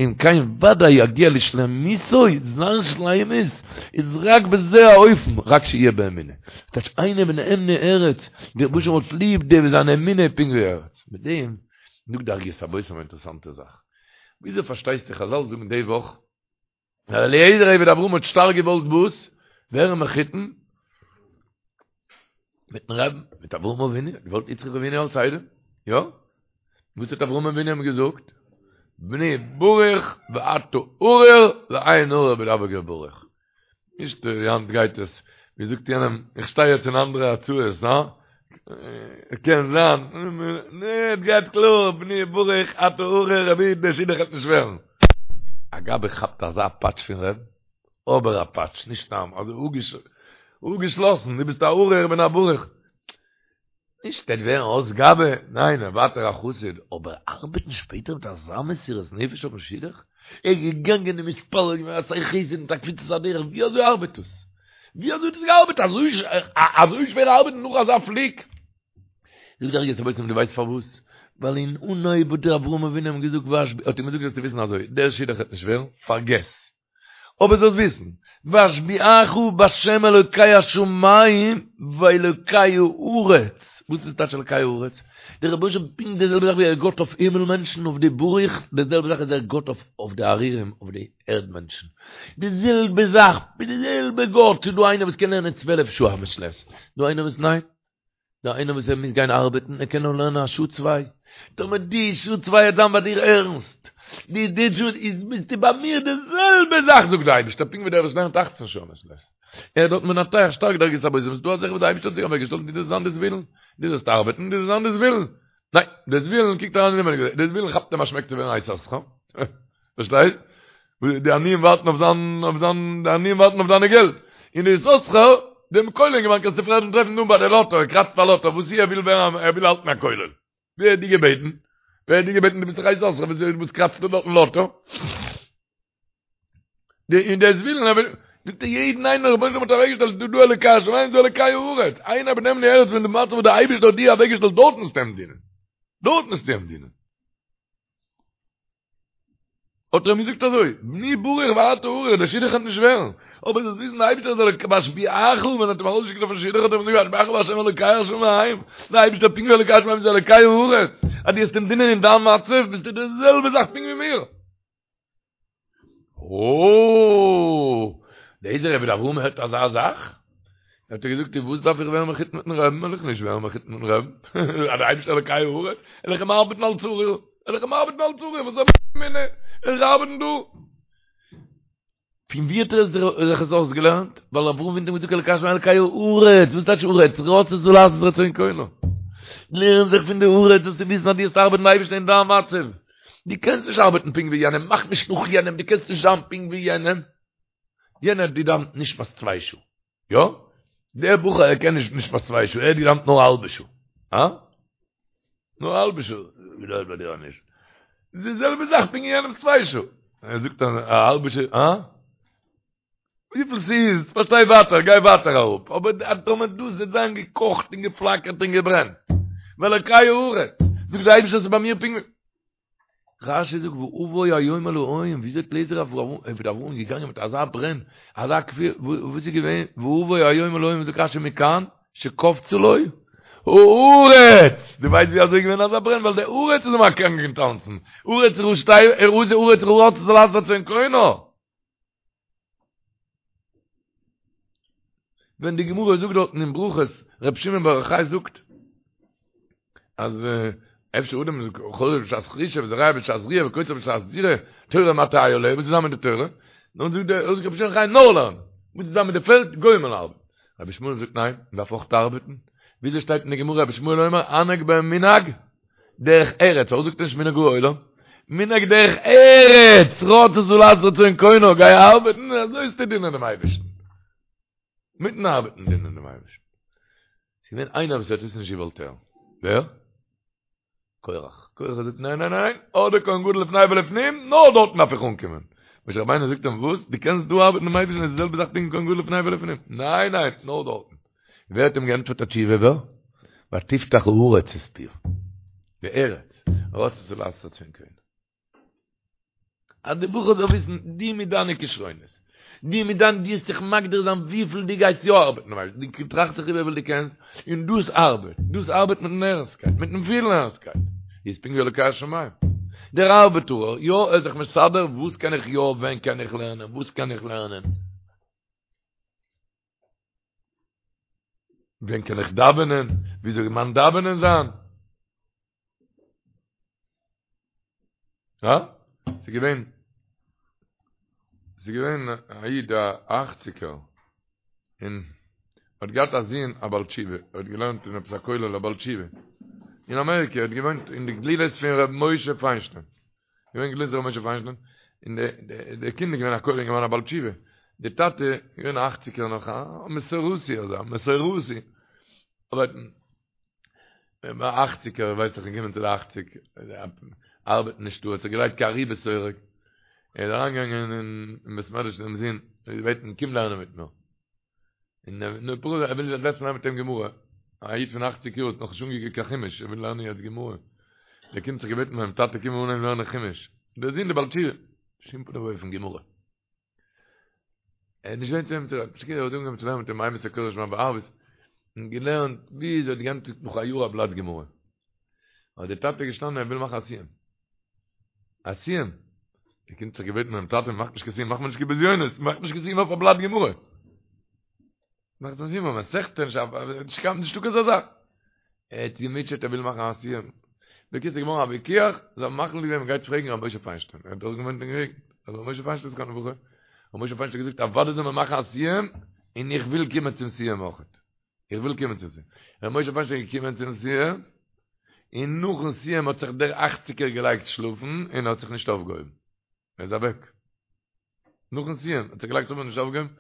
אם כן ודאי יגיע לשלמותו, זיין שלימות איז רק בזה האופן, רק שיהיה באמונה. טייטש עיני בנאמני ארץ, דער רבוש"ע האט ליב די וואס זיין אמונה איז פונקט ווי ארץ. מיט דעם. זאגט די ערוגת הבושם א אינטערעסאנטע זאך. וויאזוי פארשטייסטו חזל זאגן די וואך אז אליעזר עבד אברהם האט שטארק געוואלט וואס? ווערן מחותן מיטן רבין, מיט אברהם אבינו, האט געוואלט יצחק אבינו אלס איידעם, יא? וואס האט אברהם אבינו אים געזאגט? בני ברוך ואתה ארור ואין ארור בדבק בברוך. נישט ווי היינט גייט עס, ווי זאגט יענעם, איך שטיי יעצט אין אנדערע הצעות, הא? קען זיין, נע, עס גייט קלאר, בני ברוך אתה ארור, רבי, דער שידוך וועט נישט ווערן. א גבאי כאפט אזא פאטש פון רבין, אבער א פאטש, נישט סתם, אזוי אפגעשלאסן, דו ביסט א ארור, איך בין א ברוך. נישט ער וועט ווערן אויס גבאי, ניין ער ווייטער א חסיד, אבער ארבעטן שפעטער מיט אזא מסירות נפש אויפן שידוך? ער איז געגאנגען און מתפלל געווען עשה חסד מיט א קפיצת הדרך, ווי אזוי ארבעט דאס? ווי אזוי האט עס געארבעט? אזוי שווער ארבעטן נאך אזא פליק? זאגט דער ערוגת הבושם דו ווייסט פארוואס? ווייל אין אנהויב האט דער אברהם אבינו אים געזאגט האט אים געזאגט זאלסטו וויסן אזוי, דער שידוך וועט נישט ווערן, פארגעס, אבער זאלסט וויסן, ואשביעך בשם אלוקי השמים ואלוקי הארץ, וואס איז טייטש אלוקי הארץ? דער רבונו של עולם פונקט די זעלבע זאך ווי ער איז גאט אויף הימל מענטשן אויף די ברוך, די זעלבע זאך איז ער גאט אויף די ארורים אויף די ערד מענטשן, די זעלבע זאך, די זעלבע גאט, ס'איז דא איינער וואס קען לערנען צוועלף שעה א מעת לעת, דא איינער וואס ניין. דא איינער וואס ער מוז גיין ארבעטן, ער קען נאר לערנען א שעה צוויי, טאמער די שעה צוויי וועט זיין ביי דיר ערנסט, די די שעה איז ביסטו ביי מיר די זעלבע זאך זאגט דער אייבערשטער, פונקט ווי דער וואס לערנט אכצן שעה מעת לעת, ער דארט מנתח שטארק די ערוגת הבושם, ס'איז דא א זאך וואס דער אייבערשטער האט זיך אוועקגעשטעלט, דו זאלסט זיין די זבולון, דו זאלסט ארבעטן, דו זאלסט זיין די זבולון, ניין, די זבולון קוקט אריין אינעווייניג, די זבולון כאפט אים א שמעק צו ווערן א יששכר, פארשטייסט? די עניים ווארטן אויף זיין, אויף זיין, די עניים ווארטן אויף דיינע געלט. און די יששכר, דעם כולל אינגערמאן קענסטו פרעגן טרעפן דא ביי די לאטא, ער קראצט א לאטא, וואס ער וויל ווערן, ער וויל האלטן א כולל. ווער האט דיר געבעטן? ווער האט דיר געבעטן דו ביסט דאך א יששכר, וואס וואס קראצסטו דארטן לאטא? די און דער זבולון, ער וויל, זאגט ער יעדן איינער רבונו של עולם האט אוועקגעשטעלט דא דא אלוקי השמים דא אלוקי הארץ, איינער בנאמני ארץ פון די מצב וואס דער אייבערשטער האט דיר אוועקגעשטעלט דארט מוזטו אים דינען. דארט מוזטו אים דינען. האט ער אים געזאגט אזוי, בני ברוך ואתה ארור, דער שידוך וועט נישט ווערן, אבער זאלסט וויסן דער אייבערשטער איז אלוק ואשביעך, ווען ער האט אים ארויסגעשיקט אויפן שידוך האט ער אים געזאגט ואשביעך בהשם אלוקי השמים, דער אייבערשטער פונקט ווי אלוקי השמים איז אלוקי הארץ, אז דו וועסט אים דינען אין דיין מצב ביסטו די זעלבע זאך פונקט ווי מיר. אוי! אליעזר עבד אברהם הערט אזא זאך? האט ער געזאגט, און וואס דארף איך ווערן מחותן מיטן רעבן? וועל איך נישט ווערן מחותן מיטן רעבן. אז דער אייבערשטער אלוקי הארץ, וועל איך אים ארבעטן אלס ארור, וועל איך אים ארבעטן אלס ארור, וואס זאל מיר איך ארבעטן דא? פון ווי האט ער זיך עס אויסגעלערנט? ווייל אברהם אבינו האט געזאגט אלוקי השמים אלוקי הארץ, וואס טייטש הארץ? רצתה לעשות רצון קונה. לערן זיך פון די הארץ זאלסטו וויסן אז דו וועסט ארבעטן די אייבערשטן אין דיין מצב. דו קענסט נישט ארבעטן פונקט ווי יענעם, מאך נישט נאך יענעם, דו קענסט נישט זיין פונקט ווי יענעם. יענער האט געדאוונט נשמת צוויי שעה. יא? דער בחור ער קען נישט נשמת צוויי שעה, ער האט געדאוונט נאר א האלבע שעה. הא? נאר א האלבע שעה. ווי דארט ביי דיר נישט. די זעלבע זאך פונקט ווי יענעמ'ס צוויי שעה. ער זאגט א האלבע שעה, הא? וויפיל ס'איז, פארשטיי ווייטער, גיי ווייטער אראפ. אבער טאמער דאס וועט זיין געקאכט און געפלאקערט און געברענט. ואלוקי הארץ. זאגט דער אייבערשטער ס'איז ביי מיר פונקט ווי. רשי זאגט ואבוא היום אל האוהים, וויאזוי האט אליעזר עבד אברהם געגאנגען מיט אזא ברען, אזא כפירה, וואס איז געווען, ואבוא היום אל האוהים זאגט רשי מכאן שקפצה לו הארץ, דו ווייסט ווי אזוי איז געווען אזא ברען, ווייל די הארץ איז אים אקעגן געטאנצן, הארץ ראשי הארץ רצתה לעשות רצון קונה. ווען די גמרא זאגט דארטן אין ברכות, ר' שמעון בר יוחאי זאגט, אז אפשר אדם איז חורש בשעת חרישה וזורע בשעת זריעה וקוצר בשעת קצירה, תורה מה תהא עליה, וואס איז זיין מיט די תורה? נו זאגט דער רבי שמעון בר יוחאי נאר לערנען, וואס איז זיין מיט די פעלד? גוים וועלן ארבעטן. רבי ישמעאל זאגט ניין, מען דארף אויך ארבעטן. וויאזוי שטייט אין די גמרא רבי ישמעאל אומר הנהג בהם מנהג דרך ארץ, פארוואס זאגט ער נישט מנהג העולם? מנהג דרך ארץ, רצתה לעשות רצון קונו, גיי ארבעטן, אזוי וועסטו דינען דעם אייבערשטן. מיטן ארבעטן דינען דעם אייבערשטן. ס'איז געווען איינער וואס האט עס נישט געוואלט הערן. ווער? קורח. קורח האט געזאגט ניין ניין ניין, אדער כהן גדול לפני ולפנים, נאר דארטן דארף איך אנקומען. משה רבינו זאגט אים וואס? דו קענסט דא ארבעטן דעם אייבערשטן איז די זעלבע זאך פונקט ווי כהן גדול לפני ולפנים. ניין ניין, נאר דארטן. ווער האט אים געענטפערט א תשובה ווער? ותפתח הארץ את פיה. די ארץ, רצתה לעשות רצון קונה. אז די בחור זאל וויסן, דו מיט דיינע כשרונות, דו מיט דיין, דו וועסט זיך מגדיר זיין וויפיל דו גייסט יא ארבעטן, ווייל דו טראכסט זיך איבער וויפיל דו קענסט, און דאס ארבעט, דאס ארבעט מיטן ערנסטקייט, מיטן פילן ערנסטקייט. איז פונקט ווי אלוקי השמים. דער ארבעטארער, יא, ער איז זיך מסדר, וואס קען איך יא, ווען קען איך לערנען, וואס קען איך לערנען. ווען קען איך דאווענען, ווי זאל מיין דאווענען זיין. הא? ס'איז געווען, ס'איז געווען א איד א אכציגער, און האט געהאט א זון א בעל תשובה, ער האט געלערנט אין עפעס א כולל א בעל תשובה, אין אמעריקע, ער האט געוואוינט אין די גלילות פון ר' משה פיינשטיין, געווען גלילות ר' משה פיינשטיין, און די די קינד איז געווען א כולל אינגערמאן א בעל תשובה, די טאטע איז געווען א אכציגער נאך א מסורתי אזא מסורתי, אבער ביי אכציגער ווייסט איך געקומען צו די אכציג ארבעט נישט דא האט זיך געלייגט כארי בשורק ער איז אריינגעגאנגען אין בית מדרש צום זון און געבעטן קום לערנען מיט מיר און נו פרוז ער וויל זיך זעצן לערנען מיט אים גמרא א איד פון אכציג יאר האט נאך נישט אנגעקוקט קיין חומש ער וויל לערנען יעצט גמרא דער קינד האט זיך געבעטן ביים טאטע קום אנהייבן לערנען חומש דער זון דער בעל תשובה בשום פנים ואופן גמרא ער האט נישט געווען צו אים צו רעדן, פשוט ער האט אנגעהויבן צו לערנען מיט אים אימתי קורא שמע בערבית, און געלערנט ביז ער האט געענדיגט נאך א יאר א בלאט גמרא. האט דער טאטע געשטאנען ער וויל מאכן א סיום. א סיום? דער קינד האט זיך געבעטן ביים טאטע מאך נישט קיין סיום, מאך מיר נישט קיין בזיונות, מאך נישט קיין סיום אויף א בלאט גמרא. מאכט א סיום אויף מסכתא, נישט קיין נישטא קיין אזא זאך. ער האט געמוטשעט ער וויל מאכן א סיום. בקיצור איז געווארן א ויכוח, זיי האבן מחליט געווען מ'גייט פרעגן ר' משה פיינשטיין, ער האט דאך געוואוינט אין געגנט, ר' משה פיינשטיין זכרונו לברכה, ר' משה פיינשטיין האט געזאגט אוודאי זאל מען מאכן א סיום, און איך וויל קומען צום סיום אויכעט. איך וויל קומען צום סיום. ר' משה פיינשטיין איז געקומען צום סיום, און נאכן סיום האט זיך דער אכציגער געלייגט שלאפן און האט זיך נישט אויפגעהויבן. ער איז אוועק. נאכן סיום האט זיך געלייגט שלאפן נישט אויפגעהויבן.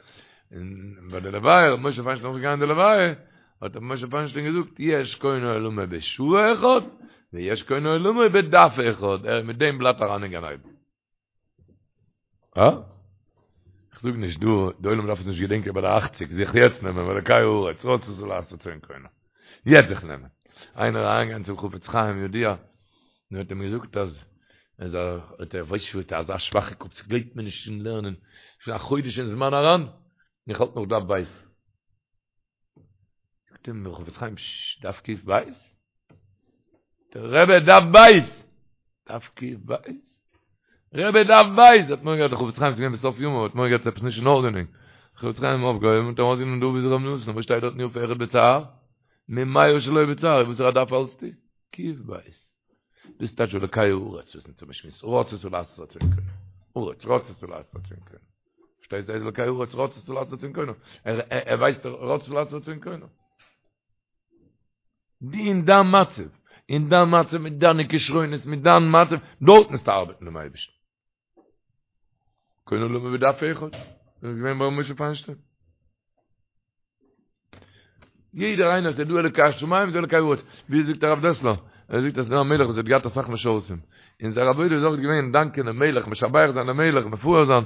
און ביי די לוויה, ר' משה פיינשטיין אויך געגאנגען די לוויה, האט ר' משה פיינשטיין געזאגט, יש קונה עולמו בשעה אחת, ויש קונה עולמו בדף אחד, ער איז מיט דעם בלאט אריין אין גן עדן. אה? איך זאג נישט דא, די עולם דארף עס נישט געדענקען ביי די אכציג, זיך יעצט נעמען, ואלקי הארץ, רצתה לעשות רצון קונה. יעצט זיך נעמען. איינער אריינגיין צום חפץ חיים ידוע, און האט אים געזאגט אז ער האט ער ווייסט שוין אזא שוואכע קאפ ס'גלייבט מיר נישט אין לערנען שוין א חודש אין זמן אריין און איך האלט נאך דף בית זאגט אים דער חפץ חיים דף קוף בית דער רבי דף בית דף קוף בית רבי דף בית האט מורא געהאט דער חפץ חיים איז געווען בסוף ימיו האט מורא געהאט עפעס נישט אין ארדענונג חפץ חיים אויפגעהויבן און ארויסגענומען דא ווי זיך רב נתן וואס שטייט דארט יפה אחד בצער ממאה שלא בצער וואס איז א דף האלטסטו קוף בית. דאס טייטש אלוקי הארץ וואס אונז האבן געשמועסט רצתה לעשות רצון קונו. הארץ רצתה לעשות רצון קונו. פארשטייסט דאס אלוקי הארץ רצתה לעשות רצון קונו. ער ער ווייסט רצתה לעשות רצון קונו. די אין דיין מצב, אין דיין מצב מיט דיינע כשרונות, מיט דיין מצב, דארט מוזטו ארבעטן דעם אייבערשטן. קונה עולמו בדף אחד. דאס איז געווען ביי ר' משה פיינשטיין. יעדער איינער ס'איז דא אלוקי השמים איז אלוקי הארץ. ווי זאגט הרב דעסלער? ער זאגט אז ס'איז דא א מלך וואס האט געהאט אסאך משרתים. און זייער עבודה איז אויך געווען דאנקען דעם מלך, משבח זיין דעם מלך, מפאר זיין.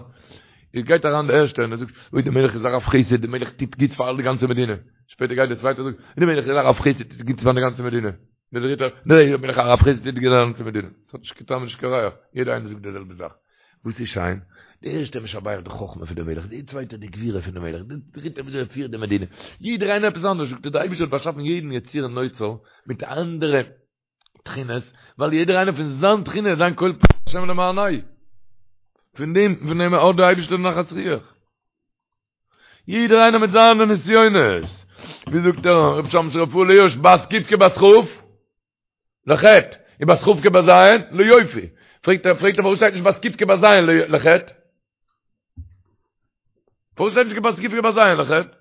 איז גייט אריין דער ערשטער און ער זאגט, אוי דער מלך איז א רב חסד, דער מלך טוט גוטס פאר די גאנצע מדינה. שפעטער גייט דער צווייטער זאגט, דער מלך איז א רב חסד, טוט גוטס פאר די גאנצע מדינה. דער דריטער, דער מלך א רב חסד טוט גוטס פאר די גאנצע מדינה. ס'האט נישט קיין טעם און נישט קיין ריח, יעדער איינער זאגט די זעלבע זאך. וואס איז שיין? דער ערשטער משבח די חכמה פון די מלך, דער צווייטער די גבורה פון די מלך, דער דריטער וויאזוי ער פירט די מדינה. יעדער איינער עפעס אנדערש, זאגט ער, דער אייבערשטער האט באשאפן יעדן יציר נוצר מיט אנדערע תכונות, ווייל יעדער איינער פון זיין תכונה, זיין קול פעל השם למענהו. פון דעם, פון דעם האט דער אייבערשטער נחת רוח. יעדער איינער מיט זיינע נסיונות. ווי זאגט דער רב שמשון רפאל הירש, בת ק' כבת כ'? לחטא, און בת כ' כבת ז', ליופי. פרעגט ער, פרעגט ער פארוואס שטייט נישט בת ק' כבת ז' לחטא? פארוואס שטייט נישט בת ק' כבת ז' לחטא?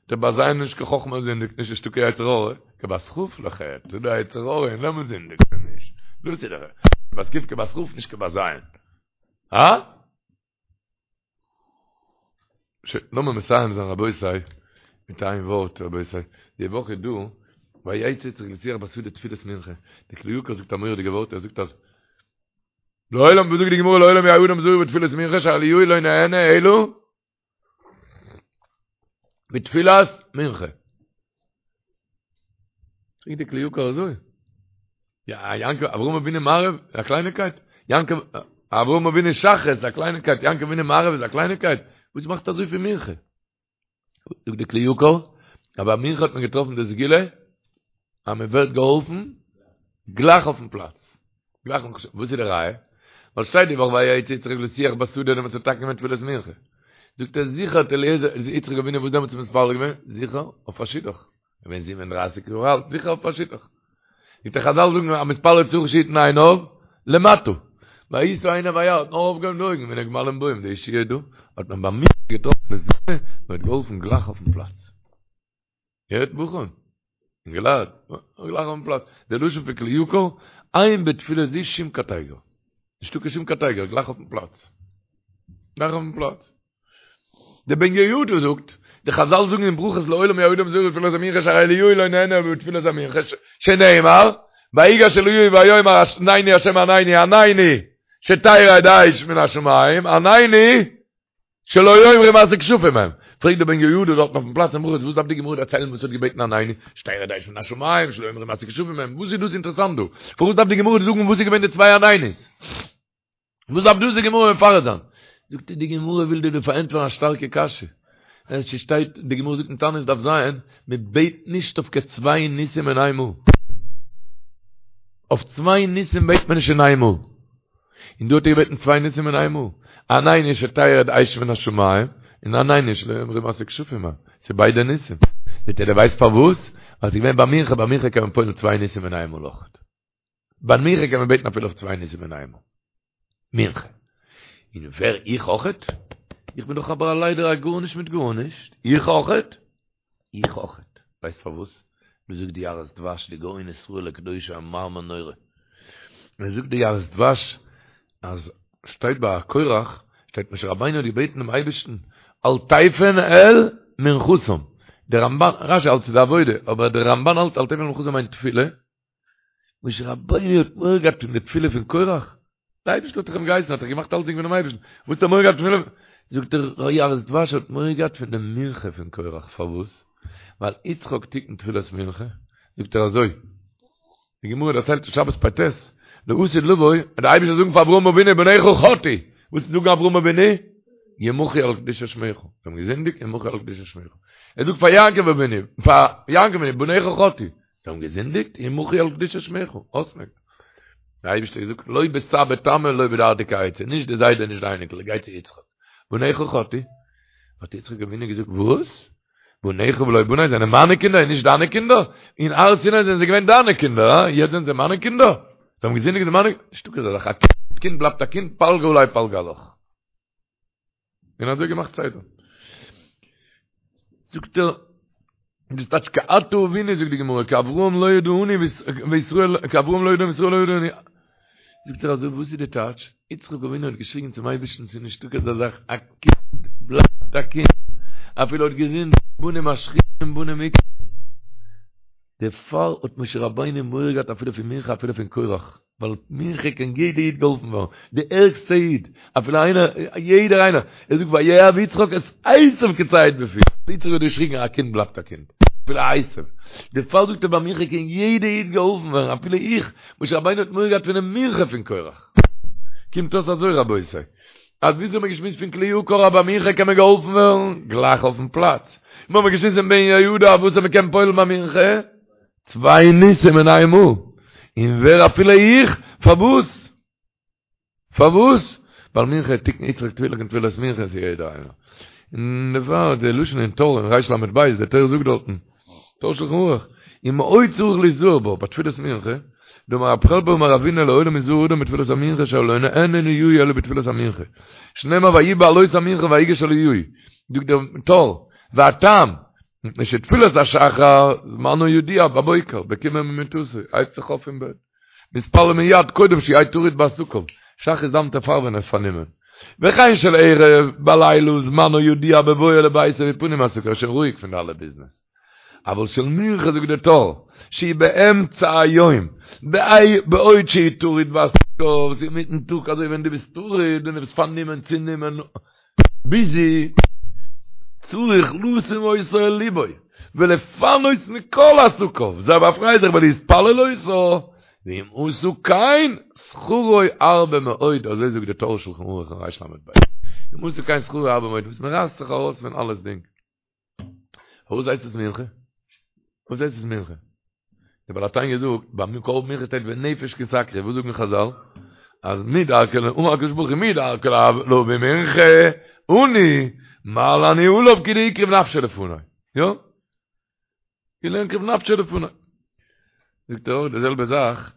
דער בת ז' איז נישט קיין חכמה זינדיגט נישט נישטא קיין יצר הרע, כבת כ' לחטא, ס'איז דא יצר הרע און דעמאלט זינדיגט מען נישט. דאס איז דער בת ק' כבת כ' נישט כבת ז'. הא? שוין, לאמיר מסיים זיין רבותי, מיט איין ווארט רבותי, די וואך איז דא, ויצא יצחק לשוח בשדה תפילת מנחה, די כלי יקר זאגט א מורא'דיגע ווארט, ער זאגט אז, לעולם, וואס זאגט די גמרא לעולם יהא אדם זהיר בתפילת מנחה שאליהו לא נענה אלא בתפילת מנחה. פרעגט די כלי יקר אזוי. יא, יעקב, אברהם אבינו מעריב, א קלייניקייט? יעקב, אברהם אבינו שחרית, א קלייניקייט, יעקב אבינו מעריב איז א קלייניקייט? וואס מאכט אזוי פון מנחה? זאגט די כלי יקר, אז ביי מנחה האט מען געטראפן די סגולה, אז מען ווערט געהאלפן גלייך אויפן פלאץ. גלייך נאך וואס איז די ראיה? ווייל שטייט די וואך ויצא יצחק לשוח בשדה דעמאלטס האט מתקן געווען תפילת מנחה. זאגט ער זיכער האט אליעזר יצחק אבינו וואס דעמאלטס מתפלל געווען? זיכער אויף א שידוך. געווען 37 יאר אלט, זיכער אויף א שידוך. זאגט ער חזל זאגן המתפלל צריך שיתן עיניו למטה. וישא עיניו וירא האט נאר אויפגעהויבן די אויגן והנה גמלים באים די ישועה דא האט מען ביי מנחה געטראפן מזומן און האט געהאלפן גלייך אויפן פלאץ. הערט בחורים, אינגעלייט, גלייך אויפן פלאץ, די לשון פון כלי יקר, אין בתפילה זו שום קטיגור. נישטא קיין שום קטיגור, גלייך אויפן פלאץ. גלייך אויפן פלאץ. דער בן יהוידע זאגט, די חזל זאגן אין ברכות לעולם יהא אדם זהיר בתפילת המנחה שהרי אליהו לא נענה אלא בתפילת המנחה, שנאמר, ויגש אליהו ויאמר ענני השם ענני ענני שתרד אש מן השמים ענני שלא יאמרו מעשה כשפים הם. פרעגט דער בן יהוידע דארטן אויפן פלאץ אין ברכות וואס דארף די גמרא דערציילן וואס האט געבעטן ענני שתרד אש מן השמים שלא יאמרו מעשה כשפים הם וואס איז דאס אינטערעסאנט דא? פארוואס דארף די גמרא זאגן וואס איז געווען די צוויי ענני'ס? וואס דארף דאס די גמרא מפרט זיין? זאגט ער די גמרא וויל דיר דא פארענטפערן א שטארקע קשיא. עס שטייט די גמרא זאגט אין תענית דף ז מען בעט נישט אויף קיין צוויי ניסים אין איין מאל. אויף צוויי ניסים בעט מען נישט אין איין מאל. און דא האט ער געבעטן צוויי ניסים אין איין מאל. ענני שתרד אש מן השמים, און ענני שלא יאמרו מעשה כשפים הם. ס'איז ביידע ניסים. זאגט ער דו ווייסט פארוואס? ווייל ס'איז געווען ביי מנחה, ביי מנחה קען מען פועל'ן צוויי ניסים אין איין מאל אויכעט. ביי מנחה קען מען בעטן אפילו אויף צוויי ניסים אין איין מאל. מנחה. און ווער איך אויכעט? איך בין דאך אבער א ליידער א גארנישט מיט גארנישט. איך אויכעט? איך אויכעט. ווייסט פארוואס? דאס זאגט די יערות דבש, די גאון ישראל הקדוש א מאמר נורא. ער זאגט די יערות דבש אז שטייט ביי קורח, שטייט משה רבינו האט געבעטן דעם אייבערשטן אל תפן אל מנחתם. דער רמבן, רשי האלט ס'איז די עבודה, אבער דער רמבן האלט אל תפן אל מנחתם מיינט תפילה. משה רבינו האט מורא געהאט פון די תפילה פון קורח? דער אייבערשטער האט דאך אים געהייסן, האט ער געמאכט אלצדינג פונעם אייבערשטן, וואס האט ער מורא געהאט פון תפילה? זאגט דער יערות דבש האט מורא געהאט פון די מנחה פון קורח, פארוואס? ווייל יצחק תיקן תפילת מנחה, זאגט ער אזוי, די גמרא דערציילט אין שבת פ"ט, לעתיד לבוא, וועט דער אייבערשטער זאגן פאר אברהם אבינו בניך חטאו, וואס וועט זאגן אברהם אבינו? ימחו על קדושת שמך, זיי האבן געזינדיגט, ימחו על קדושת שמך. ער זאגט פאר יעקב אבינו, פאר יעקב אבינו, בניך חטאו, זיי האבן געזינדיגט, ימחו על קדושת שמך, אויסמעקן. דער אייבערשטער האט געזאגט, לא בסבא תמא לא בדרדקי עצה, נישט די זיידע נישט די אייניקל, גיי צו יצחק. בניך חטאו. האט יצחק אבינו געזאגט, וואס? בניך ולא בני זענען מיינע קינדער און נישט דיינע קינדער? אין הר סיני זענען זיי געווען דיינע קינדער, הא? יעצט זענען זיי מיינע קינדער? זיי האבן געזינדיגט זענען מיינע? נישטא אזא זאך, א קינד בלייבט א קינד, פלגא עלי פלגא עלך. און אזוי געמאכט סדר. זאגט ער, דאס טייטש כי אתה אבינו, זאגט די גמרא, כי אברהם לא ידענו וישראל, כי אברהם לא ידענו וישראל לא ידענו. זאגט ער אזוי, וואס איז די טייטש? יצחק אבינו האט געשריגן צום אייבערשטן, ס'איז נישטא כזה זאך, א קינד בלייבט א קינד, אפילו האט געזינדיגט, בנים משחיתים בנים מכים. דערפאר האט משה רבינו מורא געהאט אפילו פון מנחה אפילו פון קורח. ווייל מנחה קען יעדע איד געהאלפן ווערן, די ערגסטע איד, אפילו איינער, יעדער איינער, ער זאגט ויאהב יצחק את עשו כי ציד בפיו, יצחק האט געשריגן א קינד בלייבט א קינד, אפילו עשו, דערפאר זאגט ער ביי מנחה קען יעדע איד געהאלפן ווערן, אפילו איך, משה רבינו האט מורא געהאט פונעם מנחה פון קורח. קומט אויס אזוי רבותי, אז וויאזוי האט מען געשמועסט פון כלי יקר אז ביי מנחה קען מען געהאלפן ווערן, גלייך אויפן פלאץ, מיר האבן געשמועסט פון בן יהוידע וואס מען קען פועל'ן ביי מנחה, צוויי ניסים אין איין מאל, און ווער אפילו איך, פארוואס? פארוואס? ווייל מנחה תיקן יצחק תפילה תיקן תפילת מנחה איז יעדער איינער. און דערפאר די לשון אין טור אין ריש למד בית, דער טור זאגט דארטן, טור שלחן ערוך, ומאוד צריך ליזהר בה, בתפילת מנחה, דאמר רב חלבו אמר רבינא לעולם יזהר אדם בתפילת המנחה שלא נענה אליהו אלא בתפילת המנחה. שנאמר ויהי בעלות המנחה ויגש אליהו. זאגט דער טור, והטעם, מפני שתפילת השחר זמנו ידוע בבוקר, בקומו ממיטתו, הייבט זיך אויף פון בעט. מתפלל מיד קודם שיהא טרוד בעסקיו, שחרית דאוונט ער פאר ווען ער איז פארנומען. וכן של ערב, בלילה זמנו ידוע בבואו לביתו ופנוי מעסקיו, ער איז שוין רואיג פון די אלע ביזנעס. אבל של מנחה זאגט דער טור, שהיא באמצע היום, בעוד שהוא טרוד בעסקיו, ס'איז אינמיטן טאג אזוי ווען דו ביסט טרוד און דו ביסט פארנומען צונומען, ביזי, צריך לשום אותה אל לבו, ולפנות מכל עסקיו, זיי באפריי זיך ולהתפלל אותה, ואם עשה כן, שכרו הרבה מאוד, אזוי זאגט די טור שלחן ערוך אין ריש למד בית, אם עשה כן שכרו הרבה מאוד, וואס מען רייסט זיך ארויס פון אלעס דינג. פארוואס הייסט עס מנחה? פארוואס הייסט עס מנחה? דער בעל התניא זאגט, ביים קרבן מנחה שטייט ונפש כי תקריב, וואס זאגן חזל? אז מי דרכי אמר הקדוש ברוך הוא מי דרכו להביא מנחה, עני, מעלה אני עליו כאילו הקריב נפשו לפני. יא? כאילו הקריב נפשו לפני. זאגט ער אויך די זעלבע זאך,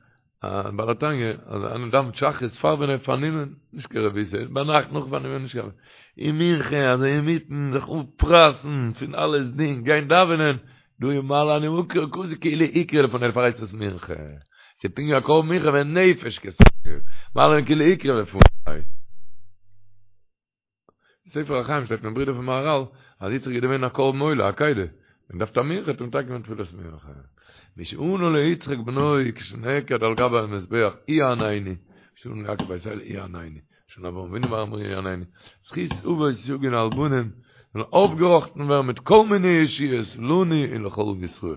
בעל התניא, אז איינער דאווענט שחרית פאר ווען ער פארנומען, נישט קיין רבותא, ביינאכט נאך פארנומען נישט קיין און מנחה אזוי אינמיטן זיך אפרייסן פון אלעס דינג גיין דאווענען, דא איז מעלה אני מקריב כזה כאילו הקריב לפני דערפאר הייסט עס מנחה, ס'איז פונקט ווי א קרבן מנחה ונפש כי תקריב, מעלה אני כאילו הקריב לפני. ספר החיים שטייט פון ברודער פון מהרל אז יצחק איז געווען א קרבן עולה, עקידה, און דארף א מנחה האט ער מתקן געווען תפילת מנחה. מי שענה ליצחק בנו כשנעקד על גבי המזבח הוא יעננו, שענה ליעקב בית אל הוא יעננו, שענה לאברהם אבינו בהר המוריה הוא יעננו, זכות אבות יגן על בנים, זאלן אויפגעראכטן ווערן מיט כל מיני ישועות לנו ולכל ישראל.